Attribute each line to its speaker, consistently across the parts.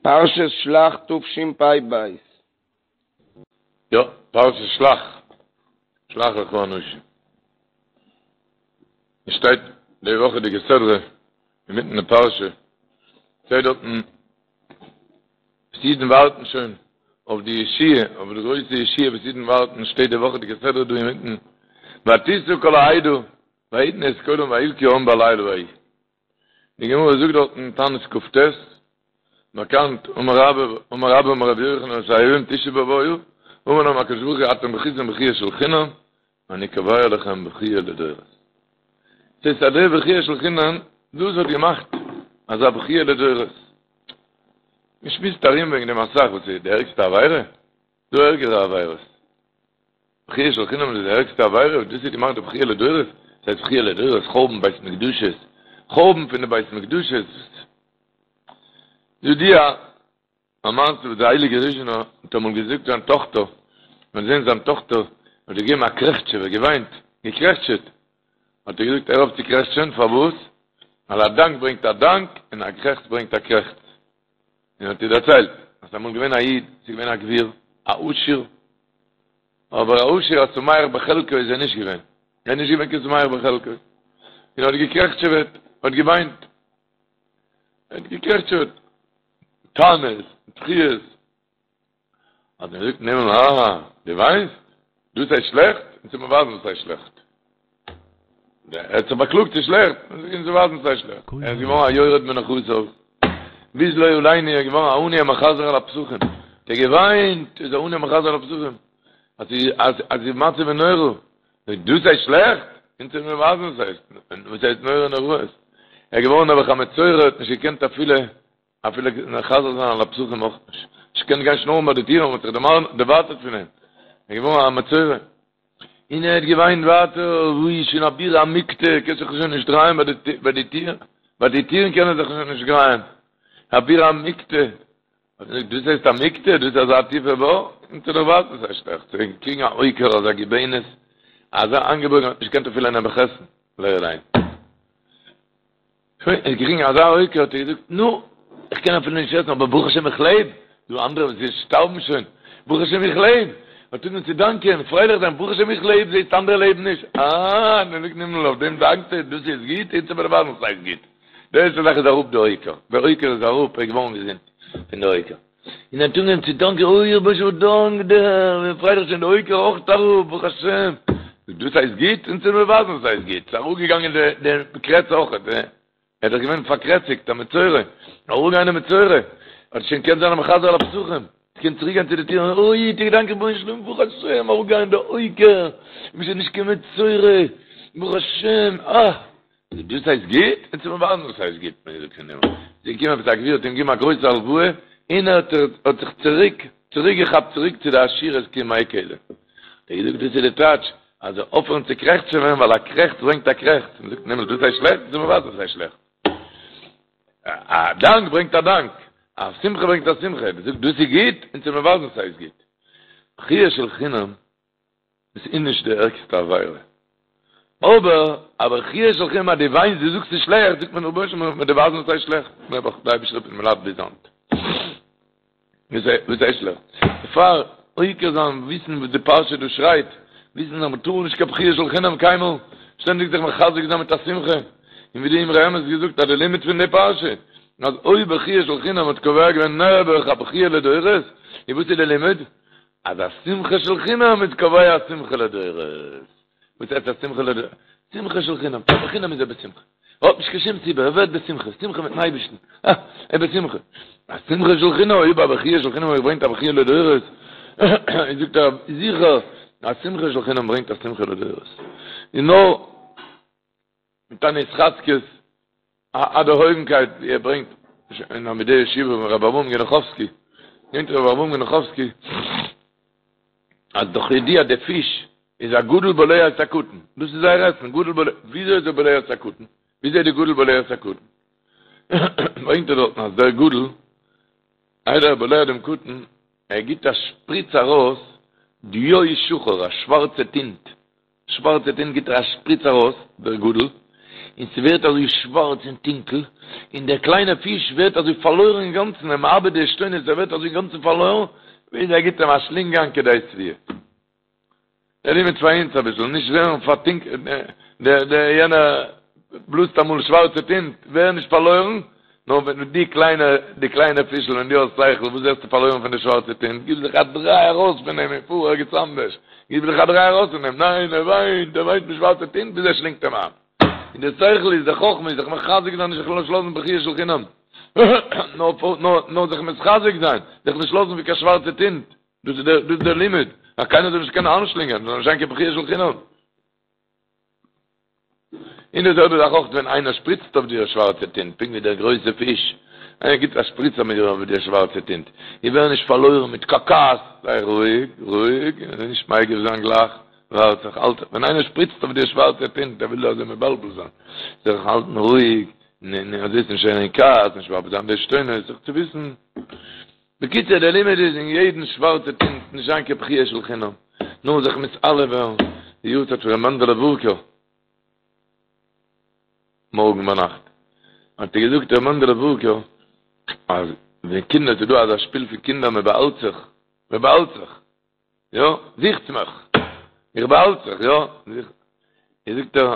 Speaker 1: פרשת שלח תשפ"ב.
Speaker 2: יא, פרשת שלח, שלח לך אנשים. עס שטייט די וואכעדיגע סדרה אינמיטן די פרשה, שטייט דארטן וואס אידן ווארטן שוין אויף די ישועה, אויף די גרויסע ישועה וואס אידן ווארטן, שטייט די וואכעדיגע סדרה דא אינמיטן, ותשא כל העדה ויתנו את קולם ויבכו העם בלילה ההוא. די גמרא זאגט דארט אין תענית כ"ט, באקאנט, אמר רבה, אמר רבה אמר רבי יוחנן שהיום תשעה באב היה, אמר להם הקדוש ברוך הוא אתם בכיתם בכיה של חינם, אני קובע לכם בכיה לדורות. ס'הייסט אז די בכיה של חינם, דאס האט געמאכט אזא בכיה לדורות. מ'שמועסט ארום וועגן דעם אסאך, וואס איז די ערגסטע עבירה? דא ערגערע עבירות. בכיה של חינם איז די ערגסטע עבירה, דאס האט געמאכט די בכיה לדורות, עס הייסט בכיה לדורות, חורבן בית מקדשות, חורבן פון די בית מקדשות. ידוע א מעשה וואס די הייליגע ריזשינער האט אמאל געזאגט זיין טאכטער, מען האט געזען זיין טאכטער האט געגעבן א קרעכטשעווע, געוויינט, געקרעכטשעט, האט ער געזאגט הער אויף צו קרעכטשען, פארוואס? ווייל א דאנק ברענגט א דאנק, און א קרעכץ ברענגט א קרעכץ. און האט איר דערציילט אז ס'איז אמאל געווען א איד, ס'איז געווען א גביר, א עשיר, אבער א עשיר א שמח בחלקו איז ער נישט געווען, ער איז נישט געווען קיין שמח בחלקו, און האט געקרעכטשעוועט, האט געוויינט, ער האט געקרעכטשעוועט, טענות, בכיות, האט ער געזאגט אין הימל, אה, דו וויינסט? דאס הייסט שלעכט? אונז וועט מען ווייזן וואס הייסט שלעכט. ער האט זיך באקלאגט ס'איז שלעכט, אונז וועט ווייזן וואס הייסט שלעכט. ער איז געווארן א יורד מנכסיו, ביז לא עלינו ער איז געווארן א עני המחזר על הפתחים. האט ער געוויינט, איז א עני המחזר על הפתחים. אז אז אז די מצב איז נורא. דאס הייסט שלעכט? אונז וועט מען ווייזן וואס הייסט, וואס הייסט נורא נוראות. ער איז געווארן נעבעך א מצורע, האט נישט געקענט אפילו אפילו מחזר זיין על הפתחים אויך נישט. נישט געקענט גיין שנארן ביי די טירן, מ'האט זיך דערווייטערט פון אים. ער איז געווארן א מצורע. און ער האט געוויינט ווייטער, וואו איז שוין א בירא עמיקתא, קען זיך שוין נישט דרייען ביי די טיר, ביי די טירן קען ער זיך שוין נישט דרייען. א בירא עמיקתא. האט ער געזאגט, דאס הייסט עמיקתא? דאס איז אזא טיפע בור? אונז וועט דיר ווייזן וואס הייסט שלעכט. צו קריגן א הויקער אזא גיבנת, אזא איינגעבויגן האט נישט געקענט אפילו נעבעך עסן, לא עלינו. שוין, ער האט געקריגן אזא הויקער, האט ער געזאגט, נו, איך קען אפילו נישט עסן, אבער ברוך השם איך לעב, דא אנדערע וואס שטארבן שוין, ברוך השם איך לעב, האט אנגעהויבן צו דאנקען, פרייליך זיין, ברוך השם איך לעב, זעסט אנדערע לעבן נישט, אה, נו זאגט הימל, אויף דעם דאנקסטו, דאס איז גוט, אונז וועט מיר ווייזן וואס הייסט גוט. די ערשטע זאך איז אראפ די הויקער, דער הויקער איז אראפ, ער איז געווארן געזונט פון די הויקער. און ער האט אנגעהויבן צו דאנקען, אוי רבונו של עולם, דאנק דיר, איך בין פרייליך שוין די הויקער אויך אראפ, ברוך השם. דאס הייסט גוט? אונז וועט מיר ווייזן וואס הייסט גוט. ס'איז אראפגעגאנגען די קרעץ אויך, ער איז דאך געווען פארקרעציקט, א מצורע, אראפגעגאנגען די מצורע, האט שוין געקענט זיין א מחזר על הפתחים, קען צוריק גיין צו די טיר, אוי, האט ער געדאנקט רבונו של עולם, ברוך השם, אראפגעגאנגען די הויקער, איך בין שוין נישט קיין מצורע, ברוך השם, אה! דאס הייסט גוט? אונז וועט מיר ווייזן וואס הייסט גוט, מען זאגט פון הימל. איז געקומען עפעס א גביר האט אים געגעבן א גרויסע הלוואה, און ער האט האט זיך צוריק צוריק געכאפט צוריק צו די עשירות כימי קדם. האט ער געזאגט דאס איז די טייטש, אז אויפהערן צו קרעכצעווען ווייל א קרעכץ ברענגט א קרעכץ. מען זאגט פון הימל דאס הייסט שלעכט? אונז וועט מיר ווייזן וואס הייסט שלעכט. א דאנק ברענגט א דאנק, א שמחה ברענגט א שמחה. מען זאגט דאס איז גוט? אונז וועט מיר ווייזן וואס הייסט גוט. בכיה של חינם. עס איז נישט די ערגסטע עבירה. אבער א בכיה של חינם אז דו וויינסט דו זאגסט ס'איז שלעכט, זאגט מען רבונו של עולם מיר דיר ווייזן וואס הייסט שלעכט, נעבעך די אייבישטער האט מיר לייד ביז היינט. וואס הייסט שלעכט? דערפאר עוקר זיין וויסן וואס די פרשה דא שרייט, וויסן אז מ'טאר נישט קיין בכיה של חינם קיינמאל, שטענדיג זיך מחזק זיין מיט א שמחה, און ווי די אמרי אמת געזאגט אז די לימוד פון די פרשה, אז אויב בכיה של חינם האט קובע געווען נעבעך א בכיה לדורות, איז וואס איז די לימוד? אז א שמחה של חינם איז קובע א שמחה לדורות. וואס הייסט א שמחה לדורות? שמחה של חינם, פאר בחינם איז ער בשמחה. ער האט נישט קיין שום סיבה, ער ווערט בשמחה, שמחה מיטן אייבערשטן, אה, ער איז בשמחה. א שמחה של חינם, אויב א בכיה של חינם ברענגט א בכיה לדורות, זאגט ער זיכער, א שמחה של חינם ברענגט א שמחה לדורות. און נאר מיט אן התחזקות, א דערהויבנקייט ווי ער ברענגט אין עמודי ישיבה פון רבי אברהם גענעכאווסקי, ברענגט רבי אברהם גענעכאווסקי אז דאך ידוע די פיש איז א גדול בולע את הקטן, דאס איז זייער עסן, גדול בולע, וויאזוי איז ער בולע את הקטן? וויאזוי איז די גדול בולע את הקטן? ברענגט ער דארטן אז דער גדול, איידער ער בולע דעם קטן, ער גיבט א שפריץ ארויס דיו שחור, א שווארצע טינט, שווארצע טינט גיט ער א שפריץ ארויס, דער גדול, און ס'ווערט אזוי שווארץ און טונקל, און דער קליינער פיש ווערט אזוי פארלוירן אינגאנצן, ער מאבד די עשתונות, ער ווערט אזוי אינגאנצן פארלוירן, ביז ער גיבט אים א שלינג איין כדי שביעה. דער לימוד פאר אונז אביסל, נישט ווערן פארטונקלט, דער דער יענער בלאזט אמאל שווארצע טינט, ווער נישט פארלוירן, נאר ווען דו קליינע, די קליינע פישל, ווען דו האסט שכל, וואס ווערסטו פארלוירן פון די שווארצע טינט, גיב זיך א דריי ארויס פון אים און פאר ערגעץ אנדערש, גיב זיך א דריי ארויס פון אים, ניין, ער וויינט, ער וויינט מיט שווארצע טינט ביז ער שלינגט אים איין. און די שכל איז, די חכמה איז זיך מחזק זיין, נישט זיך נישט לאזן בכיה של חינם, נאר נאר נאר זיך מתחזק זיין, זיך נישט לאזן ווי קיין שווארצע טינט. דאס איז דער דאס איז דער לימוד, אז קיינער זאל נישט קענען איינשלינגען, זאל נישט זיין קיין בכיה של חינם. און די זעלבע זאך אויך ווען איינער שפריצט אויף דיר שווארצע טינט, פונקט ווי דער גרויסע פיש, איינער גיבט א שפריץ אויף דיר שווארצע טינט, איך ווער נישט פארלוירן מיט קיין כעס, זיי רואיג, רואיג, נישט מגיב זיין גלייך, ווארט זיך, האלט, ווען איינער שפריצט אויף דיר שווארצע טינט, ער וויל דיר אזוי מבלבל זיין, זיך האלטן רואיג, אזוי איז נישט אין כעס, נישט מאבד זיין די עשתונות, זיך צו וויסן. בקיצור דער לימוד איז אין יעדן שווארצע טינט נישט זיין קיין בכיה של חינם, נאר זיך מתעלה ווערן, די יארצייט פון ר' מענדעלע ווארקער מארגן ביינאכט האט ער געזאגט ר' מענדעלע ווארקער אז ווען קינדער ס'איז דא אזא שפיל פון קינדער מען באהאלט זיך מען באהאלט זיך יא זוכטס מיך איך באהאלט זיך יא זאגט ער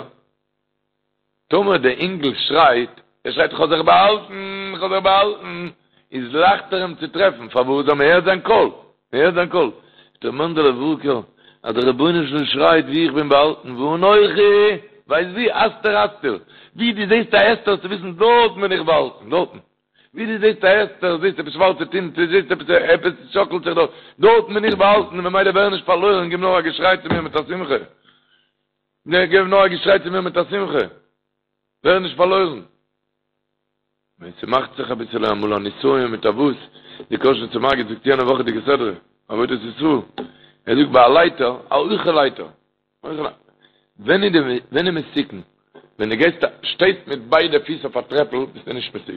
Speaker 2: טאמער דער אינגל שרייט, ער שרייט איך האב זיך באהאלטן, איך האב זיך באהאלטן, איז לייכטער אים צו טרעפן, פארוואס? ווייל מען הערט זיין קול, מען הערט זיין קול. זאגט ר' מענדעלע ווארקער, אז דער רבונו של עולם שרייט וואו איך בין באהאלטן, ואנכי, ווייסט וואו? הסתר אסתיר, וואו דו זעסט א הסתר זאלסטו וויסן דארטן בין איך באהאלטן, דארטן. וואו דו זעסט א הסתר, זעסט עפעס שווארצע טינט, זעסט עפעס, עפעס שאקלט זיך דארט, דארטן בין איך באהאלטן, ממילא ווער נישט פארלוירן, גיב נאר א געשריי צו מיר מיט א שמחה. נע, געב נאר א געשריי צו מיר מיט א שמחה, ווער נישט פארלוירן. ווען ס'מאכט זיך אביסעלע אמאל א נסיון מיט א וואס, די קאזשניצער מגיד זאגט יענע וואכעדיגע סדרה, עבודת ישראל, ער זאגט ביי א לייטער, א הויכע לייטער, ווען איז די, ווען איז מסוכן? ווען דו גייסט, שטייסט מיט ביידע פיס אויף א טרעפל, ביסטו נישט מסוכן.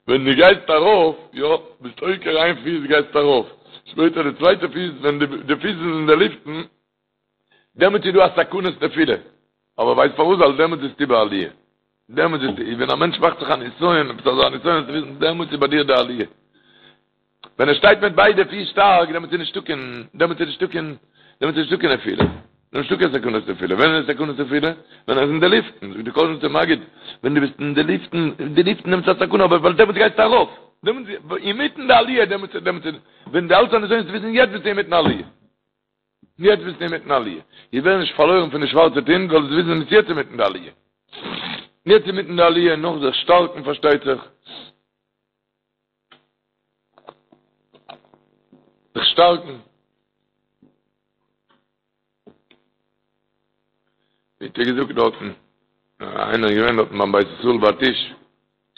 Speaker 2: ווען דו גייסט ארויף, יא, ביסט עוקר איין פיס גייסט ארויף, שפעטער די צווייטע פיס, ווען די פיס איז אין די לופטן, דעמאלטס איז דא א סכנת נפילה, אבער ווייסט פארוואס? ווייל דעמאלטס ביסטו בעליה, דעמאלטס ביסטו, ווען א מענטש מאכט זיך א נסיון, עפעס אזא נסיון, זאלסטו וויסן, דעמאלטס איז ביי דיר די עליה. ווען ער שטייט מיט ביידע פיס שטארק, דעמאלטס איז נישטא קיין, דעמאלטס איז נישטא קיין, דעמאלטס איז נישטא קיין נפילה. נישטא קיין סכנת נפילה. ווען איז סכנת נפילה? ווען ער איז אין די לופטן, זאגט די קאזשניצער מגיד, ווען דו ביסט אין די לופטן, אין די לופטן דעמאלטס איז א סכנה, אבער ווייל דעמאלטס גייסטו ארויף, דעמאלטס אינמיטן די עליה, דעמאלטס, דעמאלטס, ווען דו האלטסט א נסיון, זאלסטו וויסן, יעצט ביסטו אינמיטן עליה. יעצט ביסטו אינמיטן עליה. איך ווער נישט פארלוירן פון די שווארצע טינט, זאלסט וויסן ביסט יעצט אינמיטן די עליה. יעצט אינמיטן די עליה, נאך זיך שטארקן פארשטייט זיך. זיך שטארקן. ווי האט ער געזאגט דארטן? איינער איז געווען דארטן ביים בית ישראל ביי טיש,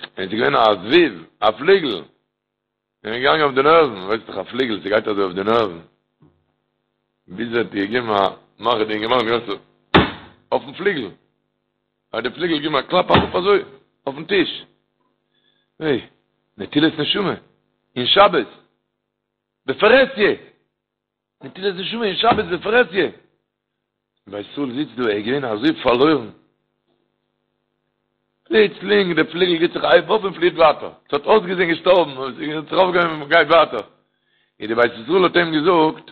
Speaker 2: און עס איז געווען א זבוב, א פליגל. איז אים געגאנגען אויף די נערוון, ווייסט דאך א פליגל ס'גייט אזוי אויף די נערוון, ביז ער האט געגעבן א מאך די אינגערמאן געווען אזוי אויפן פליגל, האט די פליגל געגעבן א קלאפ אראפ אזוי אויפן טיש, היי, נטילת נשמה, אין שבת, בפרהסיא! נטילת נשמה אין שבת בפרהסיא. בית ישראל זיצט דא, ער איז געווען אזוי פארלוירן. פלוצלינג די פליגל גיט זיך א הייב אויף און פליעט ווייטער. עס האט אויסגעזען געשטארבן, אבער עס האט זיך אויפגעהויבן און גייט ווייטער. און די בית ישראל האט אים געזאגט,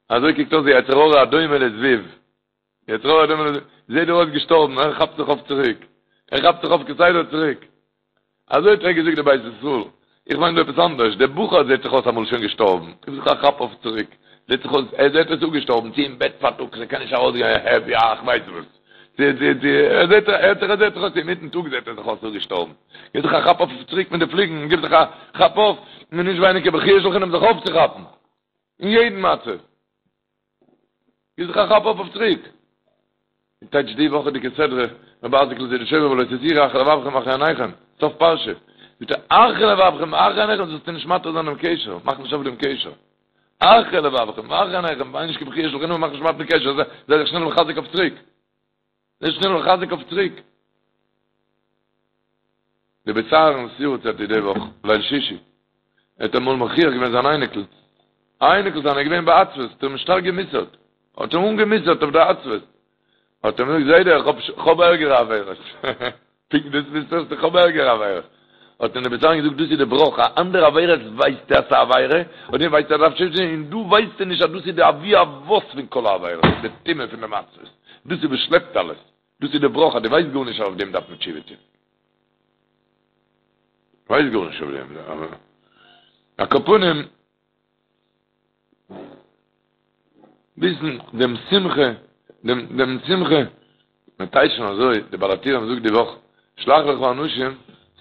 Speaker 2: אזוי קוקט אויס די יצר הרע הדומה לזבוב. יצר הרע הדומה לזבוב, זעט דיר אויס געשטארבן, ער כאפט זיך אויף צוריק. ער כאפט זיך אויף כסדר צוריק. אזוי האט ער געזאגט די בית ישראל, איך מיין דא עפעס אנדערש, דער בחור זעט זיך אויס אמאל שוין געשטארבן, גיב זיך א כאפ אויף צוריק, זעט זיך אויס, ער זעט אויס אפגעשטארבן, צו אין בעט פארטאגס, ער קען נישט ארויסגיין, העפ יא, איך ווייס וואס, צו צו צו, ער זעט ער האט זיך ער זעט זיך אויס אינמיטן טאג זעט ער זיך אויס אפגעשטארבן, גיב זיך א כאפ אויף צוריק מיט די פליגן, גיב זיך א כאפ אויף, און נישט ווייניגער בכיה של חינם זיך אויפצוכאפן, אין יעדן מצב. גיב זיך א כאפ אויף אויף צוריק. און טייטש די וואכעדיגע סדרה, רבי אייזיק'ל זידיטשויבער ולא תתורו אחרי לבבכם ואחרי עיניכם, סוף פרשה, זאגט ער אחרי לבבכם ואחרי עיניכם זאלסטו נישט מתיר זיין דעם קשר, מאך נישט אויף דעם קשר. אחרי לבבכם ואחרי עיניכם, וויין נישט קיין בכיה של חינם, מאך נישט מתיר דעם קשר, זיי זיך שנעל מחזק אויף צוריק. זיי שנעל מחזק אויף צוריק. די בית אהרן'ס יארצייט איז די וואך, ליל שישי. ער האט אמאל מוכיח געווען זיין אייניקל. א אייניקל זיינער איז געווען בעצבות, האט ער אים שטארק גע'מוסר'ט. האט אים אנגע'מוסר'ט אויף די עצבות. האט ער אים געזאגט, זיידע, איך האב ערגערע עבירות. פונקט דאס ווילסטו האסטו, איך האב ערגערע עבירות. האט אים דער בית אהרן געזאגט, דאס איז די בראך, א אנדערע עבירות ווייסטו אז ס'איז א עבירה, און דעם ווייסטו אז דארף תשובה טון, און דא ווייסטו נישט אז דאס איז די אבי אבות פון כל העבירות, די טומאה פון די מצבות. דאס איז וואס שלעפט אלעס. דאס איז די בראך אז דו ווייסט גארנישט אז אויף דעם דארף מען תשובה טון. ווייסט גארנישט אויף דעם. על כל פנים. וויסן דעם שמחה, דעם דעם שמחה, מען טייטשן אזוי, די בעל הטורים זאגט די וואך, שלח לך אנשים,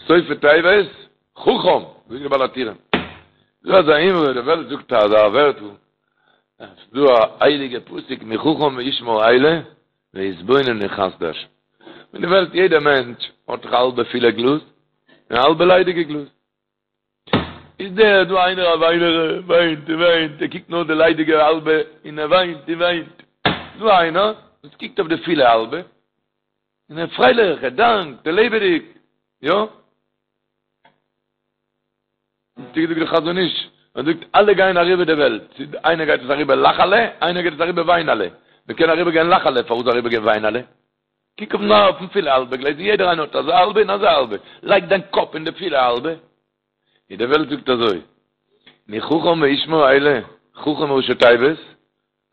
Speaker 2: סופי תיבות, חכם, זאגט די בעל הטורים. דא אזא אמרה, די וועלט זאגט אזא ווערטל, ס'איז דא א הייליגע פסוק, מי חכם וישמר אלה, ויתבונן מחסדי השם. אין די וועלט יעדער מענטש האט דאך א האלבע פילע גלאז, און א האלבע ליידיגע גלאז. איז דער דא איינער א וויינער, ער וויינט און וויינט, ער קוקט נאר די ליידיגע האלבע און ער וויינט און וויינט. דא איינער וואס קוקט אויף די פילע האלבע און ער איז פרייליך, ער דאנקט, ער לעבעדיג, יא? האט געזאגט דער חזון איש, ער זאגט אלע גייען אריבער די וועלט, איינער גייט עס אריבער לאכעלע, איינער גייט עס אריבער וויינעלע, מען קען אריבער גיין לאכעלע, פארוואס אריבער גיין וויינעלע? קוק אויף נאר אויפן פילע האלבע גלעזל, יעדער איינער האט אזא האלבע און אזא האלבע, לייג דיין קאפ אין די פילע האלבע, און די וועלט זאגט אזוי, מי חכם וישמר אלה, חכם ראשי תיבות,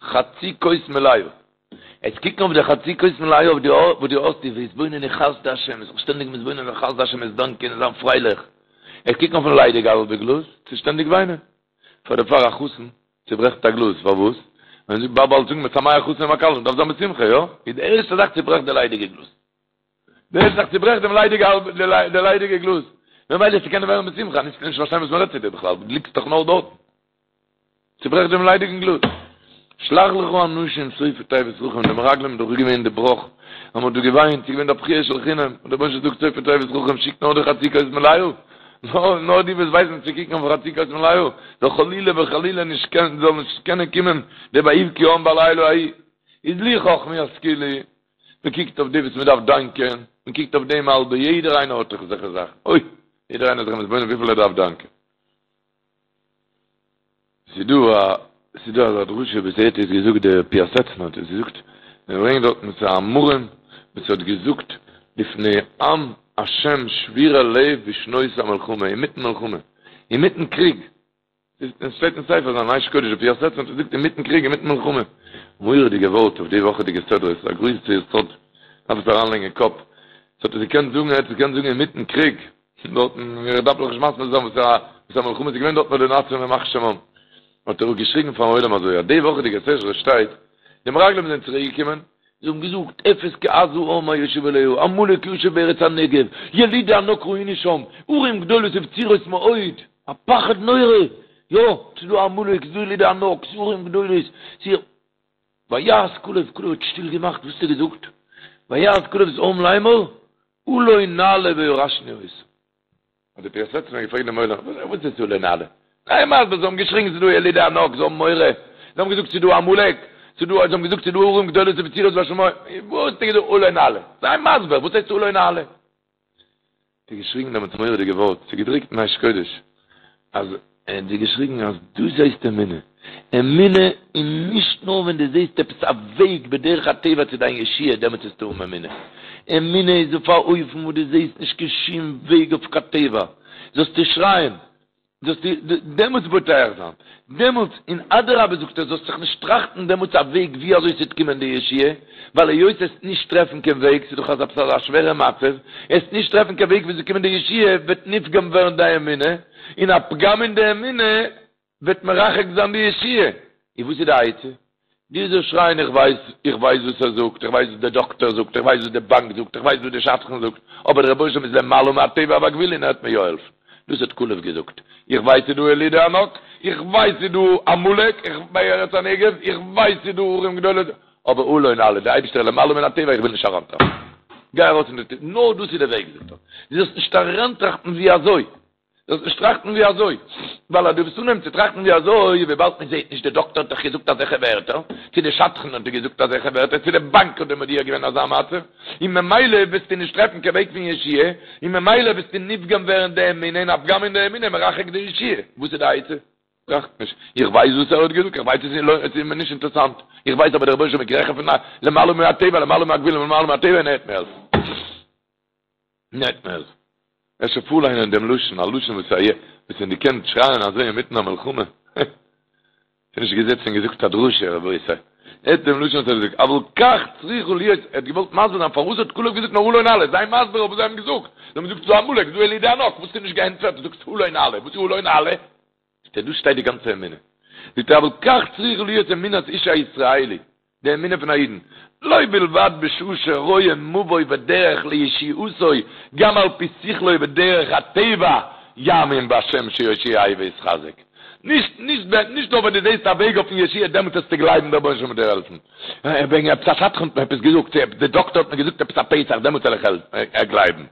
Speaker 2: חצי כוס מלאה. עס קוקן אויף די חצי כוס מלאה אויף די וואס דו האסט, ויתבונן חסדי השם, זיך שטענדיג מתבונן זיין חסדי השם, עס דאנקען און זיין פרייליך. עס קוקן אויפן ליידיגע האלבע גלאז, צו שטענדיג וויינען. פאר דערפאר א חתן צוברעכט א גלאז, פארוואס? ווען זאגט באבא אלס זאגן משמח חתן עם הכלה, דארף זיין בשמחה, יא? איז די ערשטע זאך צוברעכט די ליידיגע גלאז. די ערשטע זאך צוברעכט דעם ליידיגע האלב די ליידיגע גלאז. ממילא צו קענען ווערן בשמחה, נישט נישט פארשטיין וואס מ'רעדט צו דיר בכלל, דו ליגסט דאך נאר דארטן. צוברעכט דעם ליידיגן גלאז. שלח לך אנשים סופי תיבות חכם, די מרגלים איז דאך געווען די בראך, אז מ'האט דא געוויינט, ס'איז געווען די בכיה של חינם, און דער רבונו של עולם זאגט סופי תיבות חכם, שיק נאר די חצי כוס מלאה, נאר נאר די וואס ווייסן צו קוקן אויף חצי כוס מלאה, זאל חלילה וחלילה נישט קענען, זאל נישט קענען קומען די ויבכו העם בלילה ההוא. איז לו חכמו ישכילו, מען קוקט אויף די וואס מען דארף דאנקען, מען קוקט אויף דעם האלבע, יעדער איינער האט דאך אזעלכע זאכן, אוי, יעדער איינער איז זיך מתבונן וויפיל ער דארף דאנקען. ס'איז דא א, ס'איז דא אזא דרשה וואס ער האט עס געזאגט דער פיאסעצנער האט עס געזאגט, מען ברענגט דארטן ס'איז א אמרים וואס האט געזאגט לפני עם השם שבורי לב בשנות המלחמה, אינמיטן מלחמה, אינמיטן קריג, עס שטייט אין ספר זיין אש קודש דער פיאסעצנער האט געזאגט אינמיטן קריג אינמיטן מלחמה, מורא'דיגע ווארט אויף די וואכעדיגע סדרה, ס'איז א גרויסע יסוד, דארף עס אריינלייגן אין קאפ, עס האט ער געקענט זאגן, ער האט עס געקענט זאגן אינמיטן קריג, דארטן, איך דארף דאך נישט מסביר זיין וואס א וואס א מלחמה איז געווען דארט ביי די נאצים ימח שמם. האט ער געשריגן פארן עולם אזוי, אז די וואכעדיגע סדרה שטייט, די מרגלים זענען צוריק געקומען, זיי האבן געזאגט, אפס כי עז העם היושב עליה, עמלק יושב בארץ הנגב, ילידי ענק ראינו שם, ערים גדולות ובצורות מאוד, א פחד נורא, יא, ס'איז דא עמלק, ס'איז דא ילידי ענק, ס'איז ערים גדולות, ס'איז. ויהס כלב, כלב האט שטיל געמאכט, וואס האט ער געזאגט? ויהס כלב את העם לאמור, עלה נעלה וירשנו אותם. האט דער פיאסעצנער געפרעגט דעם עולם, וואס איז עלה נעלה? זיי מסביר, זיי האבן געשריגן ס'איז דא ילידי ענק, זיי האבן מורא, זיי האבן געזאגט ס'איז דא עמלק, ס'איז דא, זיי האבן געזאגט ס'איז דא ערים גדולות ובצורות בשמים, וואס האט ער געזאגט עלה נעלה? זיי מסביר, וואס הייסט עלה נעלה? האט ער געשריגן דעמאלטס מורא'דיגע ווארט, ס'איז געדרוקט אין אש קודש, אז ער האט געשריגן אז דאס הייסט אמונה, אמונה איז נישט נאר ווען דו זעסט עפעס א וועג בדרך הטבע צו דיין ישועה דעמאלטס וועסטו האבן אמונה, אמונה איז אויף א אופן וואס דו זעסט נישט קיין שום וועג אויף קיין טבע, זאלסטו שרייען, זאלסטו דעמאלטס בוטח זיין, דעמאלטס, און אדרבה זאגט ער, זאלסט זיך נישט טראכטן דעמאלטס א וועג ווי אזוי ס'וועט קומען די ישועה, ווייל היות עסט נישט טרעפן קיין וועג, ס'איז דאך אזא אזא שווערע מצב, עסט נישט טרעפן קיין וועג ווי ס'זאל קומען די ישועה, וועט נפגם ווערן די אמונה, און א פגם אין די אמונה וועט מרחק זיין די ישועה. און וואס איז די עצה? דו זאלסט שרייען איך ווייס, איך ווייס וואס ער זאגט, איך ווייס וואס דער דאקטער זאגט, איך ווייס וואס די באנק זאגט, איך ווייס וואס די שדכן זאגט, אבער דער רבונו של עולם איז למעלה מהטבע והגבול און ער וועט מיר יא העלפן. דאס האט כלב געזאגט. איך ווייס ס'איז דא ילידי ענק, איך ווייס ס'איז דא עמלק, איך בארץ הנגב, איך ווייס ס'איז דא ערים גדולות, אבער עלה נעלה, דער אייבערשטער איז למעלה מן הטבע, איך וויל נישט אריינטראכטן. גיי ארויס פון די טיר, נאר דאס איז די וועג, זאגט ער. דו זאלסט נישט אריינטראכטן ווי אזוי. זאלסט נישט טראכטן ווי אזוי, ווייל אז דו וועסט אנהייבן צו טראכטן ווי אזוי, וויבאלד מען זעט נישט, די דאקטער האט דאך געזאגט אזעלכע ווערטער, צו די שדכן האט דיר געזאגט אזעלכע ווערטער, צו די באנק האט דיר מודיע געווען אזא מצב, און ממילא וועסטו נישט טרעפן קיין וועג פון ישועה, און ממילא וועסטו נפגם ווערן די אמונה, און א פגם אין די אמונה מרחק די ישועה. וואס איז די עצה? טראכט נישט, איך ווייס וואס ער האט געזאגט, איך ווייס עס איז מיר נישט אינטערעסאנט, איך ווייס אבער דער רבונו של עולם איז העכער פון למעלה מהטבע, למעלה מהגבול, למעלה מהטבע און ער וועט מיר העלפן. און ער וועט מיר העלפן. אפשר פארליינען דעם לשון, א לשון וואס א וואס ווען דו קענסט שרייען אזוי אינמיטן א מלחמה, ס'איז נישט געזעצן און געזאגט א דרשה, רבותי. הערט דעם לשון וואס ער האט געזאגט, אבל כך צריכה להיות, ער האט געוואלט מסביר זיין פארוואס האט כלב געזאגט נאר עלה נעלה, זיי מסביר אויף וואס זיי האבן געזאגט, זיי האבן געזאגט ס'דא עמלק, ס'דא ילידי ענק, וואס האסטו נישט געענטפערט, דו זאגסט עלה נעלה, וואס איז עלה נעלה? זאגט ער, דא שטייט די גאנצע אמונה. זאגט ער, אבל כך צריכה להיות אמונת איש הישראלי, די אמונה פון א אידן, לא בלבד בשעה שרואה מבוא ודרך לישועתו, גם על פי שכלו ודרך הטבע יאמין בהשם שיושיעהו ויתחזק. נישט נישט נישט נאר ווען דו זעסט א וועג אויפן ישועה דעמאלט וועסטו גלייבן דער רבונו של עולם וועט דיר העלפן. וועגן עפעס א שדכן האט מיר עפעס געזאגט, צו די דאקטער האט מיר געזאגט עפעס א פתח דעמאלט וועל איך גלייבן.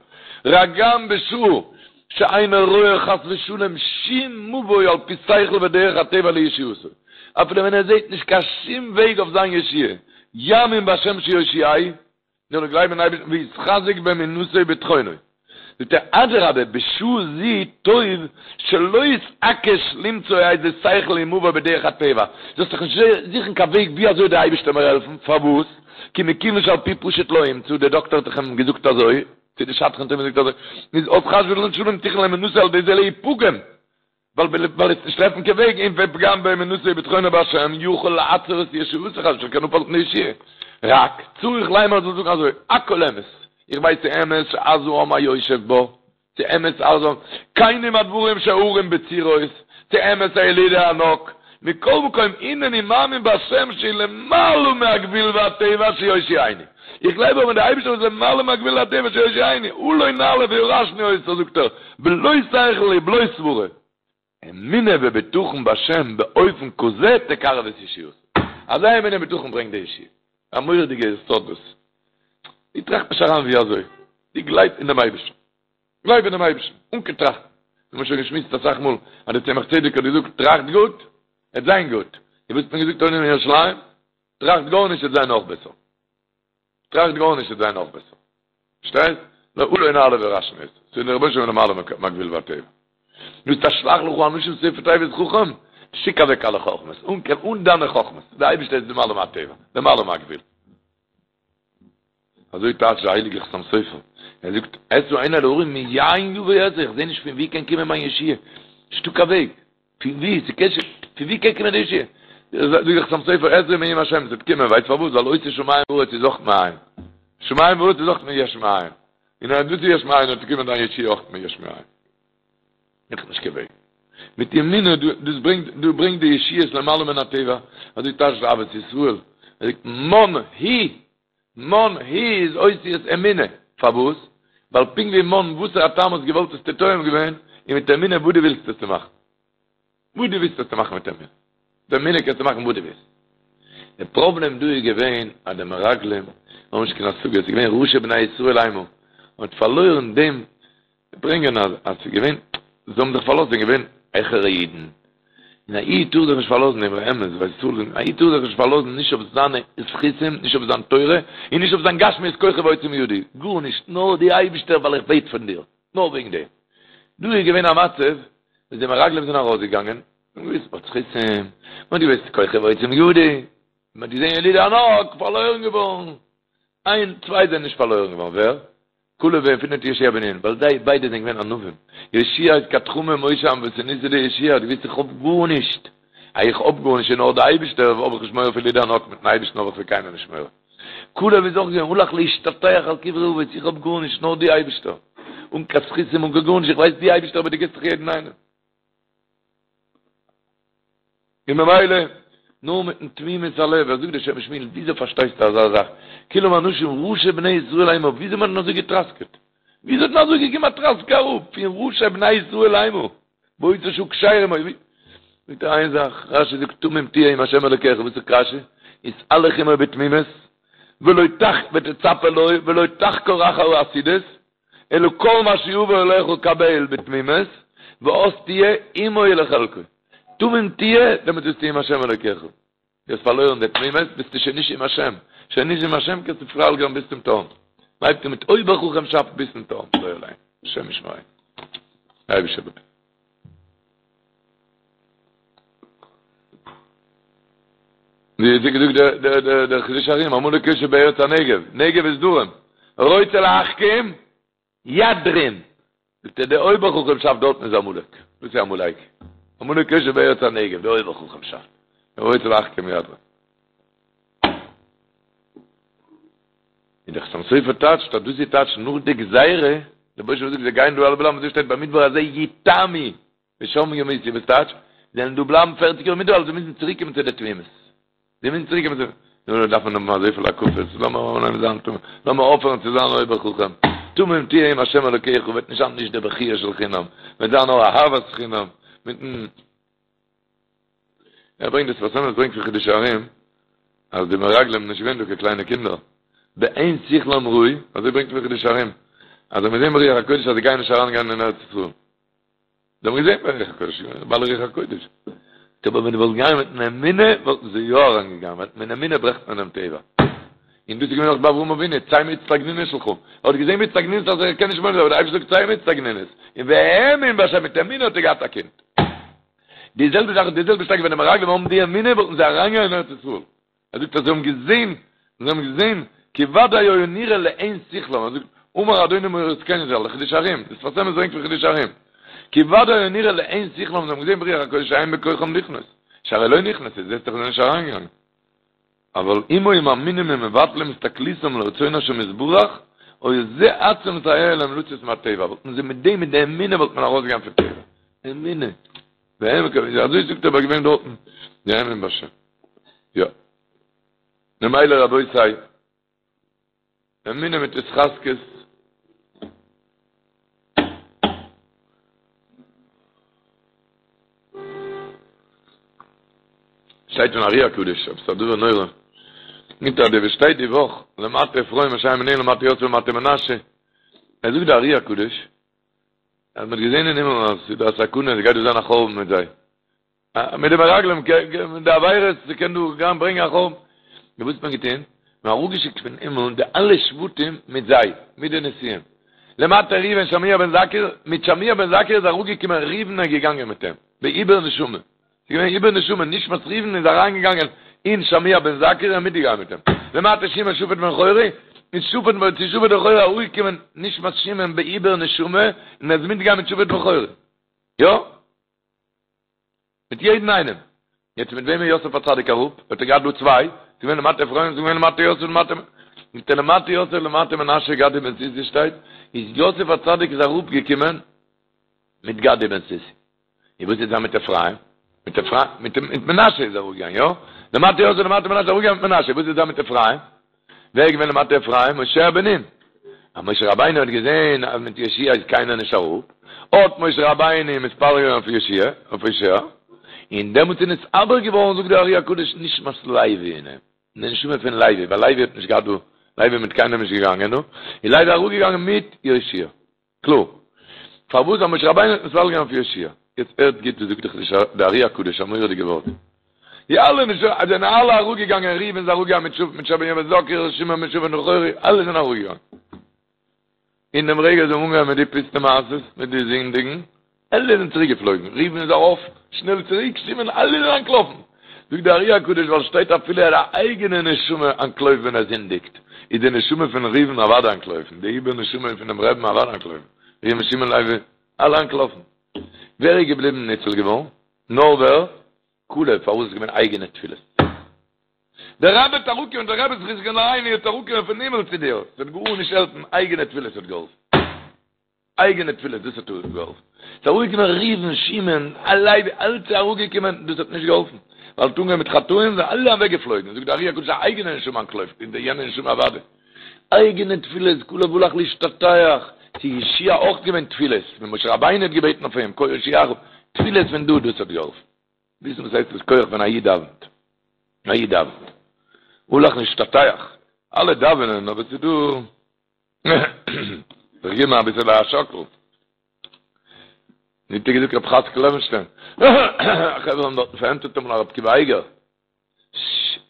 Speaker 2: רק גם בשעה שאינו רואה חס ושלום שום מבוא על פי שכל ודרך הטבע לישועתו, אפילו ווען ער זעט נישט קיין שום וועג אויף זיין ישועה, יאמין בהשם שיושיעהו, זאל ער גלייבן אין אייבערשטן ויתחזק באמונתו ובטחונו. זאגט ער, אדרבה, בשעה זו טוב שלא יתעקש למצוא איזה שכל ומבוא בדרך הטבע, זאלסט דיך נישט זוכן קיין וועג ווי אזוי דער אייבערשטער מיר העלפן, פארוואס? כי מכיוון שעל פי פשוט לא ימצא, דער דאקטער האט דאך אים געזאגט אזוי, צו די שדכן האט אים געזאגט אזוי, איז אז חס ושלום תכוין לאמונתו על ידי זה להיפגם, ווייל ווייל עס נישט טרעפן קיין וועג, און ופגם באמונתו ובטחונו בהשם יכול לעצור את ישועתו חס ושלום קען אפהאלטן די ישועה. רק צריך לומר זאל זאגן אזוי, הכל אמת, איך ווייס ס'אמת שעז העם היושב בה, ס'אמת עז העם, כנים הדברים שההרים בצורות, ס'אמת הילידי הענק, מכל מקום הנני מאמין בהשם שלמעלה מהגבול והטבע שיושיעני. איך גלייב אבער אין די אייבישטער וואס איז למעלה מהגבול והטבע שיושיעני, עלה נעלה וירשנו אותה זאגט ער, בלא שכל ובלא סברה. אמונה ובטחון בהשם באופן כזה תקרב את ישועתו. אזא אמונה ובטחון ברענגט די ישועה. א מורא'דיגע יסוד דאס. דו טראכט נישט אריין ווי אזוי. דו גלייב אין דעם אייבישטער. גלייב אינעם אייבערשטן, אן קיין טראכטן. מיר האבן שוין געשמועסט אסאך מאל אז דער צמח צדק האט געזאגט, טראכט גוט, עט זיין גוט. און וואס האט מען געזאגט אויבן אין ירושלים? טראכט גארנישט, עט זיין נאך בעסער. טראכט גארנישט, עט זיין נאך בעסער. פארשטייסט? נאר עלה נעלה וירשנו אותה. ס'איז דער רבונו של עולם למעלה מהגבול והטבע. דו האסט א שלח לך אנשים סופי תיבות חכם, שיק אוועק אלע חכמות, אן קיין אן דיינע חכמות. דער אייבערשטער איז למעלה מהטבע, למעלה מהגבול. אזוי טייטשט דער הייליגער חתם סופר, ער זאגט, אשא עיני אל ההרים מאין יבא עזרי, איך זע נישט פון ווי קען קומען מיין ישועה, נישטא קיין וועג, פון ווי, ס'קען ש, פון ווי קען קומען די ישועה? זאגט דער חתם סופר, עזרי מעם השם, ס'וועט קומען, ווייסט פארוואס? ווייל עושה שמים וארץ איז אויך מאין, שמים וארץ איז אויך מיש מאין, און אז דאס איז יש מאין, וועט קומען דיין ישועה אויך מיש מאין. איך נישט קיין וועג. מיט אמונה, דאס ברענגט, דאס ברענגט די ישועות למעלה מן הטבע, אזוי טייטשט דער אהבת ישראל, ער זאגט, מן הוא מן הוא איז אותיות אמונה, פארוואס? ווייל פונקט ווי מן וואסערע א טעם האסט געוואלט האסטו טועם געווען, און מיט אמונה וואס דו ווילסט האסטו מאכן. וואס דו ווילסט האסטו מאכן מיט אמונה. מיט אמונה קענסטו מאכן וואס דו ווילסט. די פראבלעם דא איז געווען אז די מרגלים האבן נישט קיין השגה, עס איז געווען ראשי בני ישראל המה, מען האט פארלוירן דעם ברענגען אז אז ס'איז געווען, זיי האבן זיך פארלאזט, זענען געווען העכערע אידן, און א איד טאר זיך נישט פארלאזן דער אמת, ווייל ס'טאר זיך, א איד טאר זיך נישט פארלאזן נישט אויף זיינע זכותים, נישט אויף זיין תורה, און נישט אויף זיין גשמיות כוחי ועוצם ידי, גארנישט, נאר די אייבישטער ווייל איך בעט פון דיר, נאר וועגן דעם. דא איז געווען א מצב וואס די מרגלים זענען ארויסגעגאנגען, זיי האבן געוואוסט מ'האט זכותים, מ'האט געוואוסט כוחי ועוצם ידי, מ'האט געזען ילידי הענק פארלוירן געווארן, איין צוויי זענען נישט פארלוירן געווארן, ווער? כלב ויפונה מיט יהושע בן נון, ווייל זיי ביידע זענען געווען ענווים. יהושע איז כד חמא משה ענוותנותיה דיהושע האט געוואוסט איך האב גארנישט, אז איך האב גארנישט און נאר די אייבישטער האב איך נישט מורא פון ילידי הענק, מיטן אייבישטן האב איך פון קיינעם נישט מורא. כלב איז אויך געווען הלך להשתטח על קברי אבות, איך האב גארנישט נאר די אייבישטער, אן קיין זכותים אן קיין גארנישט, איך ווייס די אייבישטער אבער דו גיבסט דאך יעדן איינעם. און ממילא, נאר מיטן תמימות הלב, ער זאגט דער שם משמואל, וויאזוי פארשטייסטו אזא זאך? כולם אנשים ראשי בני ישראל המה, וויאזוי מען האט אזוי געטראסקעט? וויאזוי האט מען אזוי געגעבן א טראסק אראפ פון ראשי בני ישראל המה? באותה שעה כשרים היו, זאגט ער איין זאך, רשי זאגט תמים תהיה עם השם אלוקיך, וואס זאגט רשי? התהלך עמו בתמימות, ולא תח ותצפה לו, ולא תחקור אחר העתידות, אלא כל מה שיבוא אליך קבל בתמימות, ואז תהיה עמו ולחלקו. תמים תהיה, דעמאלט ביסטו עם השם אלוקיך. דו האסט פארלוירן די תמימות, ביסטו שוין נישט עם השם. שוין נישט עם השם קענסטו פאלן ביז צום תהום. בלייבט מיט אויבער חכם שאפט ביז צום תהום. לא עלינו. השם ישמרינו. אייבישטער. ווי האט געזאגט דער דער דער דער חידושי הרי"ם, עמלק יושב בארץ הנגב, נגב איז דרום, רוצה להחכים, ידרים, זאגט ער דער אויבער חכם שאפט דארטן איז עמלק, וואס איז עמלק? עמלק יושב בארץ הנגב, דער אויבער חכם שאפט, רוצה להחכים ידרים. און דער חתם סופר טייטשט אז דאס איז טייטש נאך די גזירה, דער רבוש"ע זאגט זיי גייען דא אלע בלייבן, אזוי שטייט במדבר הזה יתמו ושם ימותו, וואס טייטש? זיי וועלן דא בלייבן פערציג יאר אין מדבר, זיי מוזן צוריק קומען צו די תמימות. זיי מוזן צוריק קומען צו, נו, דארף מען האבן אזויפיל הקפות, לאמיר אנהייבן זיין תמים, לאמיר אויפהערן צו זיין אויבער חכם, תמים תהיה עם השם אלוקיך, וועט נישט זיין נישט די בכיה של חינם, וועט זיין נאר אהבת חינם, מיטן ער ברענגט דער שפת אמת ברענגט פון חידושי הרי"ם אז די מרגלים נישט געווען דא קיין קליינע קינדער בעין שכלם ראו אזוי ברענגט פון חידושי הרי"ם אז זיי האבן געזען ברוח הקודש אז זיי גייען נישט אריין גיין אין ארץ ישראל זיי האבן געזען ברוח הקודש בעלי רוח הקודש אבער ווען די וואלט געגאנגען מיט אן אמונה וואלטן זיי יא אריין געגאנגען ווייל מיט אמונה ברעכט מען דעם טבע און דאס איז געווען אויך ביי אברהם אבינו צא מאצטגנינות שלך ער האט געזען באצטגנינות אז ער קען נישט מוליד זיין אבער דער אייבערשטער זאגט צא מאצטגנינות און והאמין בהשם מיט אמונה האט ער געהאט א קינד די זעלבע זאך די זעלבע שטארק ווען די מרגלים האבן די אמונה וואלטן זיי אריינגעגאנגען אין ארץ ישראל. ער זאגט אז זיי האבן געזען, זיי האבן געזען, כי ודאי היה נראה לעין שכלם, ער זאגט, אמר אדוני מורי זקני ז"ל, חידושי הרי"ם, די שפת אמת ברענגט פון חידושי הרי"ם, כי ודאי היה נראה לעין שכלם, זיי האבן געזען ברוח הקודש שאין בכוחם לכנוס, שהרי לא נכנסו, זעסט דאך זיי זענען נישט אריינגעגאנגען. אבל אם היו מאמינים ומבטלים הסתכלותם לרצון השם יתברך, היה זה עצמו מסייע להם לצאת מהתיבה, וואלטן זיי מיט דעם מיט די אמונה וואלט מען ארויסגעגאנגען פון תיבה. אמונה. והם מקווים, אזוי זאגט ער ביי געווען דארטן, והאמין בהשם. יא. ממילא רבותי, אמונה מיט התחזקות, שטייט פון ארי הקדוש, עפעס א דבר נורא. מיט א די שטייט די וואך, למטה אפרים אנשי ימינו למטה יוסף למטה מנשה. ער זאגט די ארי הקדוש, אז מ'האט געזען אין הימל אז ס'איז דא א סכנה, עס גייט דא זיין א חורבן מיט זיי. מיט די מרגלים, מיט די עבירות, ס'קען דא גיין ברענגען א חורבן. נו וואס האט מען געטון? מ'האט אראפגעשיקט פון הימל די אלע שבטים מיט זיי, מיט די נשיאים. למטה ראובן שמוע בן זכור, מיט שמוע בן זכור איז אראפגעקומען ראובן און געגאנגען מיט אים, בעיבור נשמה. ס'איז געווען עיבור נשמה, נשמת ראובן איז אריינגעגאנגען אין שמוע בן זכור און מיטגעגאנגען מיט אים. למטה שמעון שפט בן חורי, איז שפט בן צו שפט בן חורי אראפגעקומען נשמת שמעון בעיבור נשמה און ער איז מיטגעגאנגען מיט שפט בן חורי. יא. מיט יעדן איינעם. יעצט מיט וועם איז יוסף הצדיק אראפ? האט ער געהאט דא צוויי, ס'איז געווען למטה אפרים, ס'איז געווען למטה יוסף למטה מיט למטה יוסף למטה מנשה גדי בן סוסי שטייט, איז יוסף הצדיק איז אראפגעקומען מיט גדי בן סוסי. און וואס איז דא מיט אפרים? מיט אפרים, מיט מיט מנשה איז ער אראפגעגאנגען, יא? למטה יוסף למטה מנשה איז אראפגעגאנגען מיט מנשה, וואס איז דא מיט אפרים? ווער איז געווען למטה אפרים? הושע בן נון. אז משה רבינו האט געזען אז מיט יהושע איז קיינער נישט אראפ, האט משה רבינו מתפלל געווען אויף יהושע, אויף הושע, און דעמאלטס איז נתעבר געווארן, זאגט דער ארי הקדוש, נשמת לוי אין אים, די נשמה פון לוי, ווייל לוי האט נישט געהאט דא, לוי איז מיט קיינעם נישט געגאנגען דא, איז לוי אראפגעגאנגען מיט יהושע. קלאר. פארוואס אז משה רבינו האט מתפלל געווען אויף יהושע? יעצט הערט גוט וואס זאגט דאך די ארי הקדוש א מורא'דיגע ווארט. די אלע נשמות זענען אלע אראפגעגאנגען, ראובן איז אראפגעגאנגען מיט שפט מיט שמוע בן זכור, שמעון מיט שפט בן חורי, אלע זענען אראפגעגאנגען. אין דעם רגע זיי האבן אנגעהויבן מיט די פוסטע מעשות, מיט די זינדיגן, אלע זענען צוריק געפלויגן, ראובן איז ארויף שנעל צוריק, שמעון, אלע זענען אנטלאפן. זאגט די ארי הקדוש ווייל שטייט אפילו א אייגענע נשמה אנטלויפט ווען ער זינדיגט, איז די נשמה פון ראובן אוודאי אנטלויפן, די עיבור נשמה פונעם רבי'ן אוודאי אנטלויפן, ראובן שמעון לוי, אלע אנטלאפן. ווער איז געבליבן ניצול געווארן? נאר ווער? כלב, פארוואס איז געווען אייגענע תפילות. דער רבי וועט אראפקומען, דער רבי זכותו יגן עלינו וועט אראפקומען פון הימל צו דיר, ס'וועט גארנישט העלפן, אייגענע תפילות האט געהאלפן. אייגענע תפילות, דאס האט געהאלפן. ס'איז אראפגעקומען ראובן, שמעון, לוי, אלץ איז אראפגעקומען, דאס האט נישט געהאלפן. ווייל האט אנגעהויבן מיט חטאים, זענען אלע אוועקגעפלויגן. זאגט דער ארי הקדוש, א אייגענע נשמה אנטלויפט, און די יענע נשמה אוודאי. אייגענע תפילות, כלב הלך להשתטח, ס'איז יהושע אויך געווען תפילות, ווען משה רבינו האט געבעטן אויף אים, קה יושיעך, תפילות פון דא, דאס האט געהאלפן. וויסן וואס הייסט דאס כח ווען א איד דאווענט. א איד דאווענט. הלך להשתטח. אלע דאווענען, אבער ס'איז דא. זיך געבן אביסעלע א שאקל. ווי האט געזאגט רב חאצקל לעווענשטיין? חברה האבן דארטן פארענטפערט אמאל א רב עקיבא אייגער.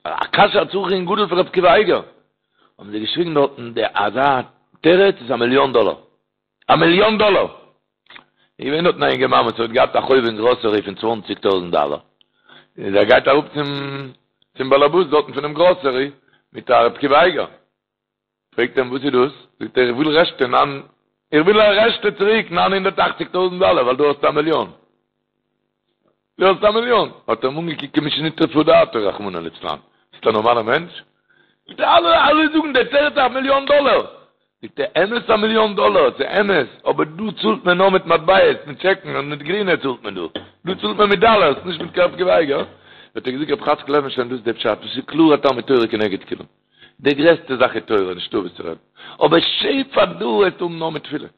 Speaker 2: א קשיא א צריך עיון גדול פון רב עקיבא אייגער. האבן זיי געשריגן דארטן, די אזא תירוץ איז א מיליאן דאלער. א מיליאן דאלער! איז געווען דארטן א אינגערמאן וואס האט געהאט א חוב אין גראסערי פון צוואנציג טויזענט דאלער. איז ער גייט אראפ צום. צום באלעבאס דארטן פונעם גראסערי מיט א ר' עקיבא אייגער. פרעגט אים וואס איז דאס? זאגט ער איך וויל רעשטע ניין איך וויל א רעשטע צוריק 980 טויזנט דאלער ווייל דו האסט א מיליאן. דו האסט א מיליאן. האט ער אים אנגעקוקט כמי שנטרפה דעתו רחמנא ליצלן. ביסט א נארמאלער מענטש? זאגט ער אלע אלע זאגן דער תירוץ א מיליאן דאלער. זאגט ער אמת א מיליאן דאלער ס'איז אמת אבער דא צאלט מען נאר מיט מטבעות מיט טשעקן און מיט גרינע צאלט מען דא. דא צאלט מען מיט דאלערס נישט מיט קיין ר' עקיבא אייגער. האט ער געזאגט רב חאצקל לעווענשטיין דאס איז דער פשט דאס איז קלאר א תלמוד תורה כנגד כולם. די גרעסטע זאך איז תורה, נישטא וואס צו רעדן. אבער שפע דא וועסטו האבן נאר מיט תפילה.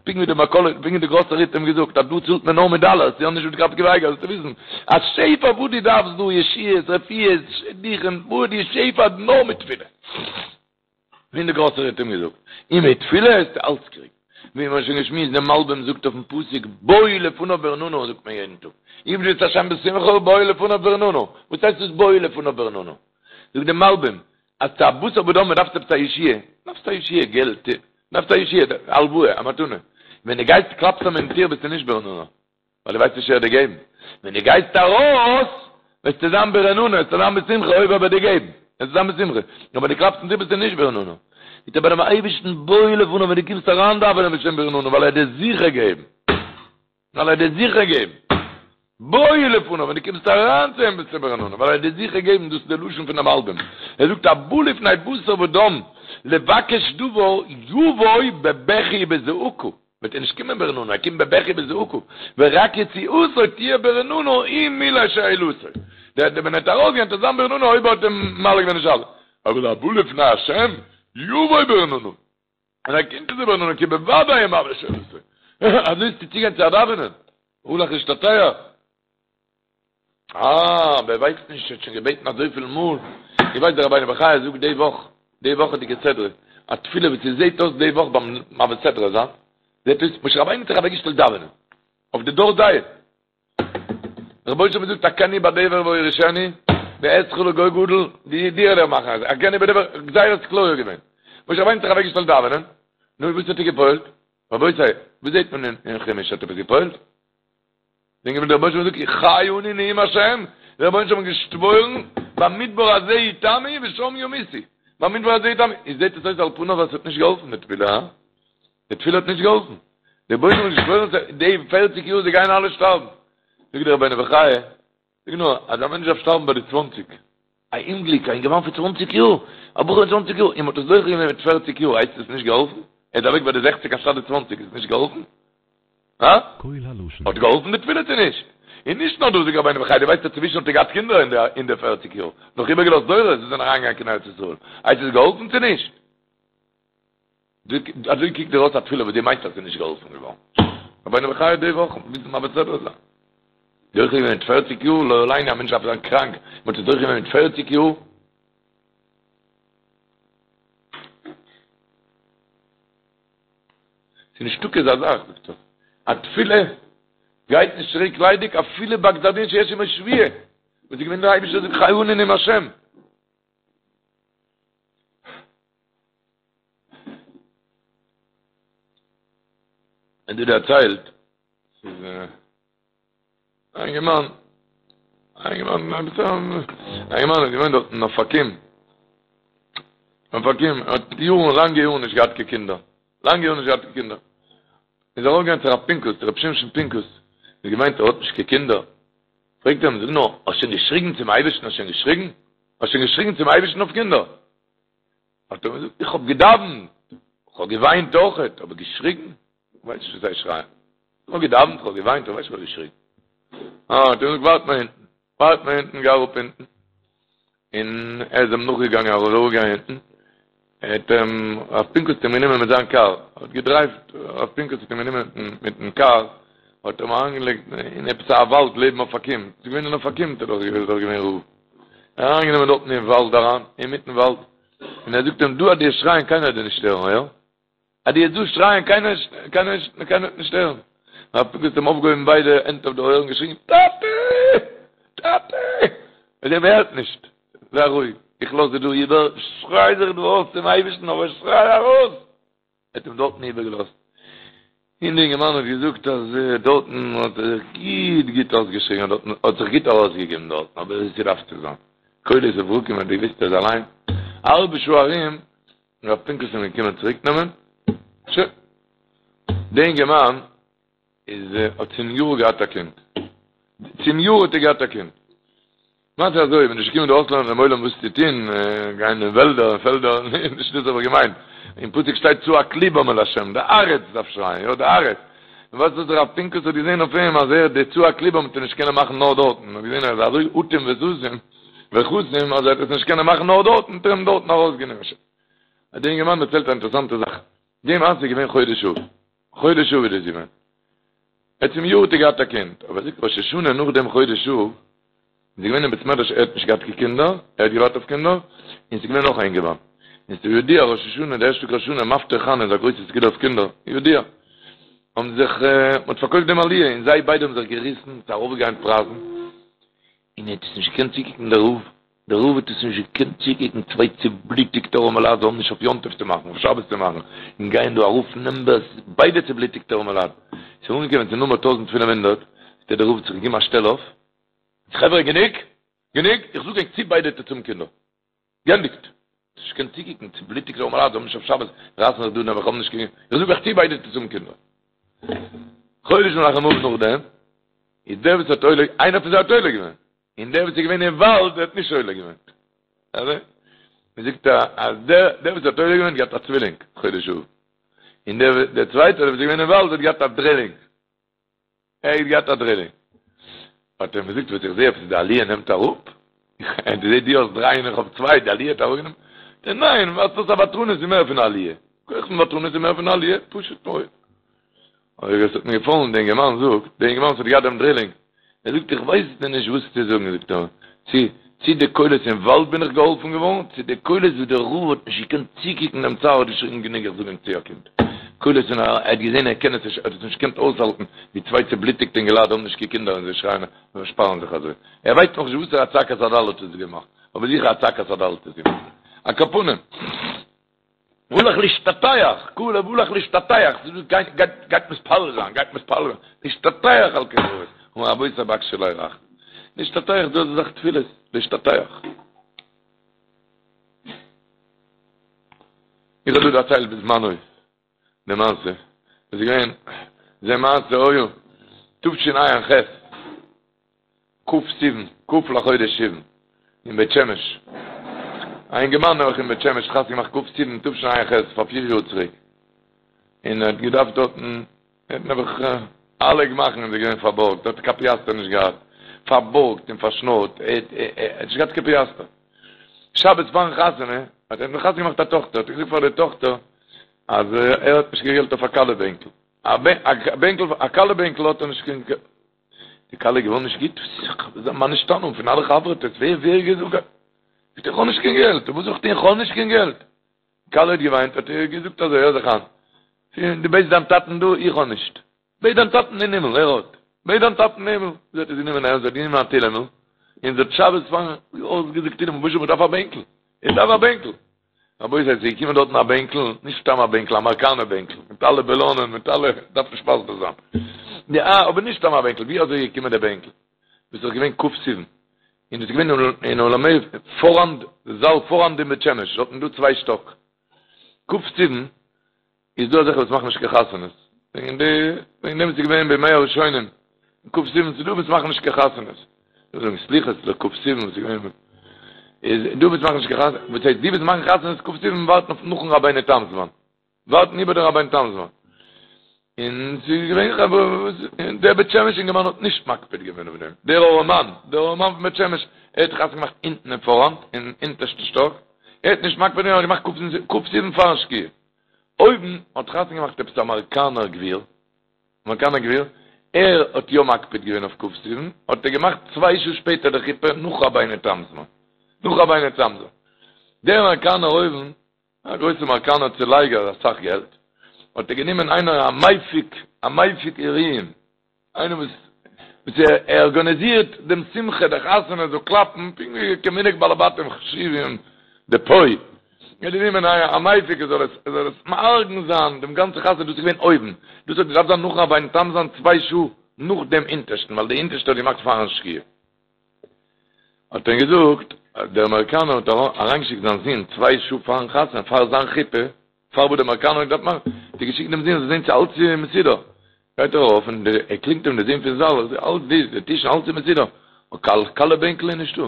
Speaker 2: פונקט ווי די מכולת, פונקט ווי די גראסערי האט אים געזאגט אז דא צאלט מען נאר מיט דאלערס, יא נישט מיט ר' עקיבא אייגער, זאלסטו וויסן אז שפע וואס דו דארפסט דא, ישועות, רפואות, שידוכים, וואס די שפע נאר מיט תפילה. ווי די גראסערי האט אים געזאגט, און מיט תפילה וועסטו אלץ קריגן. ווי מ'האט שוין געשמועסט, דער מלבים זאגט אויפן פסוק בואו לפניו ברננה זאגט מען יעדן טאג, עבדו את ה' בשמחה בואו לפניו ברננה, וואס הייסט דאס בואו לפניו ברננה? זאגט דער מלבים, אז צו א בשר ודם מען דארף עפעס א ישועה, דארפסט א ישועה, געלט, דארפסט א ישועה, הלוואה, א מתנה, ווען דו גייסט קלאפסט אים אין טיר ביסטו נישט ברננה, ווייל דו ווייסט נישט ער וועט דיר געבן, ווען דו גייסט ארויס וועסטו זיין ברננה, וועסטו זיין בשמחה אויב ער וועט דיר געבן, וועסטו זיין בשמחה, אבער ווען דו קלאפסט אין טיר ביסטו נישט ברננה, זאגט ער ביי דעם אייבערשטן בואו לפניו ווען דו קומסט אריין דאווענען ביסטו שוין ברננה ווייל ער וועט דיר זיכער געבן. ווייל ער וועט דיר זיכער געבן. בואו לפניו, ווען דו קומסט אריין צו אים ביסטו ברננה, ווייל ער וועט דיר זיכער געבן, דאס איז די לשון פונעם מלבים. ער זאגט הבא לפני בשר ודם לבקש דבר יבוא בבכי ובזעקה, וועט ער נישט קומען ברננה, ער קומט בבכי ובזעקה, ורק יציאתו תהיה ברננה אם מילא שאלתו. דער ווען ער וועט ארויסגיין וועט ער זיין ברננה אויב ער האט אים ממלא געווען די שאלה. אבל הבא לפני השם יבוא ברננה. און ער קומט צו ברננה כי בוודאי ימלא שאלתו. אזוי איז צו צוגיין צו א דאווענען. הלך להשתטח. אה, ווער ווייסט נישט, האט שוין געבעטן אזויפיל מאל. איך ווייס דער רבינו בחיי זאגט די וואך, די וואכעדיגע סדרה, א תפילה וואס ס'זעט אויס די וואך ביים מעביר סדרה זיין, זעט אויס משה רבינו האט זיך אוועקגעשטעלט דאווענען. אויף די דור דעה. רבונו של עולם זאגט אכני בדבר ואורישנו ואעשך לגוי גדול, די דיר וועל איך מאכן, אכני בדבר, גזירת כליה געווען. משה רבינו האט זיך אוועקגעשטעלט דאווענען, נו וואס האט ער געפועלט? רבותי, וואס זעט מען אין חומש האט עפעס געפועלט? זענען געווען דער רבונו של עולם זאגט חי אני נאום השם, דער רבונו של עולם האט געשוואוירן במדבר הזה יתמו ושם ימותו, במדבר הזה יתמו, איז זעט עס אויס על פניו אז עס האט נישט געהאלפן די תפילה, הא? די תפילה האט נישט געהאלפן. דער רבונו של עולם האט געשוואוירן די פערציג יאר זיי גייען אלע שטארבן. זאגט דער רבינו בחיי, זאג נאר, אז א מענטש דארף שטארבן ביי די צוואנציג, א אומגליק, א אינגערמאן פון צוואנציג יאר, א בחור פון צוואנציג יאר, און מ'האט עס דוחה געווען מיט פערציג יאר, הייסט עס נישט געהאלפן? ער איז אוועק ביי די זעכציג אנשטאט די צוואנציג, איז עס נישט געהאלפן? הא? האט געהאלפן די תפילה צו נישט? און נישט נאר דאס זאגט רבינו בחיי, דו ווייסט אז צווישן האט ער געהאט קינדער אין די פערציג יאר, נאך איבערגעלאזט דורות וואס זענען אריינגעגאנגען קיין ארץ ישראל, הייסט עס געהאלפן צו נישט? אזוי קוקט דיר אויס א תפילה וואס דו מיינסט אז ס'איז נישט געהאלפן געווארן. רבינו בחיי די וואך מוז מען מעביר סדרה זיין. דוחה געווען מיט פערציג יאר, לא עלינו א מענטש דארף זיין קראנק, מען האט עס דוחה געווען מיט פערציג יאר. ס'איז נישטא אזא זאך, זאגט ער, א תפילה גייט נישט צוריק ליידיג אפילו ביי גזר דין שיש עמו שבועה, וואס איז געווען דער אייבישטער זאגט חי אני נאום השם. און דא דערציילט ס'איז א אינגערמאן א אינגערמאן א אינגערמאן האט געוואוינט דארט אין אופקים אופקים האט יארן לאנגע יארן נישט געהאט קיין קינדער לאנגע יארן נישט געהאט קיין קינדער איז ער ארויפגעגאנגען צו רב פינקוס צו רב שמשון פינקוס האט געוויינט ער האט נישט קיין קינדער פרעגט ער אים זאג נאר האסט שוין געשריגן צום אייבערשטן האסט שוין געשריגן האסט שוין געשריגן צום אייבערשטן אויף קינדער האט ער געזאגט, איך האב געדאווענט, איך האב געוויינט אויכעט, אבער געשריגן? איך ווייס נישט וואס הייסט שרייען. איך האב געדאווענט, איך האב געוויינט, איך ווייס נישט וואס הייסט געשריגן. אה, האט ער געזאגט, ווארט מיר אונטן, ווארט מיר אונטן, גיי אראפ אונטן. און ער איז אים נאכגעגאנגען, ער איז אראפגעגאנגען אונטן, האט אים, רב פינקוס האט אים גענומען מיט זיין קאר, האט געדרייווט, רב פינקוס האט אים גענומען מיטן קאר, האט אים אריינגעלייגט אין עפעס א וואלד לעבן אופקים, ס'איז געווען אין אופקים, האט ער דאך געווען רב. אריינגענומען דארטן אין וואלד אריין, אינמיטן וואלד, און ער זאגט אים, דא אז דו וועסט שרייען קיינער וועט דיר נישט הערן, יא? אז דו וועסט דא שרייען קיינער קיינער קיינער וועט נישט הערן. רב פינקוס האט אים אויפגעהויבן ביידע הענט אויף די אויערן און געשריגן, טאטע! טאטע! און ער הערט נישט. זיי רואיג, איך לאז דיר דא איבער, שריי זיך דא אויס צום אייבערשטן, אבער שריי ארויס! ער האט אים דארטן איבערגעלאזט, און די אינגערמאן האט געזאגט אז דארטן האט ער זיך גוט גוט אויסגעשריגן, דארטן האט זיך גוט ארויסגעגעבן דארטן, אבער ווי ס'דארף צו זיין. קולות וברקים האט געוויסט ער איז אליין, א האלבע שעה ארום איז רב פינקוס אים געקומען צוריק נעמען, שוין, די אינגערמאן איז האט צום יאר געהאט א קינד, צום יאר האט ער געהאט א קינד, מעשה אזוי, כ'בין נישט געקומען דא אויסלערנען דעם עולם וואס צו טון, גיין אין וועלדער און פעלדער, נישט דאס האב איך געמיינט, אין פסוק שטייט צעק לבם אל השם, די הארץ דארף שרייען, יא די הארץ, און ווייסט וואס רב פינקוס האט געזען אויף אים אז ער די צעק לבם וועט ער נישט קענען מאכן נאר דארטן, האט געזען ער איז אזוי אטום וסתום וחתום אז ער וועט עס נישט קענען מאכן נאר דארטן, האט ער אים דארטן ארויסגענומען. האט דער אינגערמאן דערציילט א אינטערעסאנטע זאך, די מעשה איז געווען חודש אב, חודש אב איז דאס געווען. ער צום יאר האט ער געהאט א קינד, אבער זאגט ראש השנה נאך דעם חודש אב, איז געווען אין בית מדרש ער האט נישט געהאט קיין קינדער, ער האט געווארט אויף קינדער, און ס'איז געווען נאך א אינגערמאן, און ס'איז ידוע ראש השנה די ערשטע טאג ראש השנה מפטיר חנה איז א גרויסע סגולה אויף קינדער, ידוע, האבן זיך, מ'האט פארקויפט דעם עליה און זיי ביידע האבן זיך געריסן, ס'איז ארויפגעגאנגען פרייזן, און ער האט עס נישט געקענט צוקוקן דער רב, דער רב האט עס נישט געקענט צוקוקן, צוויי צובלוטיגטע ארעמעלייט זיי האבן נישט אויף יום טוב צו מאכן, אויף שבת צו מאכן, און גייען דא ארויף נומבערס, ביידע צובלוטיגטע ארעמעלייט, ס'איז אנגעקומען צו נומער 1500, האט דער רב זיך געגעבן א שטעל אויף, חברה גענוג! גענוג! איך זאג ענק צו ביידע טוטס האבן קינדער. גענדיגט! נישט געקענט צוקוקן, צובלוטיגטע ארעמעלייט, זיי האבן נישט אויף שבת, רייסן זיך דא נעבעך, האבן נישט קיין, איך זאג אייך צו ביידע טוטס האבן קינדער. חודש מנחם אב נאכדעם, איז דער וואס האט עולה, איינער פון זיי האט עולה געווען, און דער וואס איז געווען אין וואלד האט נישט עולה געווען. אזוי? מען זאגט אז דער דער וואס האט עולה געווען האט געהאט א צווילינג חודש אב. און דער דער צווייטער וואס איז געווען אין וואלד האט געהאט א דרילינג. ער האט געהאט א דרילינג. האט ער אים געזאגט וואס איך זעה עפעס די עליה נעמט אראפ, דו זעהט דו האסט דריי און איך האב צוויי, די עליה האט אראפגענומען? זאגט ער ניין, ווייזט אויס א ותרנות איז מער פון א עליה, כח פון ותרנות איז מער פון א עליה, פשוט מאוד. אבער עס האט מיר געפאלן, דער אינגערמאן זאגט, דער אינגערמאן וואס האט געהאט דעם דרילינג, ער זאגט איך ווייס דיר נישט וואס צו זאגן, זאגט ער, צו צו די קולות אין וואלד בין איך געהאלפן געווארן, צו די קולות וואס דער רב האט נישט געקענט צוקוקן דעם צער האט געשריגן גענוג איך זאג ענק צו א קינד. קולות און ער האט געזען ער קען עס נישט, ער האט עס נישט געקענט אויסהאלטן ווי צוויי צובלוטיגטע אינגעלייט האבן נישט קיין קינדער און זיי שרייען און פארשפארן זיך אזוי. ער ווייסט נאכנישט וואסערע א צעקת הדל האט עס געמאכט, אבער זיכער א צעקת הדל האט עס געמאכט. על כל פנים. הלך להשתטח, כלב הלך להשתטח, גייט גייט גייט מתפלל זיין, גייט מתפלל זיין, להשתטח על קבר אבות, אמר רבותי בקשו עלי רחמים, להשתטח דאס איז דאך תפילות, להשתטח. איך האב דא דערציילט בזמנו די מעשה, עס איז געווען זה מעשה היה תשע"ח, כ' סיוון, כ' לחודש סיוון, אין בית שמש. א אינגערמאן נעבעך אין בית שמש חתונה געמאכט כ' סיוון תשע"ח פאר פיר יאר צוריק. און ער האט געדארפט דארטן, ער האט נעבעך אלע גמח'ן איז ער געווען פארבארגט, ער האט קיין פיאסטער נישט געהאט, פארבארגט און פארשנארט, ער האט נישט געהאט קיין פיאסטער. שבת פארן חתונה, האט ער נאך חתונה געמאכט א טאכטער, האט ער געזאגט פאר די טאכטער אז ער האט נישט קיין געלט אויף א כלה בענקל. א בענקל, א כלה בענקל האט ער נישט קיין. די כלה איז געווארן נישט גוט, מה נשתנה פון אלע חבר'טעס, ווער ווער געזאגט, זאגט ער איך האב נישט קיין געלט, וואס זאל איך טון איך האב נישט קיין געלט, די כלה האט געוויינט, האט ער געזאגט אזוי, הער זיך איין, דו בעטסט דיין טאטן דא, איך האב נישט, בעט דיין טאטן אין הימל, ער האט, בעט דיין טאטן אין הימל, זי האט עס גענומען ערנסט, זי האט גענומען א תהילים'ל, און זי האט שבת פארן אויסגעזאגט תהילים, רבונו של עולם איך דארף א בענקל, איך דארף א בענקל, רבותי ס'איז געקומען דארטן א בענקל, נישט סתם א בענקל, א אמעריקאנער בענקל, מיט אלע בעלאנען, מיט אלע, דארף נישט מסביר זיין. יא, אבער נישט סתם א בענקל, ווי אזוי איז געקומען דער בענקל? דאס איז געווען כ' סיוון, און דאס איז געווען אין אולמי פאראנד, זאל פאראנד אין בית שמש, דארטן איז דא צוויי שטאק. כ' סיוון איז דא אזעלכע וואס מאכן נישט קיין חתונות, וועגן די, וועגן דעם איז געווען בימי הראשונים, כ' סיוון ס'איז דא וואס מאכן נישט קיין חתונות, זיי זאגן סליחות לכ' סיוון וואס איז געווען, איז דא וואס מאכן נישט קיין חתונות, וואס הייסט די וואס מאכן חתונות כ' סיוון ווארטן אויף נאכן רבינו תם זמן, ווארטן איבער דעם רבינו תם זמן, און ס'איז געווען חברה וואס, און דער בית שמש אינגערמאן האט נישט מקפיד געווען אויף דעם, דער ארעמאן, דער ארעמאן פון בית שמש, ער האט חתונה געמאכט אונטן אין פאראנט, אין אונטערשטן שטאק, ער האט נישט מקפיד געווען, ער האט געמאכט כ' סיוון פארן שקיעה. אויבן האט חתונה געמאכט עפעס א אמעריקאנער גביר, אמעריקאנער גביר, ער האט יא מקפיד געווען אויף כ' סיוון, האט ער געמאכט צוויי שעה שפעטער די חופה נאך רבינו תם'ס זמן, נאך רבינו תם'ס זמן. דער אמעריקאנער אויבן, א גרויסע אמעריקאנער צולייגער אסאך געלט, האט ער גענומען איינער א מפיק, א מפיק אירועים, איינער וואס וואס ער ארגאניזירט דעם שמחה, די חתונה זאל קלאפן, פונקט ווי כמנהג בעלי בתים חשובים דפה. ער האט גענומען א מפיק ער זאל עס ער זאל עס מארגן זיין דעם גאנצע חתונה, דאס איז געווען אויבן, דאס האט געדארפט זיין נאכן רבינו תם זיין צוויי שעה נאך דעם אונטערשטן, ווייל די אונטערשטע האט געמאכט פארן שקיעה. האט ער געזאגט אז דער אמעריקאנער האט אריינגעשיקט זיין זון צוויי שעה פארן חתונה, פאר זיין חופה, פאר וואס דער אמעריקאנער האט געדארפט מאכן, האט ער געשיקט דעם זון זאל זען צו אלץ איז מסודר. גייט ער ארויף און ער קלינגט אים דער זון פון זאל, אלץ די די טישן אלץ איז מסודר, אבער קיין כלה בענקל איז נישטא.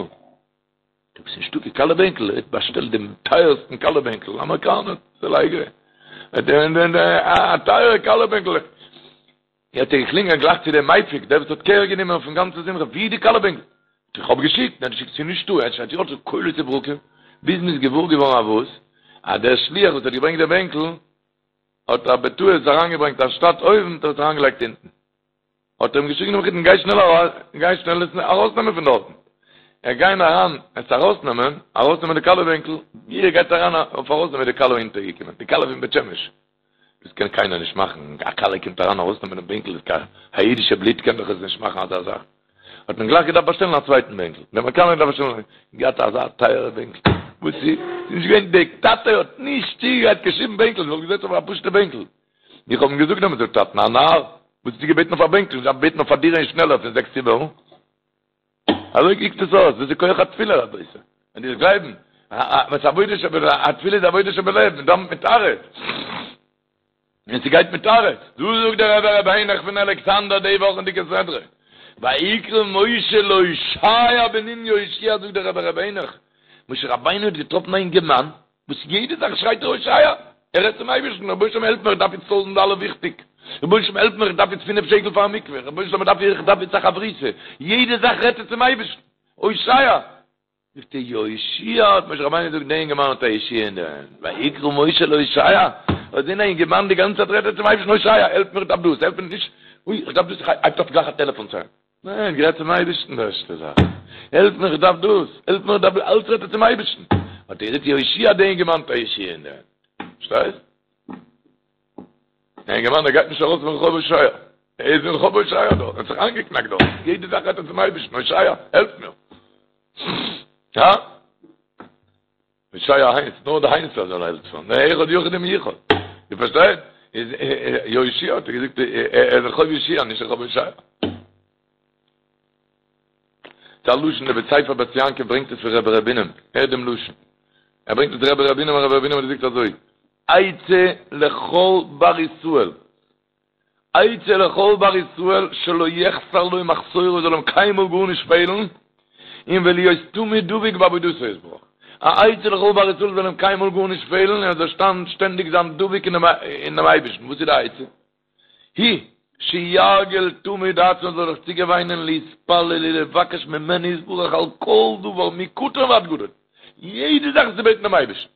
Speaker 2: עפעס נישטא קיין כלה בענקל, ער האט באשטעלט דעם טייערסטן כלה בענקל, אמעריקאנער, צולייגער, א טייערע כלה בענקל. האט ער געקלינגען גלייך צו דעם מפיק, דער וואס האט קער גענומען אויפן גאנצן שמחה, ווי איז די כלה בענקל? איך האב געשיקט, ניין געשיקט ס'איז נישטא, ער שרייט יא קולות וברקים, ביז מ'איז געוואר געווארן אז וואס? אז דער שליח וואס האט געברענגט דעם בענקל, האט ער בטעות אריינגעברענגט אנשטאט אויבן האט ער עס אריינגעלייגט אונטן. האט ער אים געשריגן דעם מחותן גיי שנעל ארויס, גיי שנעל עס ארויסנעמען פון דארטן. ער גיין אריין עס ארויסנעמען, ארויסנעמען די כלה בענקל, ווי ער גייט אריין אויף ארויסנעמען איז די כלה אונטערגעקומען, די כלה פון בית שמש. דאס קען קיינער נישט מאכן, א כלה קומט אריין ארויסנעמען דעם בענקל, איז קיין א אידישע בלוט קען דאך עס נישט מאכן אזא זאך. האט מען גלייך געדארפט באשטעלן א צווייטן בענקל, דער אמעריקאנער האט געדארפט באשטעלן, געהאט אזא טייערע בענקל, וואס איז נישט געווען, דער טאטע האט נישט צוגעגרייט קיין שום בענקל, זיי וואלט געזעצן אויף א פשוטע בענקל. איך האב אים געזאגט דעמאלטס, זאגט טאטן, א נאר, וואס האסטו געבעטן אויף א בענקל, דארף בעטן אויף א דירה און שנעלער פון זעקס צימערן. אזוי קוקט עס אויס, דאס איז כח התפילה רבותי, ווען דו וועסט גלייבן, וואס עבודה שבלב, א תפילה איז עבודה שבלב, מען דאווענט מיט הארץ, און ס'גייט מיט הארץ, דא זאגט דער רבי ר' העניך פון אלכסנדר די וואכענדיגע סדרה, ויקרא משה להושע בן נון יהושע זאגט דער רבי ר' העניך, משה רבינו האט געטראפן א אינגערמאן, וואס יעדע זאך שרייט ער הושע, ער רעדט צום אייבערשטן, רבונו של עולם העלף מיר איך דארף איצט טויזנט דאלער וויכטיג, רבונו של עולם העלף מיר איך דארף איצט פינף שקל פאר א מקווה, רבונו של עולם איך דארף איצט א חברותא, יעדע זאך רעדט ער צום אייבערשטן, הושע! זאגט ער יהושע האט משה רבינו געזאגט דער אינגערמאן האט א ישועה אין די הענט, ויקרא משה להושע, האט געזען א אינגערמאן די גאנצע צייט רעדט ער צום אייבערשטן הושע העלף מיר איך דארף דאס, העלף מיר נישט, אוי איך דארף דאס, הייבט אויף גלייך א טעלעפאן צו אים. ניין, גערעדט צום אייבערשטן די ערשטע זאך, העלף מיר איך דארף דאס, העלף מיר איך דארף דאס, אלץ רעדט ער צום אייבערשטן, האט ער געזאגט יהושע דער אינגערמאן האט א ישועה אין די הענט, פארשטייסט? דער אינגערמאן דער גייט נישט ארויס פון רחוב הושע, ער איז אין רחוב הושע דארט, ער האט זיך איינגעקנאקט דארט, יעדע זאך רעדט ער צום אייבערשטן, הושע, העלף מיר. הא? הושע הייסט, נאר דער איינער זאל העלפן, נאר אחד יחיד ומיוחד. דו פארשטייסט? איז יהושע האט ער געזאגט, ער איז רחוב יהושע, נישט רחוב הושע. ס'איז א לשון, דער בית ספר בית יעקב ברענגט עס פון רבי ר' בונם, הערט דעם לשון. ער ברענגט עס רבי ר' בונם און רבי ר' בונם האט געזאגט אזוי, עצה לכל בר ישראל, עצה לכל בר ישראל שלא יחסר לו מחסורו זאל אים קיינמאל גארנישט פעלן, און ולהיות תמיד דבוק בעבודתו יתברך. א עצה לכל בר ישראל זאל אים קיינמאל גארנישט פעלן און ער זאל שטענדיג זיין דבוק אינעם אייבערשטן. וואס איז די עצה? היא, שירגיל תמיד עצמו זאל זיך צוגעוויינען להתפלל ולבקש ממנו יתברך על כל דבר מקטן ועד גדול, יעדע זאך צו בעטן דעם אייבערשטן.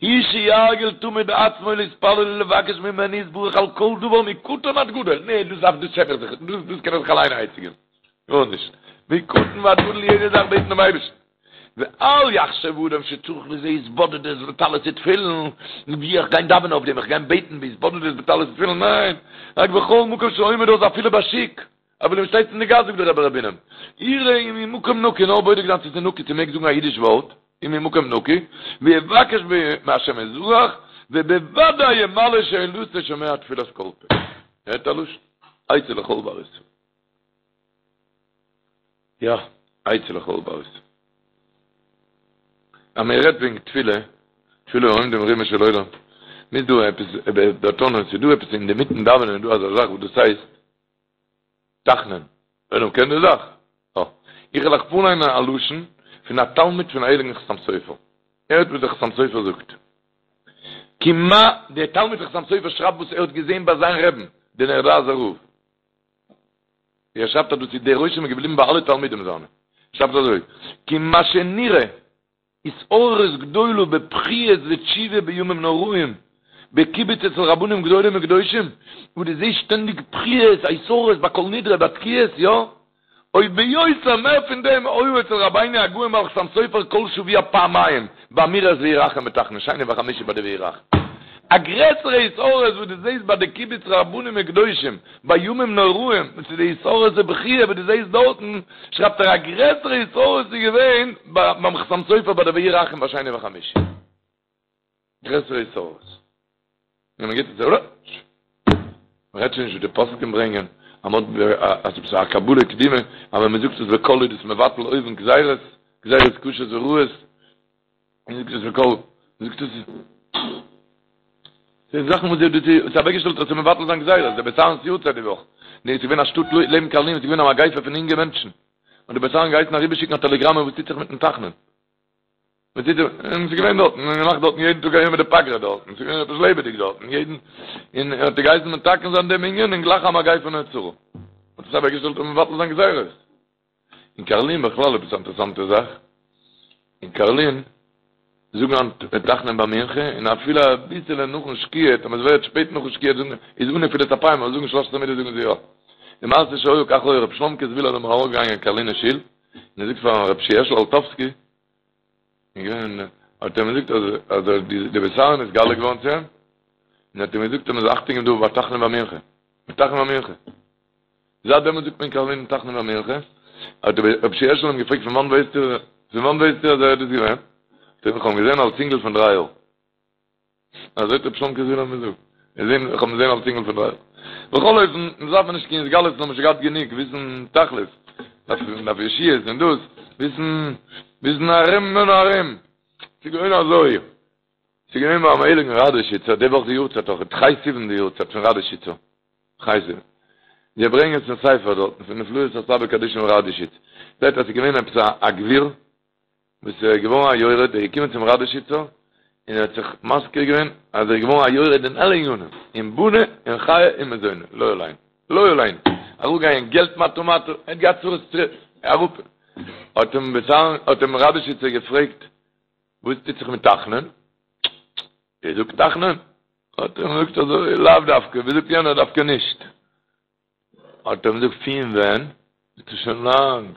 Speaker 2: היא שירגיל תמיד עצמו להתפלל ולבקש ממנו יתברך על כל דבר מקטן עד גדול, נע דאס דארף דאס שעם איך זיך, דאס דאס קען איך זיך אליין א עצה געבן, גארנישט, מקטן ועד גדול יעדע זאך בעטן דעם אייבערשטן, ואל יחשב אדם שצריך לזה התבודדות וטלית ותפילין, ווי איך גיין דאווענען אויף דעם, איך גיין בעטן בהתבודדות בטלית ותפילין, ניין, רק בכל מקום שעומד אז אפילו בשוק, אבער ווען מ'שטייט אין די גאס זאגט דער רבי ר' בונם, יראה אם הוא מקום נקי, נאר בודק זיין צו ס'איז נקי צו מ'מעג זאגן א אידיש ווארט, אם הוא מקום נקי, ויבקש מהשם יתברך, ובוודאי ימלא שאלתו שומע תפילת כל פה. הערט א לשון? עצה לכל בר ישראל. יא, עצה לכל בר ישראל. אז מען רעדט וועגן תפילה, תפילה העומדים ברומו של עולם, מ'איז דא עפעס, דערטאנען, ס'איז דא עפעס אינמיטן דאווענען איז דא אזא זאך וואס דאס הייסט, תחנון, עולם קען די זאך? אה. איך וועל אייך פארליינען א לשון פון א תלמיד פון הייליגן חתם סופר. הערט וואס דער חתם סופר זאגט. כי מה, דער תלמיד פון חתם סופר שרייבט וואס ער האט געזען ביי זיין רעבן, דער נערלאזער רב. ער שרייבט אז דאס איז דער רושם איז געבליבן ביי אלע תלמידים זיינע. ער שרייבט אזוי, כי מה שנראה התעוררות גדולה בבכיות ותשובה בימים נוראים, בקיבוץ אצל רבנים גדולים וקדושים, וואו דו זעסט שטענדיג בכיות, א התעוררות ביי כל נדרי, ביי תקיעות, יא? או ביותר מער פון דעם, היה אצל רבינו הגאון בעל חתם סופר כל שבוע פעמיים, באמירת והוא רחום בתחנון, שני וחמישי ביי די והוא רחום. א גרעסערע התעוררות וואס דו זעסט ביי די קיבוץ רבנים וקדושים, בימים נוראים, וואס איז די התעוררות ובכיה וואס דו זעסט דארטן, שרייבט ער א גרעסערע התעוררות איז געווען ביים חתם סופר ביי די והוא רחום ביי שני וחמישי. גרעסערע התעוררות. און מען גיבט עס ארויס. מען רעדט שוין נישט ווי די פוסקים ברענגען. אז מ'האט אז ס'איז א קבלה קדימה אז ווען מ'זאגט עס בקול איז דאס מבטל אויבן גזירות, גזירות קשות ורעות, און זאגט עס בקול, זאגט עס די זאכן וואס די האט אוועקגעשטעלט אז מבטל זיין גזירות, דער בית אהרן'ס יארצייט די וואך, נו, עס איז געווען א שטאט לעבן קארלין, עס איז געווען א מגיפה פון אינגע מענטשן, און דער בית אהרן געהייסן אריבערשיקן א טעלעגראמע וואס טוט זיך מיטן תחנון. וואס טוט זיך, און עס איז געווען דארטן, און געמאכט דארטן יעדן טאג א יומא דפגרא דארטן, עס איז געווען עפעס לעבעדיג דארטן, יעדן, און ער האט געהייסן מתקן זיין דעם ענין, און גלייך א מגיפה נעצרה. האט עס אוועקגעשטעלט אויף מבטל זיין גזירות. אין קארלין בכלל עפעס א אינטערעסאנטע זאך, אין קארלין זאגן היינט תחנון ביי מנחה, און אפילו אביסעלע נאכן שקיעה, טאמער עס ווערט שפעט נאכן שקיעה זאגן, איז אן נפילת אפיים, אבער זאגן שלש עשרה מידות זאגן זיי יא. די מעשה שהיה כך היה, רבי שלומקע זוויהלער איז אמאל ארויפגעגאנגען אין קארלינער שול, און ער זאגט פאר רבי שיע העשל אלטובסקי, האט ער אים געזאגט אז אז דער בית אהרן איז נתגלה געווארן צו אים, און האט אים געזאגט אז מען זאל אכטונג געבן דא ביי תחנון ביי מנחה, ביי תחנון ביי מנחה. זייט דעמאלט זאגט מען אין קארלין תחנון ביי מנחה, האט רבי שיע העשל אים געפרעגט פון וואנט ווייסטו, פון וואנט ווייסטו אז ער איז דאס געווען? זאגט ער איך האב אים געזען אלס אינגל פון דריי יאר. אזוי האט רבי שלומקע זוויהלער געזאגט. געזען, איך האב אים געזען אלס אינגל פון דריי יאר. בכל אופן, מען דארף נישט קיין התגלות, מיר האבן שוין געהאט גענוג, וויסן תכלית, דארף דארף ישועות און דאס, וויסן, וויסן ארום און ארום. ס'איז געווען אזוי. ס'איז געווען ביים הייליגן ראדאשיצער, די וואך די יארצייט אויך, ח' סיוון די יארצייט פון ראדאשיצער. ח' סיוון. זיי ברענגען עס אין ספר דארטן פון נפלאות הסבא קדישא פון ראדאשיץ. שטייט אז ס'איז געווען עפעס א גביר, וואס איז געווארן א יורד, ער איז געקומען צום ראדאשיצער, און ער האט זיך מזכיר געווען אז ער איז געווארן א יורד אין אלע ענינים, אין בני, אין חיי, אין מזוני, לא עלינו, לא עלינו, אראפגעגאנגען געלט מטה מטה, ער האט געהאט צרות צרות, אראפ, האט אים בשר, האט אים ראדאשיצער געפרעגט, וואס טוט זיך מיט תחנון? איר זאגט תחנון? האט ער אים געזאגט אזוי, לאו דווקא, ווי זאגט יענער, דווקא נישט. האט ער אים געזאגט פון ווען? זאגט ער שוין לאנג.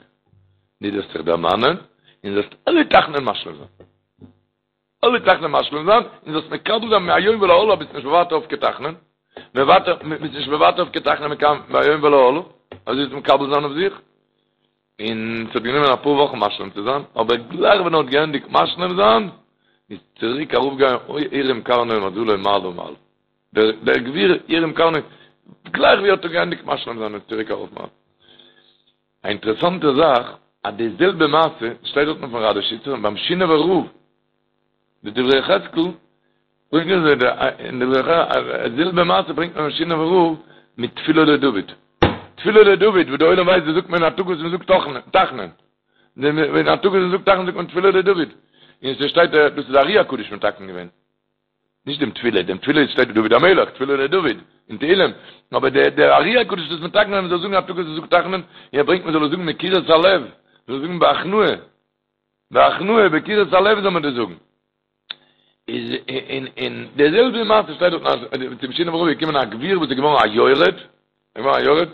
Speaker 2: דו זאלסט זיך דערמאנען און זאלסט אלע תחנון משלים זיין. אלע תחנון משלים זיין און זאלסט מקבל זיין מהיום ולהלאה ביסט נישט מוותר אויף קיין תחנון. מוותר, ביסט נישט מוותר אויף קיין תחנון מכאן מהיום ולהלאה. אזוי זאלסט מקבל זיין אויף זיך. און ס'האט גענומען אפאר וואכן משלים צו זיין, אבער גלייך ווען ער האט געענדיגט משלים זיין, איז צוריק ארויפגעגאנגען הרים קרנו ומזלו מעלה מעלה. דער דער גביר הרים קרנו, גלייך ווי ער האט געענדיגט משלים זיין איז צוריק ארויף מעלה. א אינטערעסאנטע זאך, אז די זעלבע מעשה שטייט דארטן פון ראדאשיצער און ביים שינאווער רב, די דברי יחזקאל, ברענגען זיי די אין דברי יחזקאל, די זעלבע מעשה ברענגט מען ביים שינאווער רב מיט תפילה לדוד. תפילה לדוד, וואס די עולם ווייסט, דאס זאגט מען אין א טאג וואס מען זאגט תחנון. אין א טאג וואס מען זאגט תחנון זאגט מען תפילה לדוד. און ס'שטייט דאס איז ארי הקדוש מתקן געווען. נישט דעם תפילה, דעם תפילה שטייט דוד המלך, תפילה לדוד, אין תהילים, אבער דער דער ארי הקדוש איז מתקן אז מען זאל זאגן א טאג וואס מ'זאגט תחנון, און ער ברענגט מען זאל עס זאגן מקירות הלב, מען זאל זאגן בהכנעה, בהכנעה, בקירות הלב זאל מען דאס זאגן. איז אין אין דער זעלבע מעשה שטייט דארט אז צום שינאווער רב איז געקומען א גביר וואס איז געווארן א יורד, געווארן א יורד,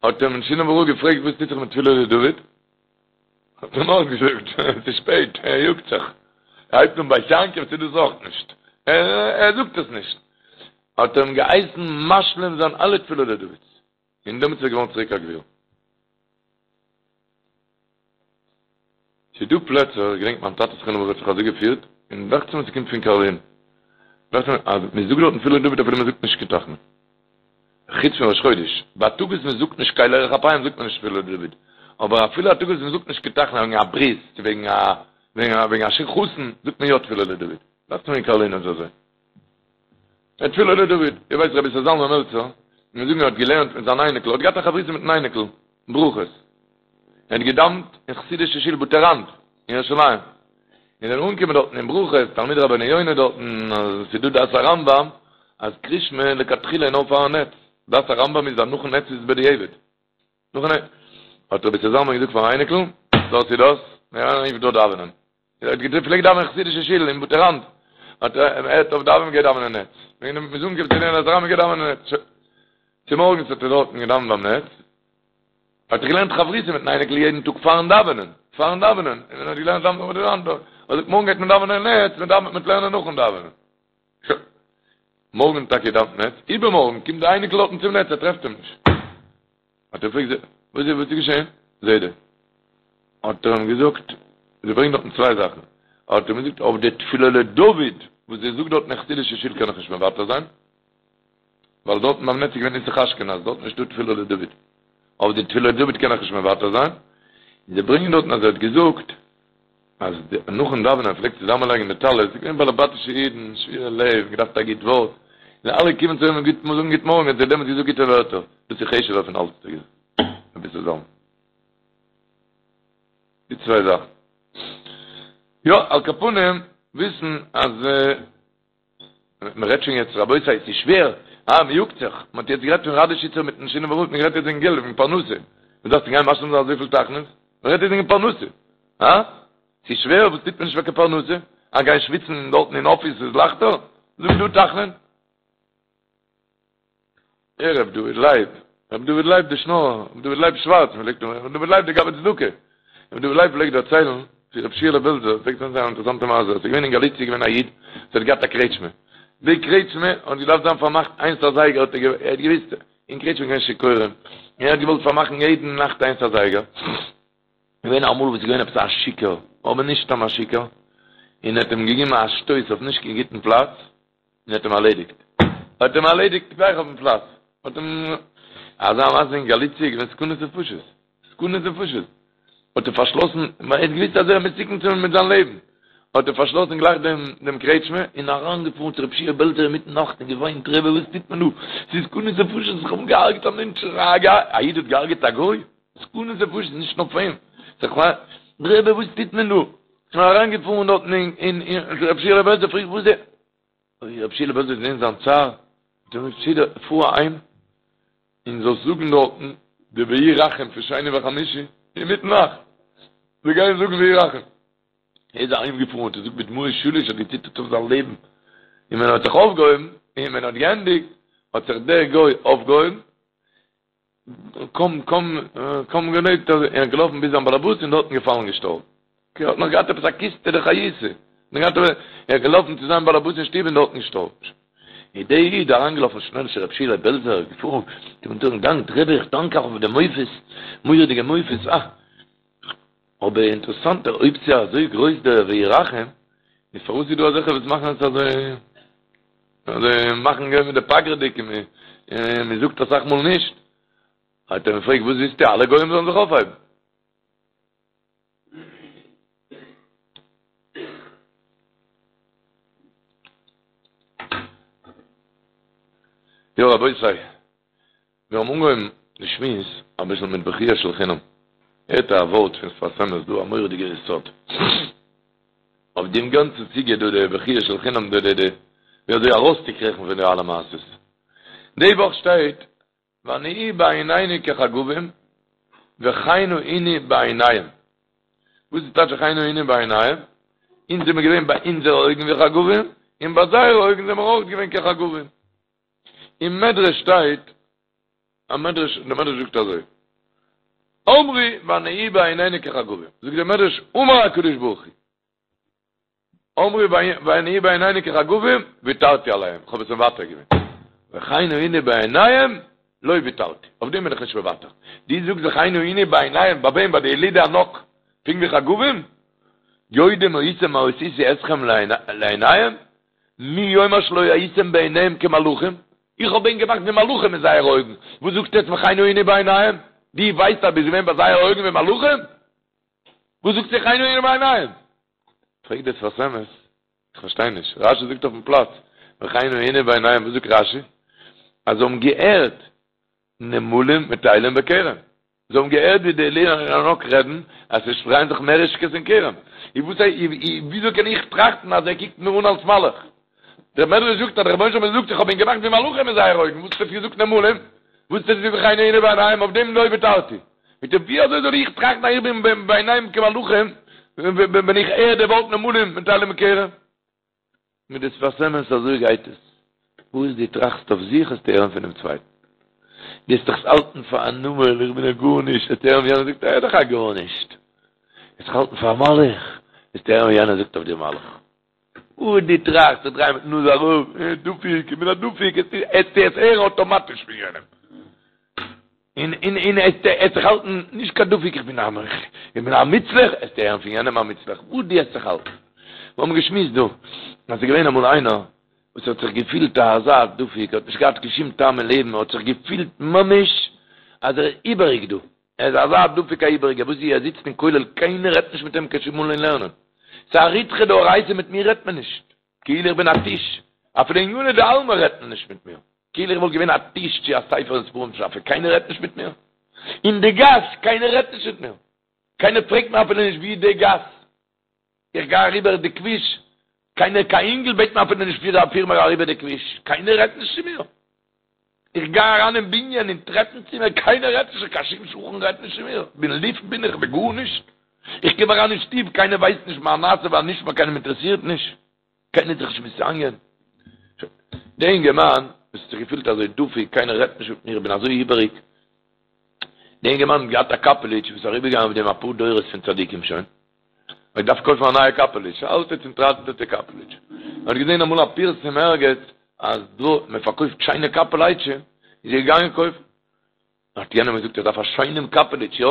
Speaker 2: האט אים שינאווער רב געפרעגט וואס טוט זיך מיט תפילה לדוד? האט ער אים אויסגעזאגט, עס איז שפעט, ער יאגט זיך, ער הייבט אן בית יעקב צו דאס אויך נישט, ער זאגט עס נישט, האט ער אים געהייסן משלים זיין אלע תפילה לדוד'ס, און דעמאלטס איז ער געווארן צוריק א גביר. ס'איז דא פלעצער, איך געדענק מיין טאטע זכרונו לברכה האט זיך אזוי געפירט, און דאכט זיך מיר ס'קומט פון קארלין, דאכט זיך מיר אז מ'זאגט דארטן תפילה לדוד אפילו מ'זאגט נישט קיין תחנון. חוץ פון ראש חודש, ביי א טאג וואס מ'זאגט נישט קל ארך אפים זאגט מען נישט תפילה לדוד, אבער אפילו א טאג וואס מ'זאגט נישט קיין תחנון וועגן א ברית, צו וועגן א וועגן א חתן, זאגט מען יא תפילה לדוד. דאכט זיך מיר אין קארלין איז אזוי. תפילה לדוד, איר ווייסט רבי איסר זלמן מלצר, מיר זאגן ער האט געלערנט מיט זיין אייניקל, ער האט געהאט א חברותא מיטן אייניקל, ברכות. ער האט געדאוונט אין חסידישע שול בתי ראנד אין ירושלים. און זענען אנגעקומען דארטן אין ברכות, תלמיד רבינו יונה דארטן, אז ס'איז דא דעת הרמב"ם, אז קריאת שמע לכתחילה איז נאר פארן נץ. דעת הרמב"ם איז אז נאכן נץ איז בדיעבד. נאכן נץ. האט רבי איסר זלמן געזאגט פארן אייניקל, דאס איז דאס, מיר גייען אויף דא דאווענען. ער האט געפלעגט דאווענען אין חסידישע שול אין בתי ראנד, האט ער הערט אויף דאווענען גייט דאווענען נץ, ווען מ'איז אנגעקומען צו דעם אז מ'גייט דאווענען נץ, צומארגנס האט ער דארטן געדאווענט ביים נץ, האט ער געלערנט חברותא מיטן אייניקל יעדן טאג פארן דאווענען, פארן דאווענען, און ווען ער האט געלערנט דאווענען בתי ראנד, האט ער געזאגט מארגן גייט מען דאווענען נץ, מען דאווענט מיט לערנען נאכן דאווענען. שוין. מארגן טאקע דאווענט נץ, איבערמארגן קומט די אייניקל דארטן צום נץ, ער טרעפט אים נישט. האט ער געפרעגט וואס איז וואס איז געשען זיידע? האט ער אים געזאגט, זיי ברענגען דארטן צוויי זאכן, האט ער אים געזאגט אויף די תפילה לדוד וואס איר זאגט דארטן אין חסידישע שול קען איך נישט מוותר זיין, ווייל דארטן ביים נץ איז געווען נוסח אשכנז, דארטן איז נישטא תפילה לדוד. אויף די תפילות דוד קען איך נישט מוותר זיין, און זיי ברענגען דארטן אז ער האט געזאגט אז נאכן דאווענען ער פלעגט צוזאמען לייגן די טלית, ס'איז געווען באלעבאטישע אידן, שבורי לב, געדארפט א גוט ווארט, און אלע קומען צו אים גוט זאגן גוט מארגן, האט ער דעמאלטס געזאגט גוטע ווערטער, דאס איז חשוב'ער פון אלץ האט ער געזאגט, רבי איסר זלמן. די צוויי זאכן. יא, על כל פנים, וויסן אז מען רעדט שוין יעצט רבותי עס איז שווער, אה מען יאגט זיך, מען האט יעצט גערעדט פון ראדעשיצער מיטן שינאווער רב, מען רעדט יעצט וועגן געלט, וועגן פרנסה, מען דארף גיין משלים זיין אזויפיל תחנון'ס, מען רעדט יעצט וועגן פרנסה, אה? ס'איז שווער, וואס טוט מען נישט פאר קיין פרנסה? אה גיין שוויצן דארטן אין אפיס איז לייכטער? זאג דא תחנון. ער ר' דוד לייב, ר' דוד לייב די שנארער, ר' דוד לייב שווארץ, מען פלעגט ר' דוד לייב די גבאי צדקה, ר' דוד לייב פלעגט דערציילן צו ר' שיעלע בעלזער, פלעגט דערציילן א אינטערעסאנטע מעשה, עס איז געווען אין גאליציע איז געווען א איד וואס האט געהאט א קרעטשמע, די קרעטשמע האט געדארפט זיין פארמאכט איינס אזייגער, האט ער האט געוויסט אין קרעטשמע איז געווען שיכורים, און ער האט געוואלט פארמאכן יעדן נאכט איינס אזייגער, געווען אמאל וואס איז געווען עפעס א שיכור, אבער נישט סתם א שיכור, און ער האט אים געגעבן א שטויס אויף נישט קיין גוטן פלאץ, און האט אים ארלעדיגט. האט אים ארלעדיגט גלייך אויפן פלאץ. האט אים, אזא מעשה אין גאליציע איז געווען סכנות נפשות. סכנות נפשות. האט ער פארשלאסן, ווייל ער האט געוויסט אז ער איז מסוכן צו מיט זיין לעבן. האט ער פארשלאסן גלייך דעם דעם קרעטשמע, און אריינגעפארן צו רבי שיע בעלזער אינמיטן נאכט און געוויינט, רבי וואס טוט מען דא? ס'איז סכנות נפשות, איך האב געהארגעט א מענטש, א איד האט געהארגעט א גוי? סכנות נפשות, נישט נאר פאר אים. רבי וואס טוט מען דא? און אריינגעפארן דארטן אין אין רבי שיעלע בעלזער פרעגט וואס איז רבי שיעלע בעלזער האט געזען זיין צער האט אים געזאגט שיעלע פאר אהיים און זאלסט זאגן דארטן די והוא רחום פון שני וחמישי אינמיטן נאכט זיי גייען זאגן והוא רחום ער איז אהיים געפארן האט ער געזאגט בדמעות שליש האט געציטערט אויף זיין לעבן און ווען ער האט זיך אויפגעהויבן און ווען ער האט געענדיגט האט זיך דער גוי אויפגעהויבן קוים קוים קוים געלעבט ער איז געלאפן ביז זיין באלעבאס און דארטן געפאלן געשטארבן. ער האט נאך געהאט עפעס א קיסטע דחיותא. נאך געהאט ער איז געלאפן צו זיין באלעבאס אין שטוב און דארטן געשטארבן. איז דער איד אריינגעלאפן שנעל צו רב שיעלע בעלזער געפארן צום אונטערן גאנג רבי איך דאנק אייך אויף די מופת מורא'דיגע מופת אה אבער אינטערעסאנט אויב ס'איז אזוי גרויס דער והוא רחום איז פארוואס איז דא אזעלכע וואס מאכן עס אזוי אזוי מאכן געווען מיט די פגר'דיג און מען זאגט אסאך מאל נישט. האט ער אים געפרעגט וואס ווילסטו אלע גוים זאלן זיך אויפהייבן? יא רבותי, מיר האבן אנגעהויבן די שמועס אביסל מיט בכיה של חינם. הערט א ווארט פון שפת אמת דא, א מורא'דיגע יסוד. אויף דעם גאנצן סוגיא דא די בכיה של חינם דא די די ווי אזוי ארויסצוקריכן פון די אלע מעשות. די וואך שטייט ונהי בעינינו כחגבים וכן היינו בעיניהם. וואס איז טייטש וכן היינו בעיניהם? אונז זעמיר געווען ביי אונזערע אויגן ווי חגבים, און ביי זייערע אויגן זעמיר אויך געווען כחגבים. אין מדרש שטייט א מדרש, דער מדרש זאגט אזוי, אמרו ונהי בעינינו כחגבים, זאגט דער מדרש, אמר הקדוש ברוך הוא, אמרו ונהי בעינינו כחגבים, ויתרתי עליהם, איך האב עס מוותר געווען, וכן היינו בעיניהם, לא ויתרתי, אויף דעם בין איך נישט מוותר, דו זאגסט וכן היינו בעיניהם, ביי וועם? ביי די ילידי ענק, פונקט ווי חגבים? יודעים הייתם מה עשיתי אתכם לעיניהם? מי יאמר שלא הייתם בעיניהם כמלאכים? איך האב ענק געמאכט ווי מלאכים אין זייערע אויגן, וואס זאגסטו יעצט וכן היינו בעיניהם? דו ווייסט אז ביסט געווען ביי זייערע אויגן ווי מלאכים? וואס זאגסטו וכן היינו בעיניהם? פרעגט דער שפת אמת, איך פארשטיי נישט, רשי זאגט אויפן פלאץ, וכן היינו בעיניהם, וואס זאגט רשי? אז זיי האבן געהערט נמלים מטיילים בכרם. זיי האבן געהערט ווי די ילידי הענק רעדן אז עס דרייען זיך מערישקעס אין כרם. וויאזוי קען איך טראכטן אז ער קוקט מיר אן אלס מלאך? דער מדרש זאגט אז דער רבונו של עולם זאגט איך האב ענק געמאכט ווי מלאכים אין זייערע אויגן, וואס האסטו געזאגט נמלים? וואס טוט זיך וכן היינו בעיניהם אויף דעם לא ויתרתי. מיט דעם ווי אזוי זאל איך טראכטן אז איך בין בעיניהם כמלאכים ווען איך הער די ווארט נמלים מטיילים בכרם? מיט די שפת אמת אזוי גייט עס, וואס דו טראכסט אויף זיך וועסטו הערן פונעם צווייטן, דו וועסט דיך האלטן פאר א נמל, איך בין א גארנישט, וועסטו הערן ווי יענער זאגט ער איז דאך א גארנישט, וועסט דיך האלטן פאר א מלאך, וועסטו הערן ווי יענער זאגט אויף דיר מלאך. וואס דו טראכסט זיך דרייען מיטן נאז אראפ, דפוק, איך בין א דפוק, וועסטו עס הערן אטאמאטיש פון יענעם. און און און וועסט זיך האלטן נישט קיין דפוק איך בין א איך בין א מוצלח וועסטו הערן פון יענעם א מוצלח וואס דו וועסט זיך האלטן מיר האבן געשמועסט דא אז ס'איז געווען אמאל איינער וואס האט זיך געפילט א אזא דפוק האט נישט געהאט קיין שום טעם אין לעבן האט זיך געפילט ממש. אז ער איז איבעריג דא, ער איז אזא דפוק א איבעריגער, וואס איז ער זיצט אין כולל קיינער רעדט נישט מיט אים קיין שום מאל אין לערנען, ס'איז א ריתחא דאורייתא מיט מיר רעדט מען נישט, כאילו איך בין א טיש, אפילו עניני דעלמא רעדט מען נישט מיט מיר, כאילו איך וואלט געווען א טיש צו א ספר אין ספרים שאפע, קיינער רעדט נישט מיט מיר, אין די גאס קיינער רעדט נישט מיט מיר, קיינער פרעגט מיר אפילו נישט ווי איז די גאס. איך גיי אריבער די כביש, קיינער קיין אינגל בעט מיר אפילו נישט פיר פיר מיר אריבער די כביש, קיינער רעדט נישט צו מיר. איך גיי אריין אין בנין אין טרעפן צימער, קיינער רעדט נישט, קיין שום שכן רעדט נישט צו מיר, בין לופט בין איך, בין גארנישט. איך קום אריין אין שטוב, קיינער ווייסט נישט מה נעשה והנשמע, קיינעם אינטערעסירט נישט, קיינער איז זיך נישט מתעניין. דער אינגערמאן וואס האט זיך געפילט אזוי דפוק, קיינער רעדט נישט מיט מיר, איך בין אזוי איבעריג, דער אינגערמאן האט געהאט א קאפעליטש וואס איז אריבערגעגאנגען אויף דעם אפאר דורות פון צדיקים שוין, ער האט געדארפט קויפן א נייע קאפעליטש, א אלטע צוטראנטעטע קאפעליטש. ער האט געזען אמאל א פירסום ערגעץ אז דא מען פארקויפט שיינע קאפעליטשען, איז ער געגאנגען קויפן. האט יענער געזאגט ער דארף א שיינעם קאפעליטש, יא?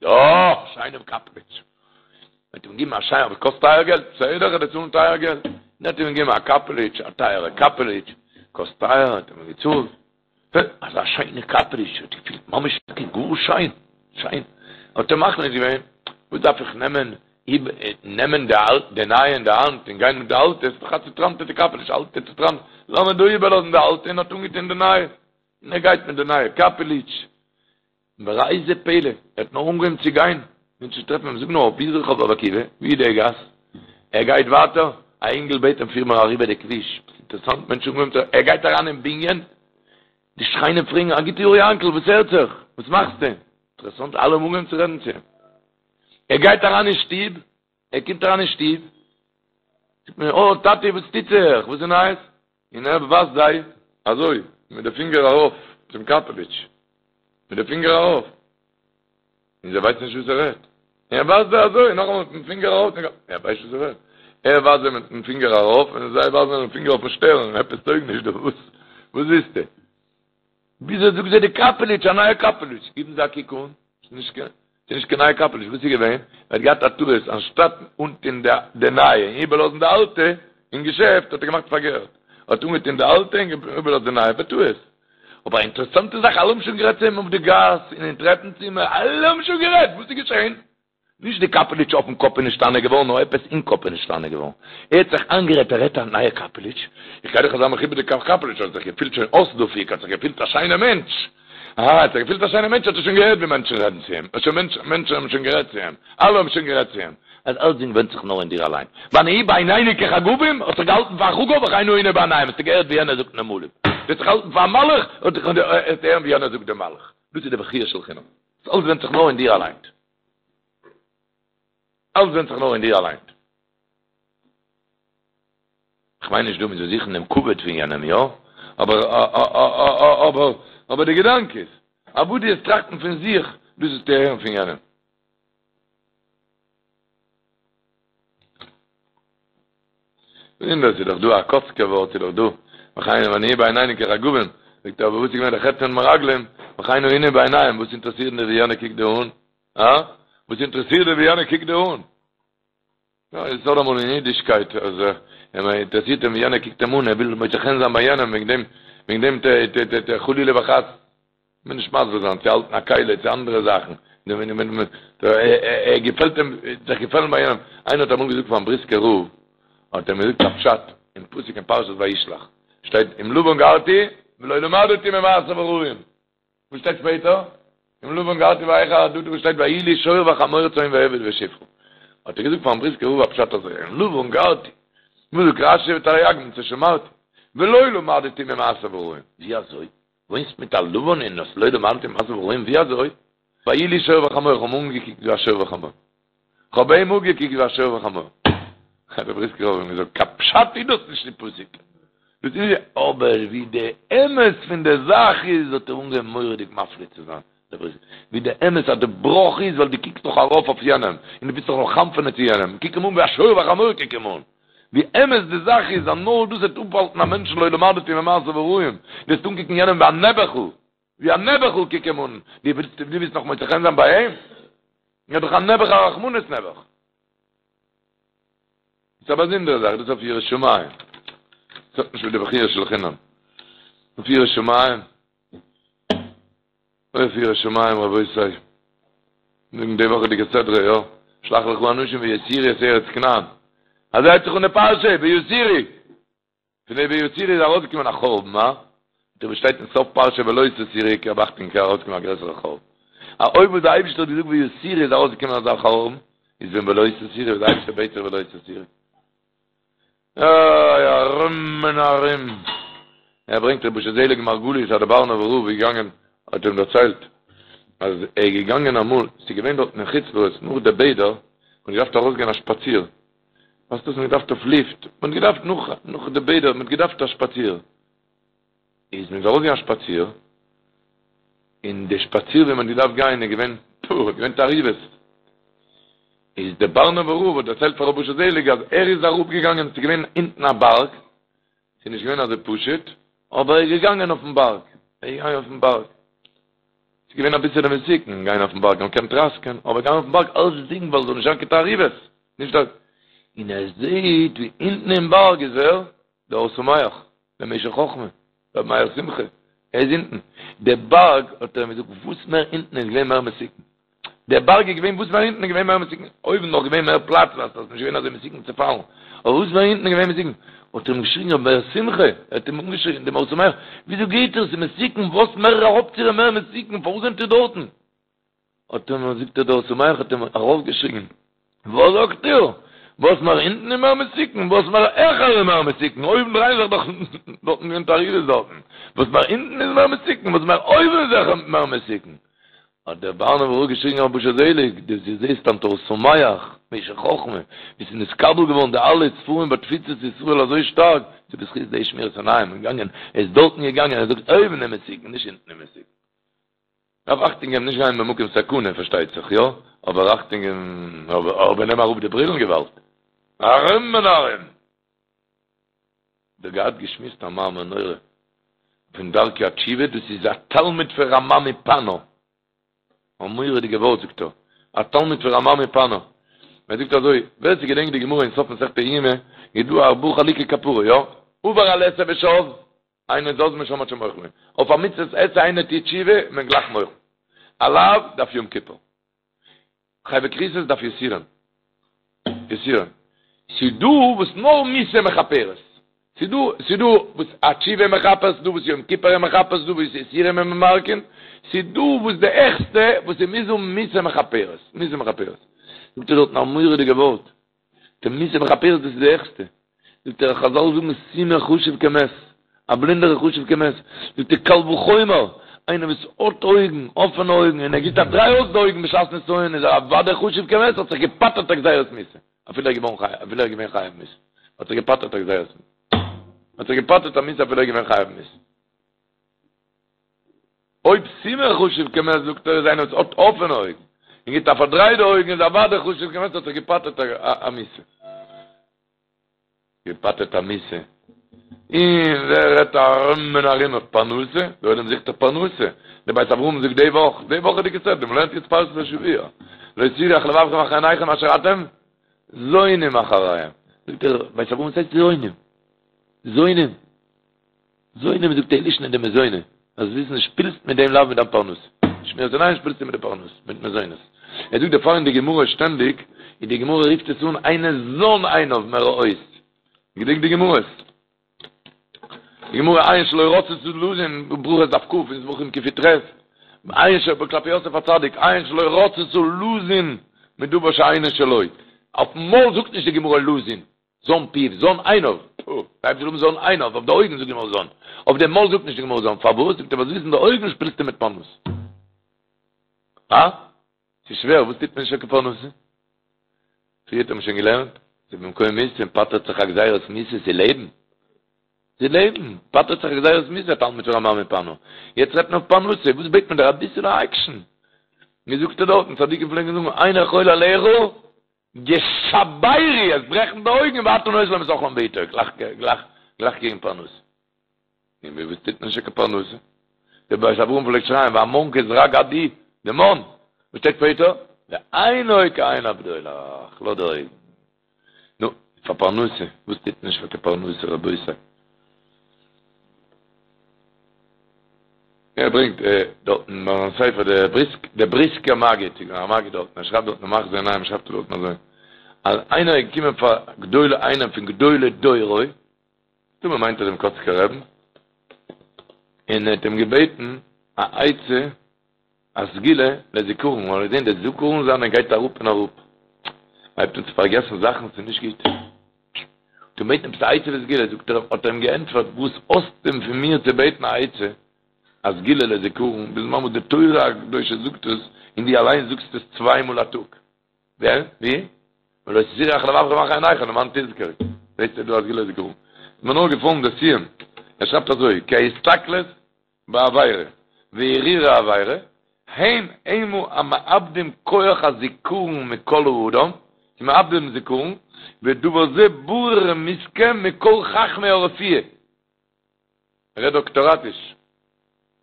Speaker 2: יא, א שיינעם קאפעליטש. מען האט אים געגעבן א שיינע, אבער קאסט טייער געלט, בסדר איך וועל צאלן טייער געלט. מען האט אים געגעבן א קאפעליטש, א טייערע קאפעליטש, קאסט טייער, האט ער אים געצאלט. אזא שיינע קאפעליטש, האט געפילט ממש טאקע גאר שיין, שיין, האט ער מחליט געווען, וואס דארף איך נעמען, נעמען די אלטע, די נייע אין די האנט און גיין מיט די אלטע, עס איז דאך א צוטראנטעטע קאפעליטש, אלטע צוטראנט, לאמיר דא איבערלאזן די אלטע און האט אנגעטון די נייע, און ער גייט מיט די נייע קאפעליטש. וראה זה פלא, ער האט נאר אנגעהויבן צו גיין, מענטשן טרעפן אים, זאג נאר, וואו איז רחוב רבי עקיבא? וואו איז די גאס? ער גייט ווייטער, א אינגל בעט אים פיר מיר אריבער די כביש, אינטערעסאנט, מענטשן אנגעהויבן צו, ער גייט אריין אין בנין, די שכנים פרעגן, א גוט יאר יענקל, וואס הערט זיך? וואס מאכסטו? אינטערעסאנט, אלע האבן אנגעהויבן צו רעדן צו אים. ער גייט אריין אין שטוב, ער קומט אריין אין שטוב, זאגט מען, אוי טאטי וואס טוט זיך? וואס איז נייעס? און ער ווייזט זיי אזוי מיט די פינגער ארויף צום קאפעליטש, מיט די פינגער ארויף, און זיי ווייסן נישט וואס ער רעדט, און ער ווייזט זיי אזוי נאכאמאל מיטן פינגער ארויף, ער ווייסט נישט וואס ער רעדט, ער ווייזט זיי מיטן פינגער ארויף און זיי ווייזן מיטן פינגער אויפן שטערן, עפעס טויג נישט דא, וואס וואס ווילסטו? וויאזוי זאגט זיי די קאפעליטש, א נייע קאפעליטש, גיבן זיי א קוק אן, ס'איז נישט קיין, ס'איז נישט קיין נייע קאפעליטש, וואס איז געווען? ער האט געהאט א טעות, אנשטאט אנטון די נייע און איבערלאזן די אלטע אין געשעפט, האט ער געמאכט פארקערט, ער האט אנגעטון די אלטע און איבערלאזט די נייע, בטעות. אבער א אינטערעסאנטע זאך, אלע האבן שוין גערעדט צו אים אויף די גאס און אין טרעפן צימער, אלע האבן שוין גערעדט, וואס איז געשען? נישט די קאפעליטש אויפן קאפ איז נשתנה געווארן, נאר עפעס אין קאפ איז נשתנה געווארן. ער האט זיך איינגערעדט ער האט א נייע קאפעליטש, איך גיי דאך אזא מכובד'יגע קאפעליטש, האט זיך געפילט שוין אויס דפוק, האט זיך געפילט א שיינער מענטש. אהא, האט זיך געפילט א שיינער מענטש, האט ער שוין געהערט ווי מענטשן רעדן צו אים, שוין מענטשן, מענטשן האבן שוין גערעדט צו אים, אלע האבן שוין גערעדט צו אים, אז אלצדינג ווענדט זיך נאר אין דיר אליין. ונהי בעינינו כחגבים, האסט זיך געהאלטן פאר א חגב, וכן היינו בעיניהם, האסטו געהערט ווי יענער זאגט נמלים. דו האסט זיך געהאלטן פאר א מלאך, האסטו הערן ווי יענער זאגט דעם מלאך. דאס איז די בכיה של חינם. אלץ ווענדט זיך נאר אין דיר אליין. אלץ ווענדט זיך נאר אין דיר אליין. כ'מיין נישט דא מ'זאל זוכן דעם כבוד פון יענעם, יא? אבער אבער אבער די געדאנק איז, אז וואס דו וועסט טראכטן פון זיך, דאס וועסטו הערן פון יענעם. און דאס איז דאך דא א קאצקער ווארט איז דאך דא, וכן ונהי בעינינו כחגבים, זאגט ער אבער וואס איז געווען די חטא פון מרגלים, וכן היינו בעיניהם, וואס אינטערעסירט דיר ווי יענער קוקט דיר אן? הא? וואס אינטערעסירט דיר ווי יענער קוקט דיר אן? יא, עס איז אמאל אין אידישקייט אז אים אינטערעסירט אים ווי יענער קוקט אים אן, ער וויל מוצא חן זיין ביי יענעם, וועגן דעם וועגן דעם ט ט ט ט חלילה וחס. מיר נישט מסביר זיין צו האלטן א כלי צו אנדערע זאכן, ער געפעלט אים, זיך געפעלן ביי יענעם, איינער האט אמאל געזאגט פארן בריסקער רב, האט ער אים געזאגט א פשט אין פסוק אין פרשת וישלח, שטייט עם לבן גרתי ולא למדתי ממעשיו הרעים, וואס שטייט שפעטער? עם לבן גרתי ואחר עדתי וואס שטייט ויהי לי שור וחמור צאן ועבד ושפחה, האט ער געזאגט פארן בריסקער רב א פשט אזוי, עם לבן גרתי, וואס זאגט רשי ותרי"ג מצות שמרתי, ולא למדתי ממעשיו הרעים, ווי אזוי? וואוינסט מיט א לבן און האסט לא למדתי ממעשיו הרעים ווי אזוי? ויהי לי שור וחמור, איך האב אים אנגעקוקט ווי א שור וחמור. איך האב אים אנגעקוקט ווי א שור וחמור. האט דער בריסקער רב אים געזאגט, קיין פשט איז דאס נישט אין פסוק. דאס איז אבער ווי די אמת פון די זאך איז, האט ער אנגעהויבן מורא'דיג מפליא צו זיין, דער בריסקער, ווי די אמת אז די בראך איז ווייל דו קוקסט נאך ארויף אויף יענעם, און דו ווילסט זיך נאך חנפ'ענען צו יענעם, קוק אים אן ווי א שור וחמור קוק אים אן. ווי אמת די זאך איז אז נאר דאס וועט אפהאלטן א מענטשן לא למדתי ממעשיו הרעים, דו וועסט אנקוקן יענעם ווי א נעבעכל, ווי א נעבעכל קוק אים אן, דו ווילסט דו ווילסט נאך מוצא חן זיין ביי אים? ער איז דאך א נעבעך א רחמנות נעבעך. דאס איז א באזונדערע זאך, דאס איז אויף יראת שמים, דאס האט נישט מיט די בכיה של חינם, אויף יראת שמים. אויף יראת שמים רבותי, זאגן די וואכעדיגע סדרה יא, שלח לך אנשים ויתורו את ארץ כנען, אזוי הייבט זיך אן די פרשה, ויתורו, פון די ויתורו איז ארויסגעקומען א חורבן, הא? דא וואס שטייט אין סוף פרשה ולא תתורו געב אכטונג קען ארויסקומען א גרעסערע חורבן. א אויב וואס די אייבישטער האט געזאגט ויתורו איז ארויסגעקומען אזא חורבן, איז ווען ולא תתורו וואס די אייבישטער בעט זיך ולא תתורו. איי ארום און ארום. ער ברענגט רבי אשר זעליג מרגליות אז דער בארנובער רב איז געגאנגען האט אים דערציילט אז ער איז געגאנגען אמאל, ס'איז געווען דארטן אין חוץ לארץ נאך די בעדער, מ'האט געדארפט ארויסגיין א שפאציר, ווייסט וואס מ'האט געדארפט אויף לופט, מ'האט געדארפט נאך נאך די בעדער, מ'האט געדארפט א שפאציר, איז מען ארויסגעגאנגען א שפאציר, און די שפאציר ווי מ'האט געדארפט גיין איז געווען פו, געווען תערובות, איז דער בארנובער רב האט דערציילט פאר רבי אשר זעליג אז ער איז אראפגעגאנגען, ס'איז געווען אונטן א בארג, ס'איז נישט געווען אזוי פשוט, אבער ער איז געגאנגען אויפן בארג, ער איז געגאנגען אויפן בארג. ס'איז געווען אביסעלע מסוכן גיין אויפן בארג, מען קען טראסקען, אבער גיין אויפן בארג אלצדינג ווייל ס'זאל נישט זיין קיין תערובות, נישט דאס. און ער זעהט ווי אונטן אין בארג איז ווער? דער אור שמח, דער משך חכמה, רבי מאיר שמחה, ער איז אונטן. דער בארג, האט ער אים געזאגט, וואס מער אונטן איז געווען מער מסוכן. דער בארג איז געווען וואס מער אונטן איז געווען מער מסוכן, אויבן נאך געווען מער פלאץ ווייל ס'איז נישט געווען אזוי מסוכן צו פאלן, אבער וואס מער אונטן איז געווען מסוכן, האט ער אים געשריגן רבי מאיר שמחה, ער האט אים אנגעשריגן דעם אור שמח, וויאזוי גייט איר, ס'איז מסוכן, וואס מער אראפציר איז מער מסוכן, פארוואס זענט איר דארטן? האט אים, זאגט ער, דער אור שמח האט אים ארויפגעשריגן, וואס זאגט איר? וואס מער אונטן איז מער מסוכן, וואס מער העכער איז מער מסוכן, אויבן דרייען זיך דאך דארטן געווען תערובות דארטן, וואס מער אונטן איז מער מסוכן, וואס מער אויבן איז זיכער מער מסוכן. האט דער בארנובער רב געשריגן רבי אשר זעליג, דו זעסט היינט אור שמח, משך חכמה, ווי ס'איז נתקבל געווארן די אלע ספרים בתפוצות ישראל אזוי שטארק, ס'איז בזכות די שמירת עיניים, און געגאנגען, ער איז דארטן געגאנגען, ער זאגט אויבן איז מסוכן, נישט אונטן איז מסוכן. דארף אכטונג געבן נישט גיין במקום סכנה פארשטייט זיך יא, אבער אכטונג געבן, אבער נעם אראפ די ברילן געוואלד, ארום און ארום. דא געהאט געשמועסט א מאמר נורא פון דרכי התשובה, דאס איז א תלמיד פון רמ"ע מפאנו, א מורא'דיגע ווארט זאגט ער, א תלמיד פון רמ"ע מפאנו, ער זאגט אזוי, ווער ס'געדענקט די גמרא אין סוף מסכת יומא, איז דא ארבעה חלוקי כפרה, יא? עבר על עשה ושב, אינו זז משם עד שמוחלין, אויף א מצוות עשה איינער טוט תשובה, איז מען גלייך מוחל, א לאו דארף יום כיפור. חייבי כריתות דארף יסורים. יסורים. ס'איז דא וואס נאר מיתה מכפרת. ס'איז דא, ס'איז דא וואס א תשובה מכפר, ס'איז דא וואס יום כיפור איז מכפר, ס'איז דא וואס יסורים איז ממרקין, ס'איז דא וואס די העכסטע וואס ס'מוז האבן מיתה מכפרת. מיתה מכפרת. זאגט ער דארטן א מורא'דיגע ווארט. די מיתה מכפרת דאס איז די העכסטע. זאגט ער חזל זאגן סומא חשוב כמת, א בלינדער איז חשוב כמת, זאגט ער קל וחומר, איינער וואס האט אויגן, אפענע אויגן, און ער גיבט א דריי אויס די אויגן בשעת נסיון איז ער אוודאי חשוב כמת, האט זיך געפטר'ט א גזירת מיתה, אפילו ער איז געווארן חייב, אפילו ער איז געווען חייב מיתה, האט זיך געפטר'ט א גזירת מיתה, האט זיך געפטר'ט א מיתה אפילו ער איז געווען חייב מיתה. אויב סומא חשוב כמת זאגט ער איז איינער וואס האט אפענע אויגן און גיבט א פארדריי די אויגן איז אוודאי חשוב כמת האט זיך געפטר'ט א מיתה. געפטר'ט א מיתה. און ווער רעדט ארום און ארום אויף פרנסה? דער עולם זוכט דאך פרנסה. דער בית אברהם זאגט די וואך, די וואכעדיגע סדרה, מ'לערנט יעצט פרשת השבוע, לא תתורו אחרי לבבכם ואחרי עיניכם אשר אתם זונים אחריהם. זאגט דער בית אברהם וואס הייסט זונים? זונים? זונים זאגט ער לישנא דמזונא, זאלסט וויסן שפילסט מיט דעם לאו מיט דיין פרנסה, שמירת עיניים שפילסטו מיט די פרנסה, מיט מזונות. ער זאגט דערפאר אין די גמרא שטענדיג, און די גמרא רופט עס אן אינו זן עיניו מראות. געדענק די גמרות. די גמרא עין שלא רצתה לזון, ברכות דף כ, אין זבחים קי"ח, עין ש כלפי יוסף הצדיק, עין שלא רצתה לזון מדבר שאינו שלו. אויפן מויל זאגט נישט די גמרא לזון. זן פיו, זן עיניו, פו, דארף זאגן זן עיניו, אויף די אויגן זאגט די גמרא זן, אויף די מויל זאגט נישט די גמרא זן, פארוואס? זאגט ער ווייל זיסן די אויגן שפילסטו מיט פרנסה. אה? ס'איז שווער, וואס טוט מען נישט פאר פרנסה? פריער האט מען שוין געלערנט, ס'איז במקום מיתה און פטר'ט זיך א גזירת מיתה, ס'איז לעבן. ס'איז לעבן, פטר'ט זיך א גזירת מיתה, תלמיד פון רמ"ע מפאנו. יעצט רעדט מען אויף פרנסה, וואס בעט מען דער אביסעלע עקשן? ווי זאגט ער דארטן, צדיקים פלעגן זאגן, עיני כל עליך, ישברו, עס ברעכן די אויגן ואתה נותן להם את אכלם בעתו, גלייך גלייך גלייך קריגן פרנסה. און ווי וואס טוט מען נישט קיין פרנסה? דער בית אברהם פלעגט שרייען והמן כזרע גד הוא, די מן, וואס שטייט שפעטער? ועינו כעין הבדולח, לאז די אויגן. נו, פאר פרנסה, וואס טוט מען נישט פאר קיין פרנסה רבותי? ער ברענגט דארטן ביי זיין ספר דער בריסק, דער בריסקער מגיד, ס'איז געווען א מגיד דארטן, ער שרייבט דארטן אין מחזה עינים שרייבט ער דארטן אזוי, אז איינער איז געקומען פאר גדולי איינעם פון גדולי דורו, מסתמא מיינט ער דעם קאצקער רעבן, און ער האט אים געבעטן א עצה, א סגולה לזיכרון, ווייל ער האט געזען די זיכרון זיינע גייט אראפ און אראפ, מ'הייבט אן צו פארגעסן זאכן, ס'איז נישט גוט. האט אים געבעטן עפעס א עצה וסגולה, זאגט ער, האט ער אים געענטפערט, וואס האסטו פון מיר צו בעטן א עצה, א סגולה לזיכרון, בזמן וואס די תורה הקדושה זאגט עס, און דו אליין זאגסט עס צוויי מאל א טאג. ווער? ווי? ולא תתורו אחרי לבבכם ואחרי עיניכם למען תזכרו. זעסטו דא א סגולה לזיכרון. איז מיר נאר געפאלן די סיום. ער שרייבט אזוי, כי ההסתכלות בעבירה והרהור העבירה, הם המה המאבדים כח הזיכרון מכל האדם, זיי מאבדים זיכרון, ודבר זה ברור ומוסכם מכל חכמי הרפואה. ער רעדט דאקטאראטיש.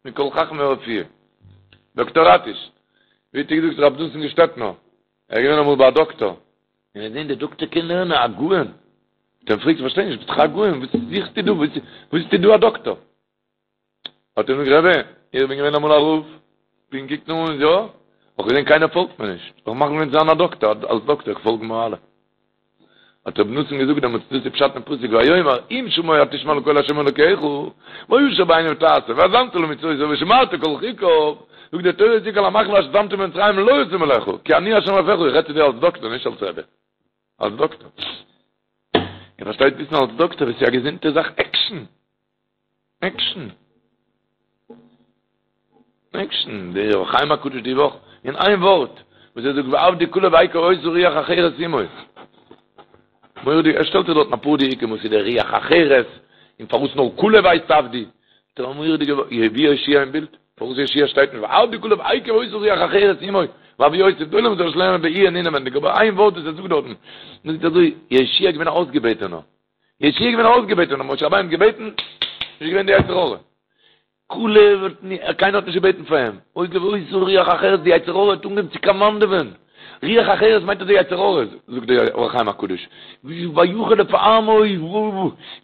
Speaker 2: מכל חכמי הרפואה. דאקטאראטיש. ווי האט געזאגט רב נתן געשטעטנער, ער איז געווען אמאל ביי א דאקטאר, און ער האט געזען דער דאקטאר קען לערנען א גאון. האט ער אים געפרעגט, איך פארשטיי נישט, ביסט דאך א גאון, וואס זוכסטו דא, וואס ביסטו דא א דאקטאר? האט ער געזאגט, רבי, איך בין געווען אמאל א רב, בין געקוקט און יא, האב געזען קיינער פאלגט מיר נישט, איך מאך געווען זיין א דאקטער, אלס דאקטער פאלגן מיר אלע. האט רבי נתן געזאגט דעמאלטס דאס איז פשט אין פסוק ויאמר אם שמוע תשמע לקול השם אלוקיך והישר בעיניו תעשה והאזנת למצותיו ושמרת כל חוקיו זאגט די תורה צו כל המחלה אשר שמתי במצרים לא אשים עליך כי אני השם רופאך איך רעד צו דיר אלס דאקטער נישט אלס רבי אלס דאקטער איר פארשטייט וויסן אלס דאקטער וואס איז א געזונטע זאך עקשן עקשן. עקשן. דער אור החיים הקדוש די וואך, אין איין ווארט, וואס ער זאגט ועבדי כלב עקב היתה רוח אחרת עמו. מורא'דיג, ער שטעלט זיך דארטן אפאר דיוקים וואס איז דער רוח אחרת, און פארוואס נאר כלב הייסט עבדי. דער מורא'דיגע ווארט, ווי יהושע אין בילד? פארוואס יהושע שטייט נישט ועבדי כלב עקב היתה רוח אחרת עמו. ואבי יוסף, דער עולם זאל עס לערנען בעיון אינעווענדיג, אבער איין ווארט וואס ער זאגט דארטן, מען זאגט אזוי, יהושע איז געווען א אויסגעבעטענער. יהושע איז געווען אויסגעבעטען, האט משה רבינו געבעטן, איז געווען די יצר הרע. כלב האט ני, קיינער האט נישט געבעטן פאר אים. עקב היתה רוח אחרת, די יצר הרע האט אנגעהויבן צו קאמאנדעווען. רוח אחרת מיינט אז די יצר הרע, זאגט דער אור החיים הקדוש. ויחל לפעמו,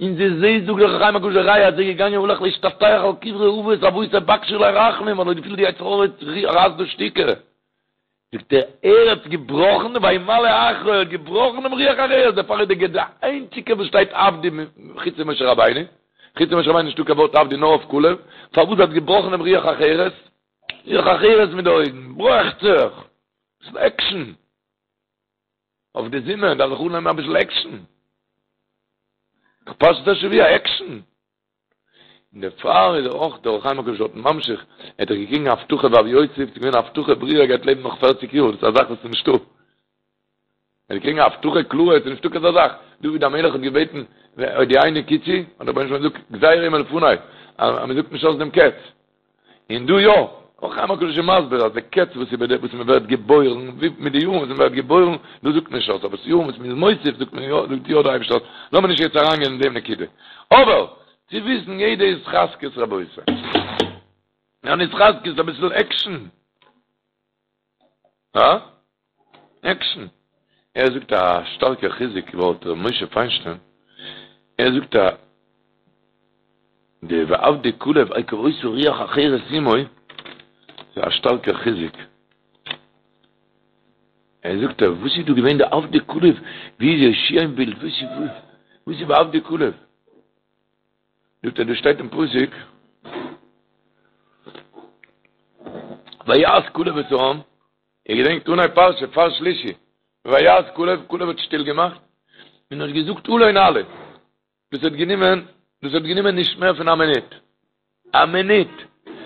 Speaker 2: און די זעהסט זאגט דער אור החיים הקדוש די ראיה אז ער איז געגאנגען הלך להשתטח על קברי אבות אבותי בקשו עלי רחמים, ווייל ער האט געפילט די יצר הרע רייסט דא שטיקער. זאגט ער, ער האט געבראכן, וימלא אחרי, ער האט געבראכן דעם רוח אחרת, דערפאר איז דער די איינציגע וואס שטייט עבדי חוץ פון משה רבינו, חוץ פון משה רבינו נישטא קיין ווארט עבדי נאר אויף כלב, פארוואס ער האט געבראכן דעם רוח אחרת? רוח אחרת מיט די אויגן, ברעכט זיך, אביסל עקשן, אויף די זומער דארף זיך אננעמען אביסל עקשן, פרשת השבוע עקשן. און דערפאר איז ער אויך דער אור החיים הקדוש דארט ממשיך, ער האט דאך געקריגן א הבטחה ואבי יוסף, ס'איז געווען א הבטחה ברורה ער גייט לעבן נאך פערציג יאר, דאס איז א זאך וואס איז נישטא. ער האט געקריגן א הבטחה קלאר, עס איז נישטא כזא זאך. דוד המלך האט געבעטן הודיעני קצי, האט דער רבונו של עולם געזאגט גזירה היא מלפני, אז מען זאגט נישט אויס דעם קץ. און דא יא, אור החיים הקדוש איז מסביר אז די קץ וואס איז וואס מען ווערט געבוירן, מיט די יארן וואס מען ווערט געבוירן, דאס זאגט מען נישט אויס, אבער ס'יארן וואס מען איז מוסיף זאגט מען יא, זאגט יא דער אייבערשטער אויס. לאמיר נישט יעצט אריינגיין אין דעם נקודה. אבער, צו וויסן יעדע התחזקות רבותי. אן התחזקות, אביסל עקשן. הא? עקשן. ער זאגט א שטארקע חיזוק ווארט ר' משה פיינשטיין, ער זאגט א די ועבדי כלב עקב היתה רוח אחרת עמו, ס'איז א שטארקע חיזוק. ער זאגט וואס איז דא געווען די עבדי כלב, ווי איז יהושע אין בילד, וואס איז וואס איז ועבדי כלב? זאגט ער דא שטייט אין פסוק ויהס כלב את העם איר געדענקט אנהייב פרשה פאר שלישי ויהס כלב כלב האט שטיל געמאכט און האט געזאגט עלה נעלה דאס האט גענומען דאס האט גענומען נישט מער פון א מינוט א מינוט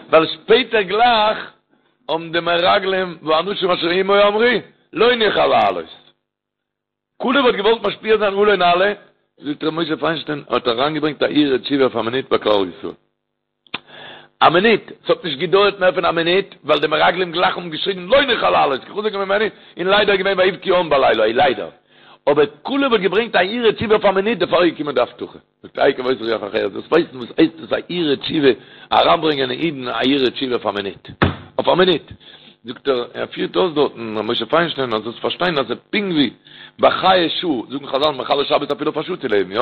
Speaker 2: ווייל שפעטער גלייך האבן די מרגלים והאנשים אשר עמו אמרו לא נוכל לעלות כלב האט געוואלט משפיע זיין עלה נעלה, זאגט ר' משה פיינשטיין, האט אריינגעברענגט א הרהור תשובה אויף א מינוט ביי כלל ישראל. א מינוט! ס'האט נישט געדויערט מער פון א מינוט, ווייל די מרגלים גלייך האבן געשריגן לא נוכל לעלות, כי חזק הוא ממנו, און ליידער איז געווען ויבכו העם בלילה ההוא, ליידער. אבער כלב האט געברענגט א הרהור תשובה אויף א מינוט, דערפאר איז געקומען די הבטחה. זאגט עקב היתה רוח אחרת, דאס ווייסן וואס הייסט דאס א הרהור תשובה, אריינברענגען אין אידן א הרהור תשובה אויף א מינוט, אויף א מינוט, זאגט ער, ער פירט אויס דארטן ר' משה פיינשטיין אז זאלסט פארשטיין אז ס'איז פונקט ווי ביי חיי שעה, זאגן חזל מחלל שבת אפילו אויף א שעה צו לעבן, יא?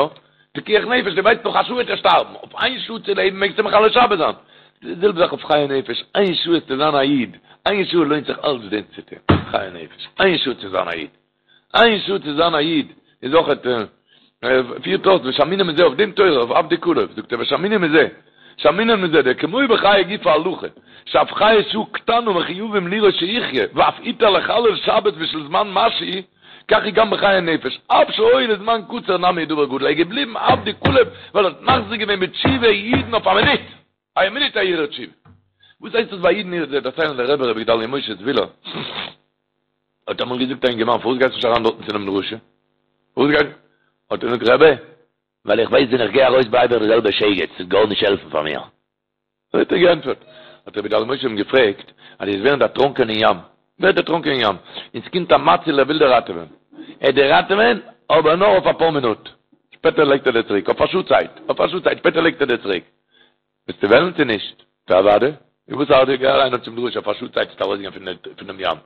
Speaker 2: פיקוח נפש, דו ווייסט נאך א שעה וועט ער שטארבן, אויף איין שעה צו לעבן מעגסטו מחלל שבת זיין. די זעלבע זאך אויף חיי נפש, איין שעה איז צו זיין א איד, איין שעה לוינט זיך אלץ דעם צו טון, חיי נפש, איין שעה צו זיין א איד, איין שעה צו זיין א איד איז אויך פירט אויס ושמעינן מזה אויף דעם תורה אויף עבדי כלב זאגט ער ושמעינן מזה שמעינן מזה דכמו בחיי גופא הלכה שאף חיי שעה קטנה מחויבים לראות שיחיה ואף הותר לחלל שבת בשביל זמן משהו כך היא גם בחיי נפש אף שהי' לזמן קצר נמי דבר גדול ער איז געבליבן עבדי כלב ווייל ער האט מחזיר געווען בתשובה אידן אויף א מינוט א מינוט א הרהור תשובה וואס הייסט דאס ביי אידן איר זעט דערציילן דער רבי רבי גדליה משה זוויהלער האט אמאל געזאגט א אינגערמאן פארוואס גייסטו נישט אריין דארטן צו דעם דרשה? פארוואס גייסטו? האט ער געזאגט רבי,
Speaker 3: ווייל איך ווייס ווען איך גיי ארויס בלייב איך די זעלבע שייגעץ, ס'וועט גארנישט העלפן פאר מיר.
Speaker 2: אזוי האט ער געענטפערט. האט רבי גדליה משה אים געפרעגט, אז דו וועסט ווערן דערטראנקען אין ים, ווערט דערטראנקען אין ים, און ס'קומט א מציל ער וויל דיר ראטעווען, ער וועט דיר ראטעווען, אבער נאר אויף אפאר מינוט, שפעטער לייגט ער דיר צוריק, אויף א שעה צייט, אויף א שעה צייט, שפעטער לייגט ער דיר צוריק. וועסטו וועלן צו נישט? טא אוודאי. און וואס ארט דיר, גיי אריין צום דרשה אויף א שעה צייט וועסטו ארויסגיין פונעם ים.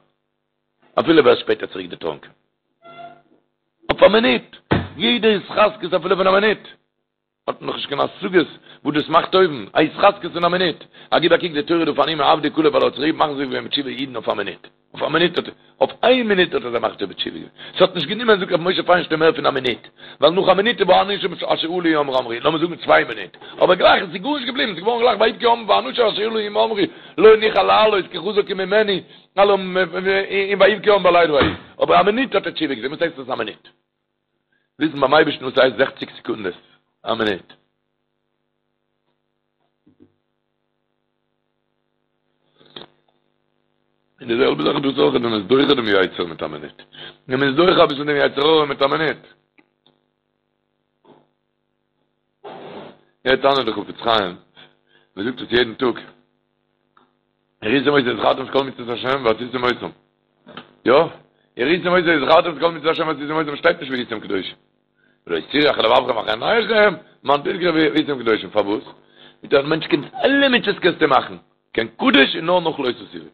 Speaker 2: אפילו ווערסט שפעטער צוריק דערטראנקען. אויף א מינוט! יעדע התחזקות אפילו פון א מינוט! האט מען נאך נישט קיין השגות וואס דאס מאכט אויבן. א התחזקות פון א מינוט! א גיב א קוק די תורה דא פארנומען עבדי כלב ווייל ער האט צוריק מחזיר געווען בתשובה אידן אויף א מינוט. אויף א מינוט האט ער, אויף איין מינוט האט ער זיי מחזיר בתשובה געווען. ס'האט נישט גענומען זאגט רבי משה פיינשטיין מער פון א מינוט. ווייל נאך א מינוט איז והאנשים אשר עלו עמו אמרו, לאמיר זאגן צוויי מינוט. אבער גלייך עס איז גארנישט געבליבן, ס'איז געווארן גלייך ויבכו העם והאנשים אשר עלו עמו אמרו לא נוכל לעלות כי חזק הוא ממנו, און ויבכו העם בלילה ההוא. אבער א מינוט האט ער תשובה געטון, וואס הייסט דאס א מינוט? וויסן ביים אייבערשטן וואס הייסט זעכציק סעקונדעס, א מינוט. און די זעלבע זאך דאס אויך, ווען מ'איז דוחה דעם יצר מיט א מינוט. ווען מ'איז דוחה אביסל דעם יצר הרע מיט א מינוט. יעצט טענה'ט דער חפץ חיים, מ'זאגט עס יעדן טאג. וראיתם אותו וזכרתם את כל מצוות השם ועשיתם אותם. יא? וראיתם אותו וזכרתם את כל מצוות השם ועשיתם אותם שטייט נישט והייתם קדושים. ולא תתורו אחרי לבבכם ואחרי עיניכם, למען תזכרו והייתם קדושים. פארוואס? מיט א מענטש קען אלע מצוות קענסטו מאכן. קיין קדוש איז נאר נאך לא תתורו.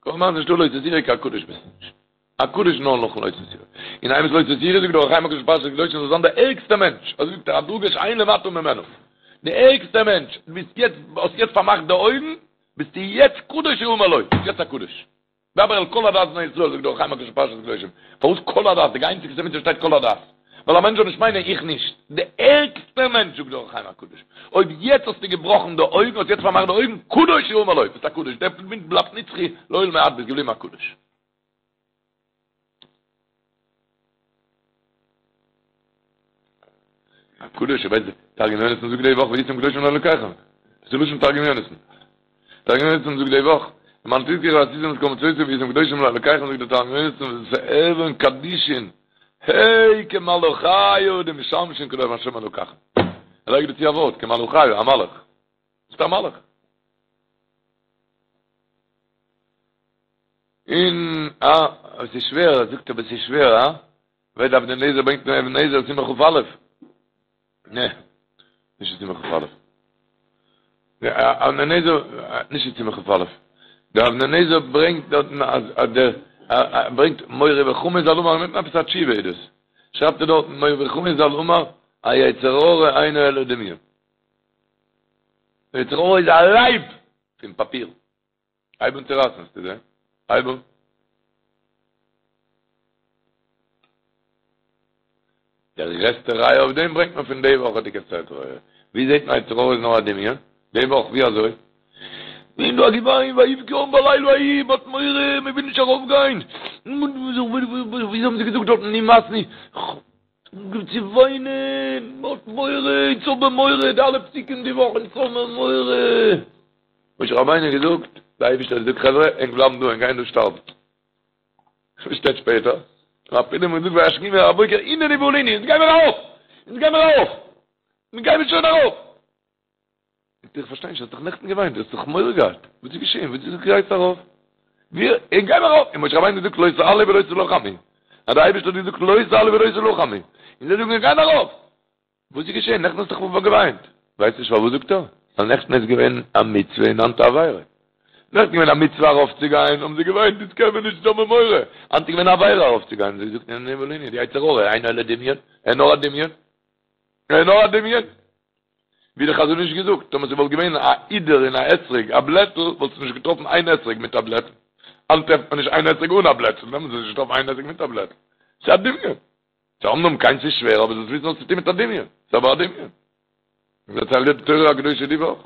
Speaker 2: כל זמן ס'נישטא לא תתורו קיין קדוש ביסטו נישט. א קדוש נאר נאכן לא תתורו. און איינער וואס לא תתורו זאגט דער אור החיים הקדוש פרשת קדושים זאל זיין דער ערגסטער מענטש. אזוי זאגט ער א דרגה שאין למטה ממנו. דער ערגסטער מענטש. דו ביסט יעצט, האסט יעצט פארמאכט די אויגן, ביסטו יעצט קדוש יאמר לו. ביסט יעצט א קדוש. דבר אל כל עדת בני ישראל זאגט דער אור החיים הקדוש פרשת קדושים. פארוואס כל עדת? די איינציגסטע מצוה שטייט כל עדת. ווייל א מענטש זאל נישט מיינען איך נישט. די ערגסטע מענטש זאגט דער אור החיים הקדוש. אויב יעצט האסטו געבראכן די אויגן, האסט יעצט פארמאכט די אויגן, קדוש יאמר לו, ביסט א קדוש, דער מינוט בלייבט נצחי לעולמי עד, ביסט געבליבן א קדוש. א קדוש, איך ווייס די תרגום יונתן זאגט די וואך והייתם קדושים לאלקיכם. דאס איז לשון תרגום יונתן. תרגום יונתן זאגט די וואך, למען תזכרו ועשיתם את כל מצותי והייתם קדושים לאלקיכם זאגט דער תרגום יונתן ותהוון קדישין הי כמלאכיא דמשמשין קדם השם אלקיכם. ער לייגט דא צו א ווארט, כמלאכיא, א מלאך. ביסט א מלאך. און אה, עס איז שווער, ער זאגט אבער עס איז שווער, אה? ווער דער אבני נזר ברענגט אין אבן העזר סימן כ"א. נע, נישט אין סימן כ"א. דער אבני נזר, נישט אין סימן כ"א. דער אבני נזר ברענגט דארטן אז אז דער ברענגט מורי וחמי ז"ל אמר, מיט עפעס א תשובה איז דאס. שרייבט ער דארטן מורי וחמי ז"ל אמר, היצר הרע אינו אלא דמיון. דער יצר הרע איז א לייב פון פאפיר. הייב אן צו רייסן, וועסטו זען. הייב אן. דער גרעסטע ראיה אויף דעם ברענגט מען פון די וואכעדיגע סדרה. ווי זעט מען יצר הרע איז נאר א דמיון? די וואך, ווי אזוי? און דא א געוויין, ויבכו העם בלילה ההוא, מ'האט מורא, מ'וויל נישט ארויפגיין. ווי האבן זיי געזאגט דארטן, נמאסנו. אנגעהויבן צו וויינען, מ'האט מורא, אונז האבן מורא, די אלע פסוקים די וואך, אונז האבן מורא. משה רבינו האט געזאגט, דער אייבערשטער האט געזאגט חברה, ענק בלייבן דא, ענק גייען דא שטארבן. וואס שטייט שפעטער? אפילו מ'האט געזאגט וישכימו אל הבוקר, הננו ועלינו, אונז גיימיר ארויף! אונז גיימיר ארויף! מיר גיימיר שוין ארויף! זאגט ער, איך פארשטיי נישט, האסט דאך נעכטן געוויינט, דו האסט דאך מורא געהאט, וואס איז געשען, וואס איז גייסט ארויף? מיר, אונז גיימיר ארויף! און משה רבינו האט געזאגט לא תעלו ולא תלחמו, אז דער אייבערשטער האט געזאגט לא תעלו ולא תלחמו, און זיי זאגן מיר גייען ארויף! וואס איז געשען? נעכטן האסט דאך געוויינט. ווייסט נישט פארוואס זאגט ער? ווייל נעכטן איז געווען א מצוה און היינט א עבירה. נעכטן געווען א מצוה ארויפצוגיין, האבן זיי געוויינט, איצט קען מען נישט, האבן מורא. היינט איז געווען א עבירה ארויפצוגיין, זיי זאגט הננו ועלינו, די יצר הרע, אינו אלא דמיון, ער איז נאר א דמיון. ער איז נאר א דמיון. ווי די חזון איש געזאגט, טאמער ס'וואלט געווען א הידור אין א אתרוג א בלעטל, וואלסטו נישט געטראפן איין אתרוג מיט א בלעטל. היינט טרעפט מען נישט איין אתרוג אן א בלעטל, דעמאלטס וואלסטו נישט געטראפן איין אתרוג מיט א בלעטל. ס'איז א דמיון. ס'איז אמנם קיין ס'איז שווער, אבער זאלסט וויסן וואס צו טון מיט א דמיון. ס'איז אבער א דמיון. דערציילט די תורה הקדושה די וואך.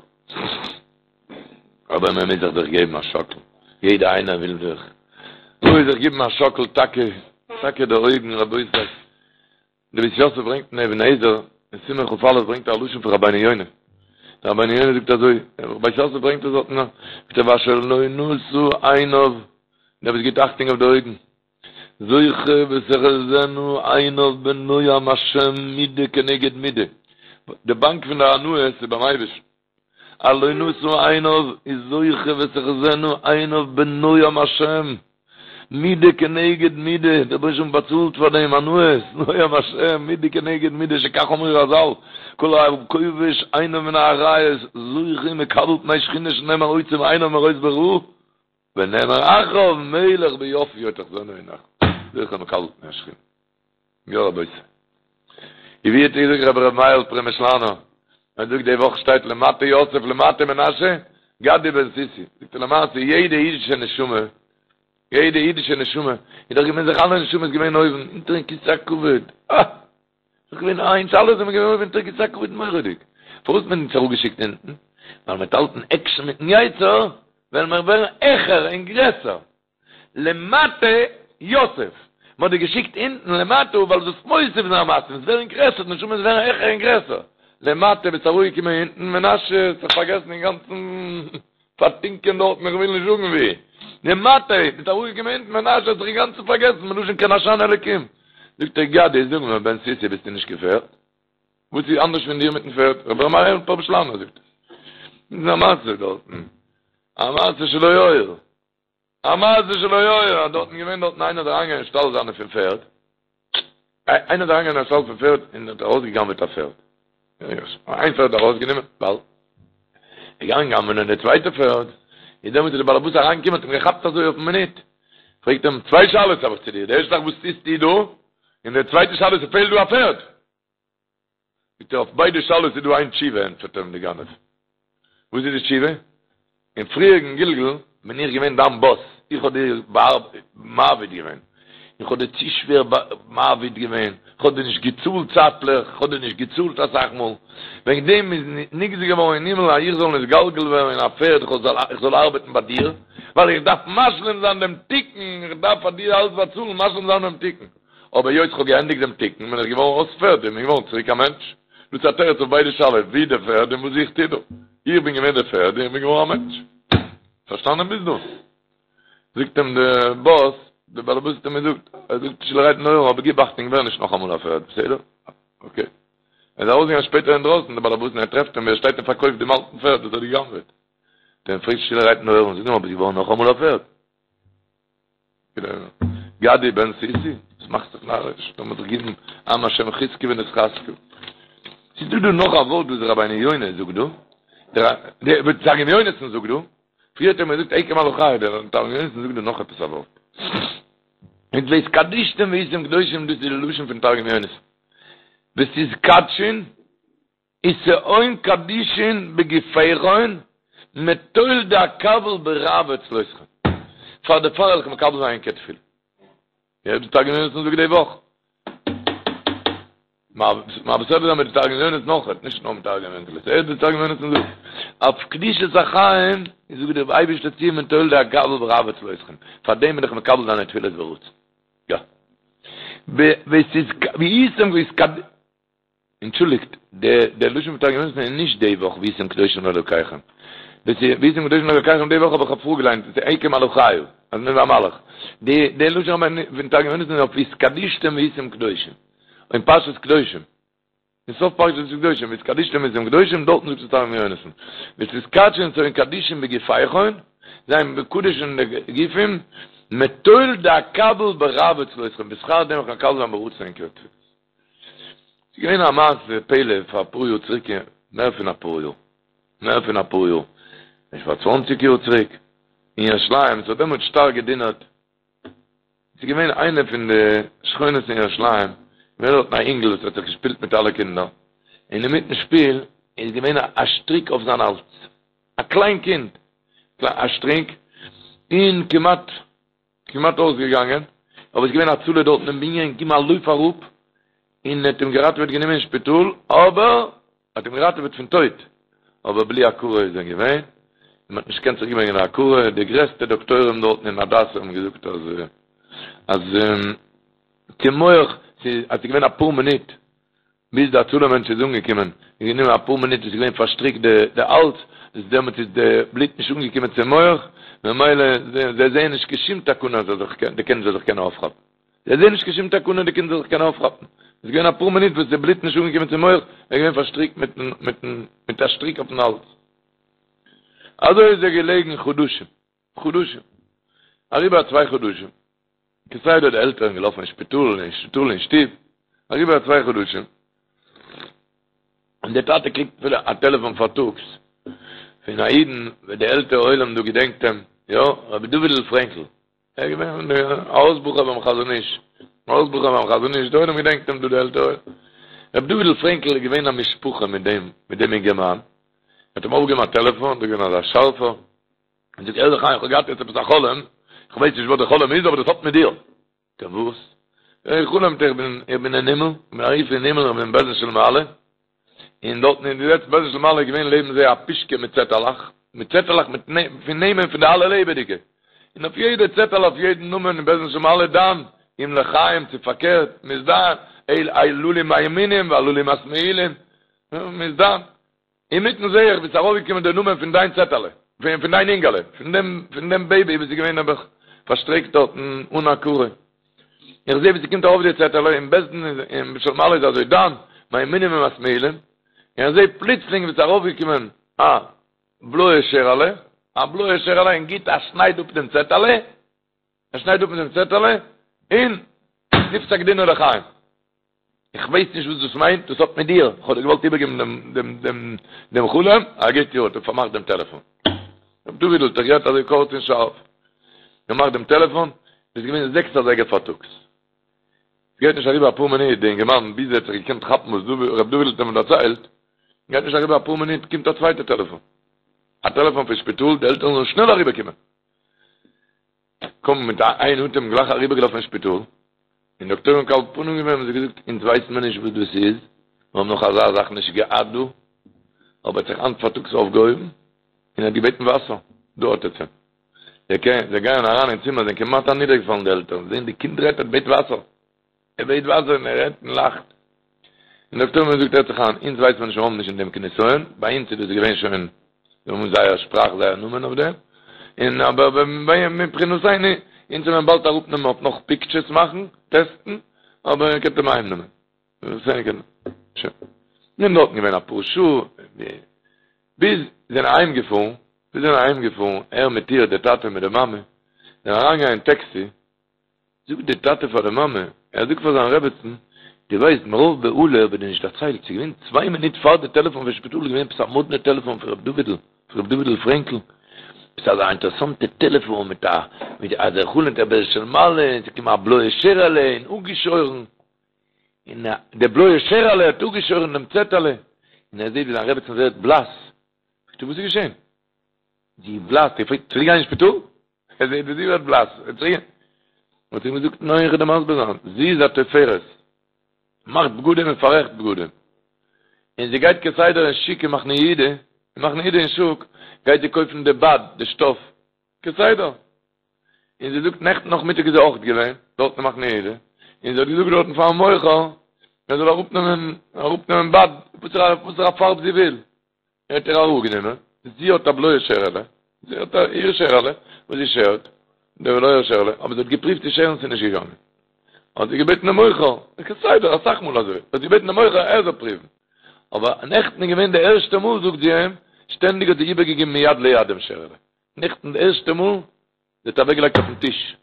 Speaker 2: אבער מען מוז זיך דאך געבן א שאקל. יעדער איינער וויל זיך. מוז זיך געבן א שאקל טאקע, טאקע די אויגן רבותי. די בית יוסף ברענגט אין אבן העזר, אין סימן כ"א ברענגט ער א לשון פון רבינו יונה. דער רבינו יונה זאגט אזוי, בית יוסף ברענגט עס דארטן, זאגט ער ואשר לא נשא עיניו, דער וואס גיבט אכטונג אויף די אויגן, זוכה ותחזינה עיניו בנועם השם מידה כנגד מידה, די באנק פון די הנאות איז ביים אייבערשטן, הלא נשא עיניו איז זוכה ותחזינה עיניו בנועם השם, מידה כנגד מידה, דער רבונו של עולם באצאלט פאר דעם הנאות, נועם השם, מידה כנגד מידה, שכך אמרו רז"ל, כל הכובש עיניו מן העריות, זוכה ומקבל פני שכינה שנאמר עוצם עיניו מראות ברע, ונאמר אחריו מלך ביופיו תחזינה עיניך, זוכה ומקבל פני השכינה. יא רבותי. ווי האט געזאגט רבי ר' מאיר'ל פרעמישלאנער, ער זאגט די וואך שטייט למטה יוסף למטה מנשה, גדי בן סוסי, זאגט ער למעשה יעדע אידישע נשמה, יעדע אידישע נשמה, איז דאך געווען זיך אלע נשמות געווען אויבן, אונטערן כסא הכבוד, אה! דאך געווען איינס, אלע זענען געווען אויבן אונטערן כסא הכבוד מורא'דיג. פארוואס האט מען אונז אראפגעשיקט אונטן? ווייל מ'וועט האלטן עקשן מיטן יצר, וועלן מיר ווערן העכער און גרעסער. למטה יוסף, מ'האט דיר געשיקט אונטן למטה ווייל זאלסט מוסיף זיין מעשים, עס ווערן גרעסער, די נשמות ווערן העכער און גרעסער. למטה ביסט אראפגעקומען אונטן, מנשה האט זיך פארגעסן אינגאנצן פארטינקען דארטן, איך וויל נישט זאגן ווי. למטה ביסט אראפגעקומען אונטן, מנשה האט זיך אינגאנצן פארגעסן, מלשון כי נשני אלקים. זאגט ער גדי, זאג מיר, בן סוסי ביסטו נישט קיין פערד? וואס איז אנדערש פון דיר מיטן פערד? רבי ר' מאיר'ל פרעמישלאנער זאגט עס. איז א מעשה דארטן, א מעשה שלא היה. א מעשה שלא היה, דארטן געווען דארטן איינער איז אריינגעגאנגען אין שטאל זיינע פון פערד, איינער איז אריינגעגאנגען אין שטאל פון פערד און האט ארויסגעגנבעט א פערד, איין פערד ארויסגענומען, באלד געגאנגען גנב'נען די צווייטע פערד, איז דעמאלטס איז די באלעבאס אריינגעקומען האט אים געכאפט אזוי אויפן מינוט, פרעגט אים, צוויי שאלות האב איך צו דיר, די ערשטע זאך וואס טוסטו דא, און די צווייטע שאלה ס'פעלט דא א פערד. זאגט ער אויף ביידע שאלות איז דא איין תשובה, ענטפערט אים די גנב, וואס איז די תשובה? אין פריעריגן גלגול בין איך געווען דיין באס, איך האב דיר מעביד געווען, איך האב דיר צו שווער מעביד געווען, איך האב דיר נישט געצאלט צייטליך, איך האב דיר נישט געצאלט אסאך מאל, וועגן דעם איז נגזר געווארן אין הימל אז איך זאל נתגלגל ווערן אין א פערד, איך זאל ארבעטן ביי דיר, ווייל איך דארף משלים זיין דעם תיקון, איך דארף פאר דיר אלץ באצאלן, משלים זיין דעם תיקון. אבער היות כ'האב געענדיגט דעם תיקון בין איך געווארן אויס פערד און בין געווארן צוריק א מענטש. דאס איז א תירוץ אויף ביידע שאלות, ווי די פערד און וואס איך טו דא. איך בין געווען די פערד און איך בין געווארן א מענטש. פארשטאנען ביז דא? זאגט אים די באס, די באלעבאס האט אים געזאגט, ער זאגט שטילערהייט אין אויער, אבער גיב אכטונג ווער נישט נאכאמאל א פערד, בסדר? אקעי. ער איז ארויסגעגאנגען שפעטער אינדרויסן, די באלעבאס, און ער טרעפט אים ווי ער שטייט און פארקויפט דעם אלטן פערד וואס ער האט גע'גנב'עט. האט ער אים געפרעגט שטילערהייט אין אויער, זאג נאר, ביסט געווארן נאכאמאל א פערד? גדי בן סוסי, וואס מאכסט זיך נאריש? לאמיר זיך גיבן עם השם חזקו ונתחזקה. ס'איז דא דא נאך א ווארט וואס רבינו יונה זאגט דא, דער תרגום יונתן זאגט דא, פריער האט ער מיר געזאגט אקום על אחיי, דער תרגום יונתן זאגט דא נאך עפעס א ווארט. מיט והתקדשתם והייתם קדושים, דאס איז די לשון פון תרגום יונתן. ותתקדשון ותהון קדישין בגופיכון מטול דאקבל ברעוא צלותכון. פאר דערפאר וועל איך מקבל זיין ענקער תפילה. יא די תרגום יונתן זאגט די וואך. מעביר סדרה זיין מיט די תרגום יונתן נאך, נישט נאר מיט תרגום אונקלוס. ער די תרגום יונתן זאגט אויף קדושת החיים זאגט דער אייבערשטער צו מטול דאקבל ברעוא צלותכון. פאר דעם בין איך מקבל דיינע תפילות ברצון. יא. והייתם והתקד אנטשולדיגט, דער לשון פון תרגום יונתן איז נישט די וואך והייתם קדושים לאלוקיכם. דאס איז והייתם קדושים לאלוקיכם די וואך האב איך פארגעליינט, דאס איז אקום על אחיי, אז מיר והמלאך. די די לשון פון תרגום יונתן איז אויף והתקדשתם והייתם קדושים. אין פרשת קדושים. אין סוף פרשת קדושים, והתקדשתם והייתם קדושים, דארטן זאגט עס תרגום יונתן. ותתקדשון ותהון קדישין בגופיכון, זיין מקודש אין די גופים, מטול דאקבל ברעוא צלותכון, בשכר דעם איך מקבל זיין ברצון ענקערע תפילות. ס'איז געווען א מעשה פלא פאר אפאר יאר צוריק, מער פון אפאר יאר, מער פון אפאר יאר, נישט פאר צוואנציג יאר צוריק, אין ירושלים, ס'האט דעמאלטס שטארק געדונערט, ס'איז געווען איינע פון די שכונות אין ירושלים, געווען דארטן א אינגל וואס האט זיך געשפילט מיט אלע קינדער, און אינמיטן שפיל. איז געווען א שטריק אויף זיין האלז, א קליין קינד, א שטריק, און כמעט כמעט אויסגעגאנגען, אבער עס איז געווען הצלה דארטן אין בנין, געגעבן א לויף אראפ, און האט אים געראטעוועט גענומען אין שפיטאל, אבער האט אים געראטעוועט פון טויט, אבער בלי הכרה איז ער געווען, און מען האט נישט געקענט צוריק ברענגען די הכרה, די גרעסטע דאקטוירים דארטן אין הדסה האבן געזאגט אז אז צום מח, ס'איז אז ס'איז געווען אפאר מינוט ביז די הצלה מענטש איז אנגעקומען, איז גענומען אפאר מינוט איז געווען פארשטריקט די די האלז, איז דעמאלטס איז די בלוט נישט אנגעקומען צום מח, ממילא זיי זעען נישט קיין שום תקנה אז די קינד זאל זיך קענען אויפכאפן. זיי זעען נישט קיין שום תקנה די קינד זאל זיך קענען אויפכאפן. עס איז געווען אפאר מינוט וואס די בלוט נישט אנגעקומען צום מח, ער איז געווען פארשטריקט מיטן מיטן מיט א שטריק אויפן האלז. אזוי איז ער געלעגן חדשים. חדשים. אריבער א צוויי חדשים. כסדר די עלטערן געלאפן אין שפיטאל, אין שפיטאל אין שטוב. אריבער א צוויי חדשים. און דער טאטע קריגט א טעלעפאן פארטאגס פון א אידן, ווער די עלטערע עולם דא געדענקט אים, יא, רבי דוד'ל פרענקל. ער איז געווען א הויז בחור ביים חזון איש, א הויז בחור ביים חזון איש, די עולם געדענקט אים דא די עלטערע עולם. רבי דוד'ל פרענקל איז געווען א משפחה מיט דעם, מיט דעם אינגערמאן. ער האט אים אויפגעהויבן א טעלעפאן, דא געווען אזא שארפער. און זאגט הער זיך איין, איך האב געהאט יעצט עפעס א חלום, איך ווייס נישט וואס די חלום איז, אבער דאס האט מיט דיר. זאגט ער וואס? איך חלומ'ט איך בין, איך בין אין הימל, איך בין ארויף אין הימל, איך בין אין בית דין של מעלה, און דארטן אין די לעצטע בית דין של מעלה איז געווען לעבן זיי א פושקע מיט צעטעלעך, מיט צעטעלעך מיט פון נעמען פון די אלע לעבעדיגע, און אויף יעדע צעטעלע אויף יעדן נאמען אין בית דין של מעלה דן, אם לחיים צו פארקערט, מ'איז דן, הללו מהימינים והללו מהשמאילים, מ'איז דן. אינמיטן זעה איך ווי ס'איז ארויפגעקומען דער נאמען פון דיין צעטעלע, פון דיין אינגעלע, פון דעם פון דעם בעיבי וואס איז געווען נעבעך פארשטריקט דארטן אן הכרה. איך זעה ווי ס'קומט ארויף די צעטעלע, אין בית דין אין של מעלה איז אזוי דן, מהימינים ומשמאילים, און איך זעה פלוצלינג ווי ס'איז ארויפגעקומען א בלויע שערעלע, א בלויע שערעלע און גיט א שנייד אפ דעם צעטעלע, ער שניידט אפ דעם צעטעלע, און נפסק דינו לחיים. איך ווייס נישט וואס דאס מיינט, דאס האט מיט דיר, איך האב דיר געוואלט איבערגעבן דעם דעם דעם דעם חלום, א גוט יאר, האט ער פארמאכט דעם טעלעפאן. ר' דוד'ל האט זיך גערעדט אזוי קורץ און שארף. געמאכט דעם טעלעפאן, עס איז געווען זעקס אזייגער פארטאגס. עס גייט נישט אריבער אפאר מינוט, די אינגערמאן, ביז ער האט זיך געקענט כאפן וואס ר' דוד'ל האט אים דערציילט, גייט נישט אריבער אפאר מינוט, קומט א צווייטע טעלעפאן. א טעלעפאן פון שפיטאל, די עלטערן זאלן שנעל אריבערקומען. קום מיט איין אטעם גלייך אריבערגעלאפן אין שפיטאל, און דאקטוירים מקבל פנים געווען האבן זיי געזאגט אונז ווייסן מיר נישט וואס דאס איז, מיר האבן נאך אזא זאך נישט געהאט דא, אבער האט זיך היינט פארטאגס אויפגעהויבן און האט געבעטן וואסער, דא האט עטס אים. זיי זיי גייען אריין אין צימער זענען כמעט אנידערגעפאלן די עלטערן, זעהן די קינד רעדט ער בעט וואסער. ער בעט וואסער און ער רעדט און לאכט. און דאקטוירים האבן געזאגט הערט זיך איין, אונז ווייסט מען נישט, מיר האבן נישט אין דעם קיין נסיון, ביי אונז איז דאס געווען שוין, זיי האבן זייער שפראך זייער נאמען אויף דעם, און אבער מבחינתנו, אונז וועלן אים באלד אראפנעמען אויף נאך פיקטשערס מאכן, טעסטן, אבער איר קענט אים אהיימנעמען. שוין. מיר האבן דארטן געווען אפאר שעה, ביז זענען אהיימגעפארן, ביז זענען אהיימגעפארן, ער מיט איר, דער טאטע מיט די מאמע, זענען אריינגעגאנגען אין טעקסי, זאגט דער טאטע פאר די מאמע, ער זאגט פאר זיין רעבעצן, דו ווייסט מרוב בהלה האב איך דיר נישט דערציילט, ס'איז געווען צוויי מינוט פאר די טעלעפאן פון שפיטאל איז געווען עפעס א מאדנע טעלעפאן פון ר' דוד'ל, פון ר' דוד'ל פרענקל, עפעס אזא אינטערעסאנטע טעלעפאן מיט א, מיט אז ער חלומ'ט ער בית דין של מעלה, און ס'איז געקומען א בלויע שערעלע און אפגעשוירן, און די בלויע שערעלע האט אפגעשוירן דעם צעטעלע, און ער זעט ווי זיין רעבעצן ווערט בלאס, זאגט ער וואס איז געשען? זי איז בלאס, ער פרעגט צוריק גיין אין שפיטאל? ער זעט ווי זי ווערט בלאס, ער צוריק. האט ער אים געזאגט, ניין איך וועל דיר מסביר זיין, זי איז א תופרת, מאכט בגדים און פאררעכט בגדים, און זי גייט כסדר אין שוק אין מחנה יהודה, אין מחנה יהודה אין שוק גייט זי קויפן די בד, די שטאף, כסדר, און זי זאגט נעכטן נאכמיטאג איז זי אויך געווען דארט אין מחנה יהודה, און זי האט געזאגט דארטן פארן מוכר ער זאל אראפנעמען, אראפנעמען בד, וואסערע פארב זי וויל. ער האט איר אראפגענומען, זי האט א בלויע שערעלע, זי האט א איר שערעלע וואס זי שערט, די בלויע שערעלע, אבער זי האט געפריווט צו שערן ס'איז נישט געגאנגען, האט זי געבעטן דעם מוכר, כסדר אסאך מאל אזוי, האט זי געבעטן דעם מוכר ער זאל פריוון, אבער נעכטן איז געווען די ערשטע מאל זאגט זי אים, שטענדיג האט זי איבערגעגעבן מיד ליד דעם שערעלע, נעכטן די ערשטע מאל זי האט אוועקגעלייגט אויפן טיש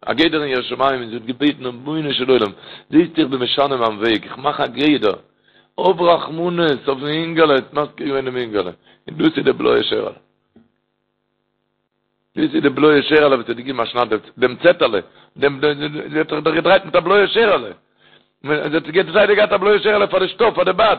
Speaker 2: א גדר אין יראת שמים און זי האט געבעטן רבונו של עולם, זעסט איך בין משנה מיין וועג, איך מאך א גדר, האב רחמנות אויפן אינגעלע, האט מזכיר געווען דעם אינגעלע, און דאס איז די בלויע שערעלע. דאס איז די בלויע שערעלע וואס האט געגעבן א שנייד דעם צעטעלע, דעם, זי האט זיך דאך געדרייט מיט א בלויע שערעלע, זי האט כסדר געהאט א בלויע שערעלע פאר די שטאף, פאר די בד.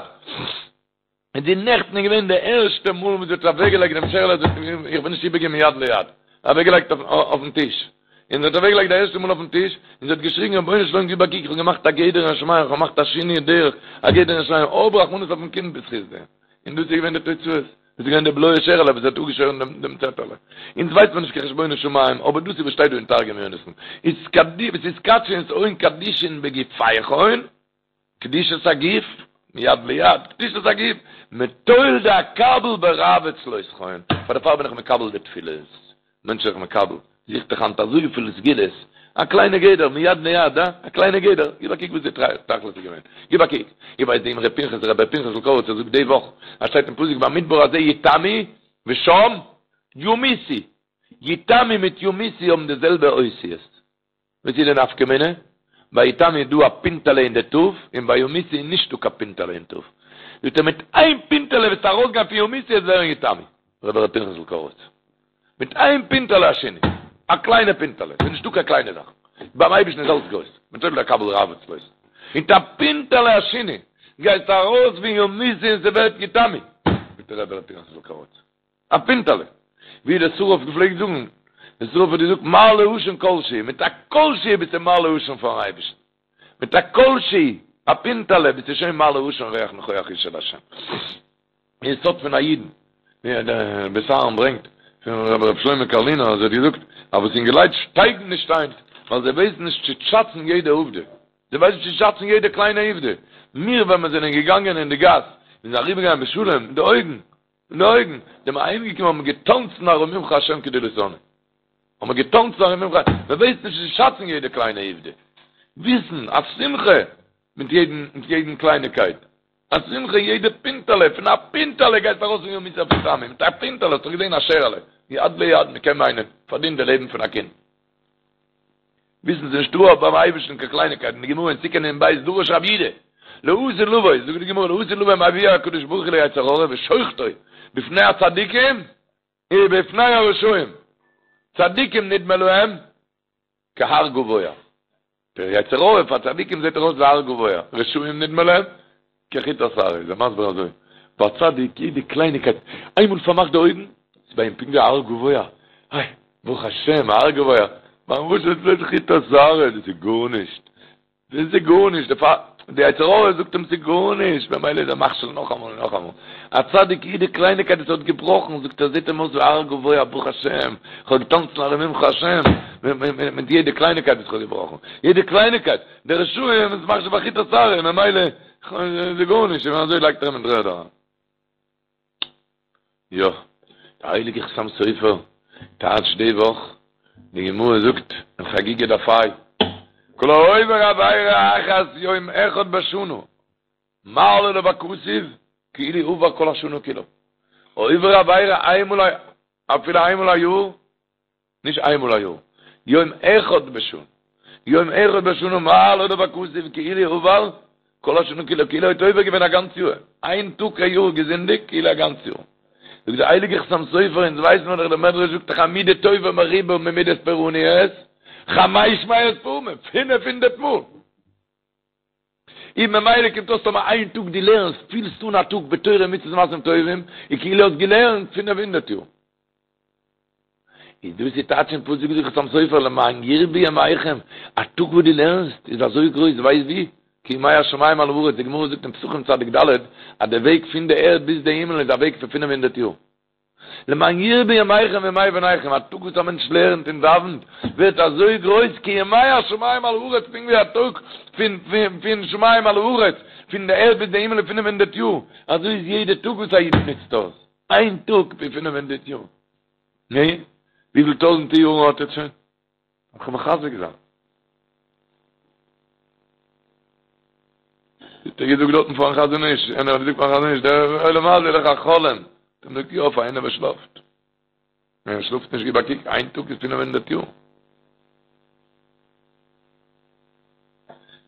Speaker 2: און די נעכטן איז געווען די ערשטע מאל וואס זי האט אוועקגעלייגט דעם שערעלע, זי האט, איך בין נישט איבערגעבן מיד ליד, אוועקגעלייגט אויפן טיש, און זי האט אוועקגעלייגט די ערשטע מאל אויפן טיש, און זי האט געשריגן רבונו של עולם גיב א קוק, איך האב געמאכט א גדר אין שמים, איך האב געמאכט א שינוי דרך, א גדר אין שמים, האב רחמנות אויפן קינד בזכות דעם. און דאס איז געווען די תוצאות, דאס איז געווען די בלויע שערעלע וואס האט אפגעשוירן דעם דעם צעטעלע. אונז ווייסט מען נישט קיין חשבונות שמים, אבער דאס איז וואס שטייט דא אין תרגום יונתן, אתקדשון שאון קדישין בגופייכון, קדושת הגוף, מיד ליד, קדושת הגוף, מטול דאקבל ברעוא צלותכון, פאר דערפאר בין איך מקבל די תפילות, מענטש איז זיך מקבל, זוכט דאך היינט אזויפיל סגולות, א קליינע גדר, מיד ליד, אה? א קליינע גדר, גיב א קוק וואס די תכלית איז געווען, גיב א קוק, איך ווייס די אמרי פנחס, רבי פנחס'ל קאריצער זאגט די וואך, אז שטייט אין פסוק במדבר הזה יתמו ושם ימותו, יתמו מיט ימותו האבן די זעלבע אותיות. וואס איז די נפקא מינה? ביי יתמו איז דא א פינטעלע אין די ת', און ביי ימותו איז נישטא קיין פינטעלע אין ת'. זאגט ער מיט איין פינטעלע וועסטו ארויסגיין פון ימותו וועסט ווערן יתמו. רבי ר' פנחס'ל קאריצער. מיט איין פינטעלע א שינוי. א קליינע פינטעלע. ס'איז נישטא קיין קליינע זאכן. ביים אייבערשטן איז אלץ גרויס. מטול דאקבל רעוא צלותכון. מיט א פינטעלע א שינוי. גייסטו ארויס פון ימותו און ס'ווערט יתמו. זאגט רבי ר' פנחס'ל קאריצער. א פינטעלע. ווי דער שרף געפלעגט זאגן, דער שרף האט געזאגט מעלה עשן כל שהוא, מיט א כל שהוא ביסטו מעלה עשן פארן אייבערשטן. מיט א כל שהוא, א פינטעלע, ביסטו שוין מעלה עשן ריח ניחוח אשה להשם. אין סוד פון א אידן, ווי דער בית אהרן ברענגט פון רבי ר' שלמה קארלינער אז ער האט געזאגט אז וואס אינגעלייט שטייגן נישט היינט ווייל זיי ווייסן נישט צו שאצן יעדע עובדה. זיי ווייסן נישט צו שאצן יעדע קליינע עובדה. מיר ווען מיר זענען געגאנגען אין די גאס, מיר זענען אריבערגעגאנגען בשלום, מיט די אויגן, אין די אויגן, זענען מיר אהיימגעקומען האבן מיר געטאנצן ארוממך השם כי דליתני. האבן מיר געטאנצן ארוממך, מען ווייסט נישט צו שאצן יעדע קליינע עובדה. וויסן, א שמחה מיט יעדן, מיט יעדן קלייניקייט. א שמחה יעדע פינטעלע, פון א פינטעלע גייסטו ארויס פון ימותו אויף יתמו, מיט א פינטעלע האסטו געזען א שערעלע, מיד ליד, מען קען מיינען, פארדינט די לעבן פון א קינד. וויסן ס'איז נישטא ביים אייבערשטן קיין קלייניקייטן, די גמרא אין סוכה נ"ב דרש רב יהודה, לעתיד לבוא, זאגט די גמרא לעתיד לבוא מביאו הקדוש ברוך הוא ליצר הרע ושוחטו בפני הצדיקים ובפני הרשעים, צדיקים נדמה להם כהר גבוה, דער יצר הרע פאר צדיקים זעט ער אויס ווי הר גבוה, רשעים נדמה להם כחוט השערה, איז ער מסביר אזוי, ביי א צדיק יעדע קלייניקייט, איינמאל פארמאכט די אויגן, איז ביי אים פונקט ווי א הר גבוה, איי, ברוך השם, א הר גבוה, ביים רשע איז בלויז חוט השערה, דאס איז גארנישט, דאס איז גארנישט, דערפאר, די יצר הרע זאגט אים ס'איז גארנישט, ממילא איז ער מכשיל נאכאמאל און נאכאמאל. א צדיק יעדע קלייניקייט וואס ער האט געבראכן, זאגט ער, זעט אים אויס ווי א הר גבוה, ברוך השם, איך האב געטאנצן ארוממך השם, מיט יעדע קלייניקייט וואס איך האב געבראכן, יעדע קלייניקייט, די רשעים איז מחשיב א חוט השערה, ממילא איז גארנישט, און אזוי לייגט ער אים אין דר'ערד אריין. יא, דער הייליגער חתם סופר טייטשט די וואך, די גמרא זאגט אין חגיגה דף ה', כל העובר עבירה אחת יום אחד בשנה, מעלה עליו הכתוב כאילו עבר כל השנה כולה. עובר עבירה איינמאל א, אפילו איינמאל א יאר, נישט איינמאל א יאר, יום אחד בשנה, יום אחד בשנה מעלה עליו הכתוב כאילו עבר כל השנה כולה, כאילו האט עובר געווען א גאנץ יאר, איין טאג א יאר געזינדיגט כאילו א גאנץ יאר. זאגט דער הייליגער חתם סופר, אונז ווייסן מיר דאך דער מדרש זאגט דאך א מידה טובה מרובה ממידת פורעניות, חמש מאות פעמים, פינף הונדערט מאל. און ממילא קומט אויס טאמער איין טאג דו לערנסט, פילסט אן א טאג בתורה ומצוות ומעשים טובים, איז כאילו האסט געלערנט פינף הונדערט יאר. איז דאס איז טייטש אין פסוק זאגט חתם סופר למען ירבו ימיכם, א טאג וואס דו לערנסט איז אזוי גרויס ווייסט ווי? כימי השמים על הארץ, די גמרא זאגט אין פסחים צדיק ד' אז די וועג פון די ערד ביז די הימל איז א וועג פון פינף הונדערט יאר. למען ירבו ימיכם וימי בניכם, א טאג וואס א מענטש לערנט און דאווענט ווערט אזוי גרויס כימי השמים על הארץ, פונקט ווי א טאג פון פון שמים על הארץ, פון די ערד ביז די הימל איז פינף הונדערט יאר, אזוי איז יעדע טאג וואס א איד נוצט אויס, איין טאג ווי פינף הונדערט יאר. נו, וויפיל טויזענטע יארן האט ער שוין? איך מחזק זיין. האט ער געזאגט דארטן פארן חזון איש, איינער האט געזאגט פארן חזון איש, דער עולם הזה איז דאך א חלום. האט ער געזאגט, יא, פאר איינער וואס שלאפט. ווען ער שלאפט נישט, גיב א קוק, איין טאג איז פינף הונדערט יאר.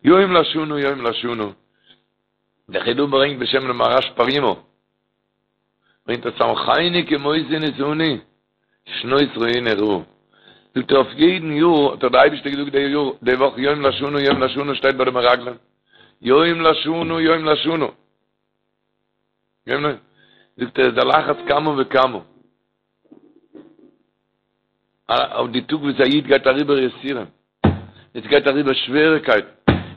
Speaker 2: יום לשנה, יום לשנה. דער חידא ברענגט בשם דעם מהר"ש פרימו. ברענגט ער שמחני כמותי עניתני, שנות רואיני רעה. זאגט ער אויף יעדן יאר האט דאך דער אייבערשטער געזאגט די יאר די וואך יום לשנה יום לשנה שטייט ביי די מרגלים יום לשנה יום לשנה. זאגט ער איז על אחת כמה וכמה אויף די טאג וואס א איד גייט אריבער יסורים, עס גייט אריבער שוועריקייטן,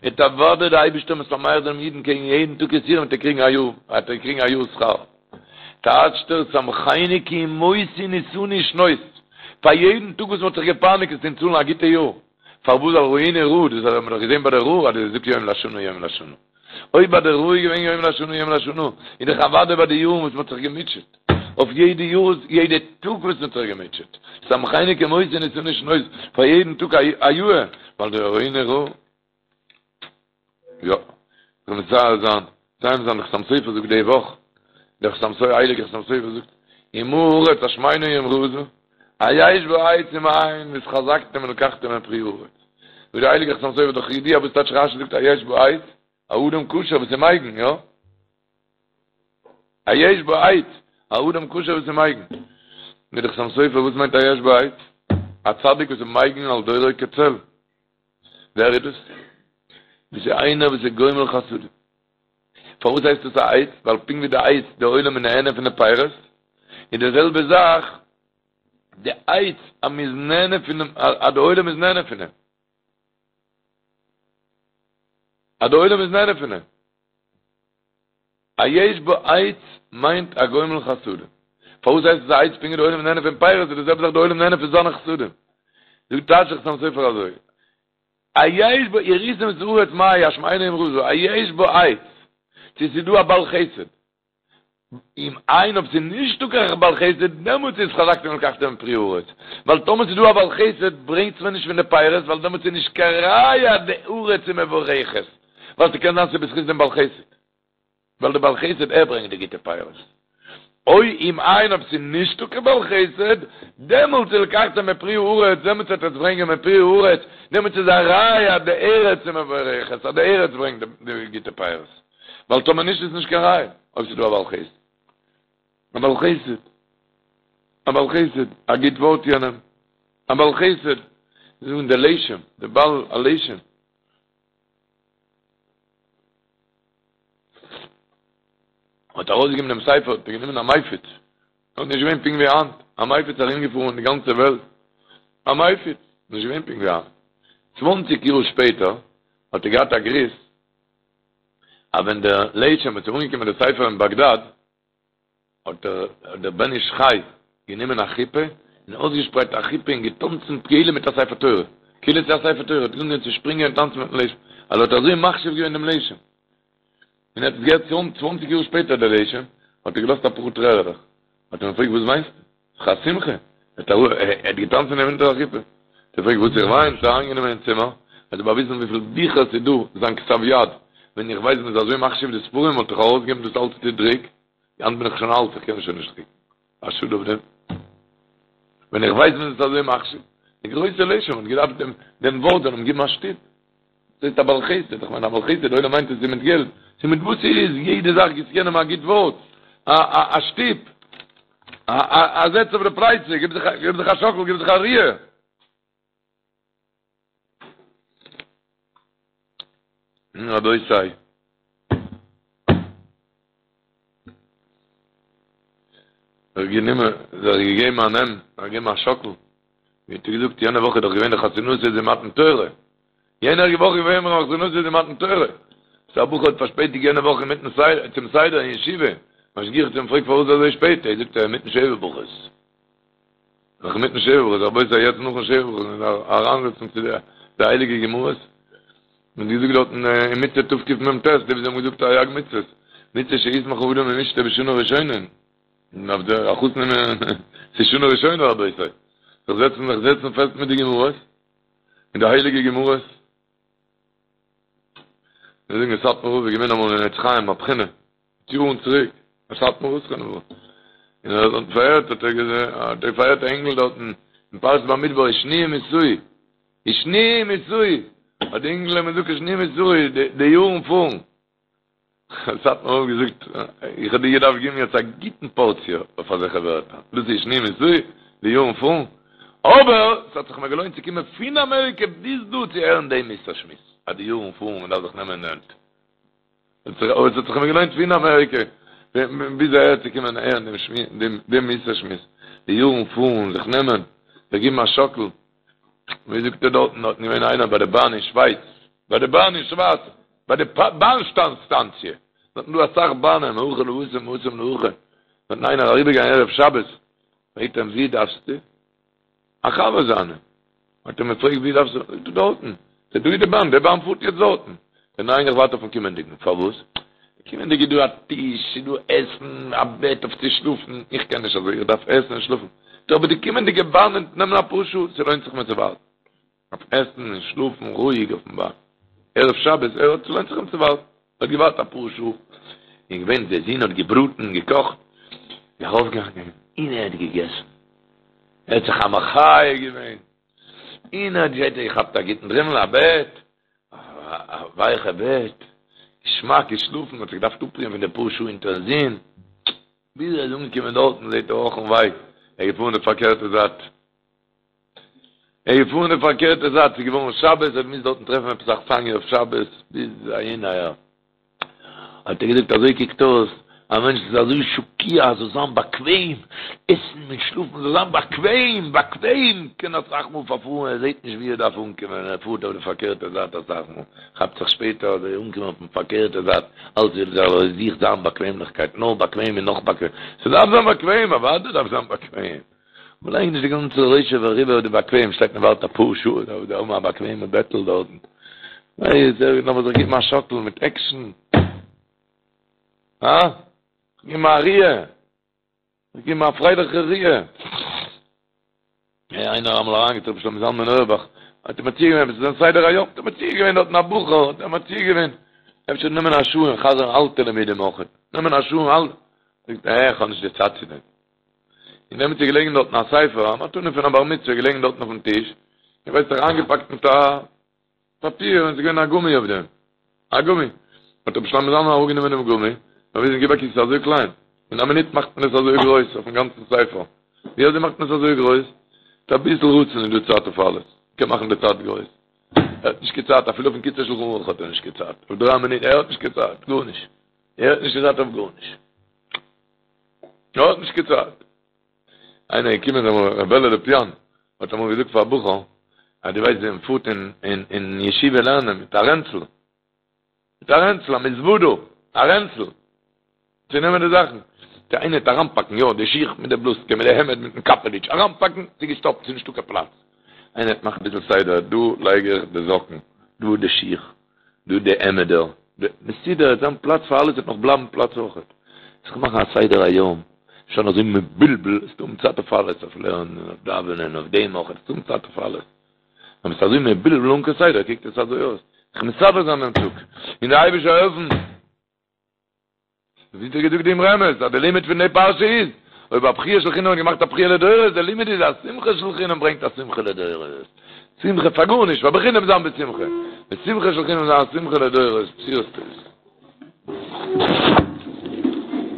Speaker 2: וועט אוודאי דער אייבערשטער משמח דעם אידן קעגן יעדן טאג יסורים וועט ער קריגן א יאר, וועט ער קריגן א יאר שכר. טייטשט ער שמחני כי עם מותי נסני שנות, פאר יעדן טאג וואס מען האט זיך געפייניגט וועסטו אים צאלן א גוטע יאר, פארוואס ווייל ראינו רעה, דאס האט מען דאך געזען ביי די רעה אז דו זאגסט יום לשנה יום לשנה. אויב ביי די רעה איז געווען יום לשנה יום לשנה, איז דאך אוודאי ביי די יארן וואס מ'האט זיך געמוטשעט, אויף יעדע יאר, יעדע טאג וואס מ'האט זיך געמוטשעט, שמחני כי מותי נסני שנות, פאר יעדן טאג א יאר, ווייל די ראינו רעה. יא, זאל מצייר זיין, מסיים זיין, דער חתם סופר זאגט די וואך, דער חתם סופר, הייליגער חתם סופר זאגט, ומה הארץ השמנה אם רזה, היש בה עץ אם אין, והתחזקתם ולקחתם מפרי הארץ. זאגט דער הייליגער חתם סופר דאך ידוע וואס טייטש רשי זאגט היש בה עץ, א אדם כשר וואס איז מגין, יא? היש בה עץ, א אדם כשר וואס איז מגין. זאגט דער חתם סופר וואס מיינט היש בה עץ? א צדיק וואס איז מגין על דורו כצל. ווער איז דאס? דאס איז איינער וואס איז גומל חסדים. פארוואס הייסט עס א עץ? ווייל פונקט ווי די עץ, די עולם איז נהנה פון די פירות, איז די זעלבע זאך די עץ אז מען איז נהנה פון דעם, אז די עולם איז נהנה פון דעם. אז די עולם איז נהנה פון דעם. היש בה עץ מיינט א גומל חסדים. פארוואס הייסט עס א עץ פונקט ווי די עולם איז נהנה פון פירות, איז די זעלבע זאך די עולם נהנה פון זיינע חסדים. זאגט טייטשט דער חתם סופר אזוי. היש בה וראיתם את הארץ מה היא השמנה אם רזה, היש בה עץ, צו ס'איז דא א בעל חסד, אם אין אויב ס'איז נישטא קיין בעל חסד, דעמאלטס איז והתחזקתם ולקחתם מפרי הארץ, ווייל טאמער ס'איז דא א בעל חסד ברענגטס מיר נישט פון די פירות, ווייל דעמאלטס איז נישט קיין ראיה אז די ארץ איז מבורכת, ווייל ס'קען זיין ס'איז בזכות דעם בעל חסד. ווייל דער בעל חסד ער ברענגט די גוטע פירות. או אם אין אויב ס'איז נישטא קיין בעל חסד, דעמאלטס איז ולקחתם מפרי הארץ, דעמאלטס וועט עטס ברענגען מפרי הארץ, דעמאלטס איז א ראיה אז די ארץ איז מבורכת, אז די ארץ ברענגט די גוטע פירות. ווייל טאמער נישט איז נישט קיין ראיה אויב ס'איז דא א בעל חסד. א בעל חסד. א בעל חסד. א גוט ווארט יענעם. א בעל חסד. זיי זאגן דער לשם, דער בעל הלשם. האט ארויסגעגעבן דעם ספר, האט ער גענומען א מפיץ, נאך נישט געווען פונקט ווי היינט, א מפיץ ארומגעפארן אין די גאנצע וועלט, א מפיץ, נישט געווען פונקט ווי היינט. צוואנציג יאר שפעטער האט ער געהאט א גריס, אז ווען דער לשם האט אנגעקומען די ספר אין באגדאד, האט דער בן איש חי גענומען א חופה און אויסגעשפרייט א חופה און געטאנצן כאילו מיט א ספר תורה, כאילו ס'איז א ספר תורה, האט אנגעהויבן צו שפרינגען און טאנצן מיטן לשם, ווייל ער האט אזוי מחשיב געווען דעם לשם. און ער האט עס געהערט צוואנציג יאר שפעטער דער לשם, האט ער געלאזט אפאר טרערעלעך, האט ער אים געפרעגט וואס וויינסטו? ס'איז דאך א שמחה, ער האט געטאנצן אונטער א חופה. האט ער געפרעגט וואס איך וויין, האט ער אריינגענומען אין צימער, האט ער באוויזן וויפיל ביכער ס'איז דא, זיין כתב יד, ווען איך ווייס מ'איז אזוי מחשיב די ספרים וואלט איך ארויסגעגעבן דאס אלץ צו דרוק, היינט בין איך שוין אלט, איך קען שוין נישט דרוקן. א שאד אויף דעם. ווען איך ווייס מ'איז עס אזוי מחשיב. די גרויסע לשם האט געדארפט דעם דעם ווארט זאל אים געבן א שטופ. דאס הייסט א בעל חסד, איך מיין א בעל חסד, די עולם מיינט עס איז מיט געלט. ס'איז מיט וואס ס'איז, יעדע זאך גיבסט יענעם א גוט ווארט, א א א שטופ, א א א זעץ אויף די פלייצע, גיב זיך גיב זיך א שאקל, גיב זיך א ריר. רבותי. זיך גענומען, זיך געגעבן א נעם, זיך געגעבן א שאקל, ווי האט ער געזאגט, יענע וואך איז דאך געווען די חתונתו דמתן תורה, יענע וואך איז געווען חתונתו דמתן תורה, סא א בחור האט פארשפעטיגט יענע וואך אינמיטן סדר, צום סדר אין ישיבה, משגיח האט אים געפרעגט פארוואס אזוי שפעט, ער זאגט ער אינמיטן שבע ברכות. נאך אינמיטן שבע ברכות, רבותי יעצט נאכן שבע ברכות מען דארף אריינזעצן צו די הייליגע גמרות, מען האט געזאגט דארטן אין מצוה תקמ"ט, די וואס האבן געזאגט תרי"ג מצוות, מצוה שישמח האדם עם אשתו בשנה ראשונה, און אויף די החתן ס'איז שנה ראשונה רבותי, זיך זעצן זיך זעצן פעסט מיט די גמרות, מיט די הייליגע גמרות. מיר זאגן סאטמאר רב איז געווען אמאל אין עץ חיים א בחינה, יארן צוריק, א סאטמאר רב זכרונו לברכה, און ער האט פארהערט, האט ער געזען, האט ער פארהערט א אינגל דארטן אין פרשת במדבר, ושניים יסעו, ושניים יסעו, האט די אינגל אים געזאגט ושניים יסעו, די יארן פארן. האט סאטמאר רב געזאגט, איך האב דיר געדארפט געבן יעצט א גוטן פארציע אויף אזעלכע ווערטער, דאס איז ושניים יסעו, די יארן פארן, אבער ס'האט זיך מיר געלוינט צו קומען פון אמעריקע ביז דא צו הערן דעם מוסר שמועס, אז די יארן פארן, מען דארף זיך נעמען אין די הענט. אבער עס האט זיך מיר געלוינט פון אמעריקע. ביז אהער צו קומען הערן דעם שמועס, דעם מוסר שמועס, די יארן פארן, זיך נעמען, זיך געבן א שאקל, ווי זאגט ער דארטן, דארטן געווען איינער ביי די באן אין שווייץ, ביי די באן אין שווייץ, ביי די באן סטאנציע, דארטן דא אסאך באנען, מהכא להתם מהתם להכא, דארטן איינער אריבערגעגאנגען ערב שבת, פרעגט אים ווי דארפסטו? א חבר זיינע האט אים געפרעגט ווי דארפסטו? זאגט ער דארטן, זאגט ער דא איז די באן, די באן פארט יעצט דארטן, זאגט ער ניין איך ווארט אויפן קומענדיגן, פארוואס? די קומענדיגע איז דא א טיש, ס'איז דא עסן, א בעט אויף צו שלאפן, איך קען נישט אזוי, איך דארף עסן און שלאפן, זאגט ער אבער די קומענדיגע באן וועט נעמען אפאר שעה, ס'לוינט זיך מיר צו ווארטן, אויף עסן און שלאפן רואיג אויפן באן, ערב שבת, ער האט ס'לוינט זיך אים צו ווארטן. האט געווארט אפאר שעה, און געווען די זון האט געבראטן און געקאכט, איז ארויפגעגאנגען און ער האט געגעסן, ער האט זיך א מחיה געווען, און ער האט געכאפט א גוטן דרימל, א בעט, א ווייכע בעט, געשמאק געשלאפן, האט זיך געדארפט אפרוען פון די פאר שעה אונטערן זון, ביז ער איז אנגעקומען דארטן זעט ער אך און וויי, ער איז געפארן די פארקערטע זייט. ער איז געפארן די פארקערטע זייט, ס'איז געווארן שבת, ער האט געמוזט דארטן טרעפן עפעס אכסניא אויף שבת, ביז אהין אהער. האט ער געזאגט, אזוי קוקט אויס, א מענטש איז אזוי שקוע, זאל זיין באקוועם, עסן און שלאפן זאל זיין באקוועם, באקוועם, קען אסאך מאל פארפארן, ער זעט נישט ווי ער דארף אנקומען, ער פארט אויף די פארקערטע זייט אסאך מאל, כאפט זיך שפעטער אז ער איז אנגעקומען אויפן פארקערטע זייט, אלץ וויל ער זוכט זיין באקוועמליכקייט, נאר באקוועם און נאך באקוועם, ס'דארף זיין באקוועם, אוודאי דארף זיין באקוועם. מ'לייגט נישט די גאנצע ראשו ורובו אויף די באקוועם, שטייט מען ווארט אפאר שעה דארף דער האבן א באקוועמע בעטל דארטן. ווייס ער לאמיר זיך געבן א שאקל מיט עקשן. הא? געבן א ריר. געבן א פרייליכע ריר. איינער אמאל אריינגעטראפן רבי שלמה זלמן אויערבאך, האט אים מציע געווען, עס איז זיין סדר היום, האט אים מציע געווען דארטן א בחור, האט אים מציע געווען, אפשר נעמען א שעה און חזר'ן אלטע לימודים אויך, נעמען א שעה און אלטע, זאגט ער, איך האב נישט די צייט צו דעם. און דעמאלטס איז געלעגן דארטן א ספר, א מתנה פון א בר מצוה געלעגן דארטן אויפן טיש, איך ווייס נישט איינגעפאקט מיט א פאפיר און עס איז געווען א גומי אויף דעם, א גומי. האט רבי שלמה זלמן אראפגענומען דעם גומי, באוויזן גיב א קוק ס'איז אזוי קליין, אין א מינוט מאכט מען עס אזוי גרויס אויפן גאנצן ספר, ווי אזוי מאכט מען עס אזוי גרויס? מיט אביסל רצון איז דא צייט אויף אלעס, מ'קען מאכן די צייט גרויס. ער האט נישט קיין צייט, אפילו אויפן קיצור שלחן ערוך האט ער נישט קיין צייט, אויף דריי מינוט, ער האט נישט קיין צייט, גארנישט, ער האט נישט קיין צייט אויף גארנישט. ער האט נישט קיין צייט. איינער איז געקומען אמאל, ר' בערל לאפיאן האט אמאל געזאגט פאר א בחור, אז דו ווייסט ווי מען פארט אין אין ישיבה לערנען מיט א רענצל, מיט א רענצל, א מזוודא, א רענצל, צו נעמען די זאכן. צו איינער וועט אריינפאקן, יא, די שיך מיט די בלוזקע, מיט די העמד, מיטן קאפעליטש, אריינפאקן, ס'איז געשטאפט, ס'איז נישטא קיין פלאץ. איינער וועט מאכן אביסל סדר, דא לייג איך די זאקן, דא די שיך, דא די העמעדער, מסודר, עס וועט זיין פלאץ פאר אלעס, וועט נאך בלייבן פלאץ אויכעט. זיך מאכן א סדר היום, נישט זיין אזוי מבולבל, עס איז דא צייט אויף אלעס, אויף לערנען, אויף דאווענען, אויף דעם אויכעט, עס איז דא צייט אויף אלעס. ווען מ'איז אזוי מבולבל אן קיין סדר קוקט עס אזוי אויס. זיך מסדר זיין דעם טאג, און דער אייבערשטער העלפן. ווי האט ער געזאגט דעם רמז אז די לימוד פון די פרשה איז, אויב א בכיה של חינם האט געמאכט א בכיה לדורות, די לימוד איז אז שמחה של חינם ברענגט א שמחה לדורות. שמחה פאר גארנישט, פאר בחינם זיין בשמחה. די שמחה של חינם זיין א שמחה לדורות, בשורות טובות.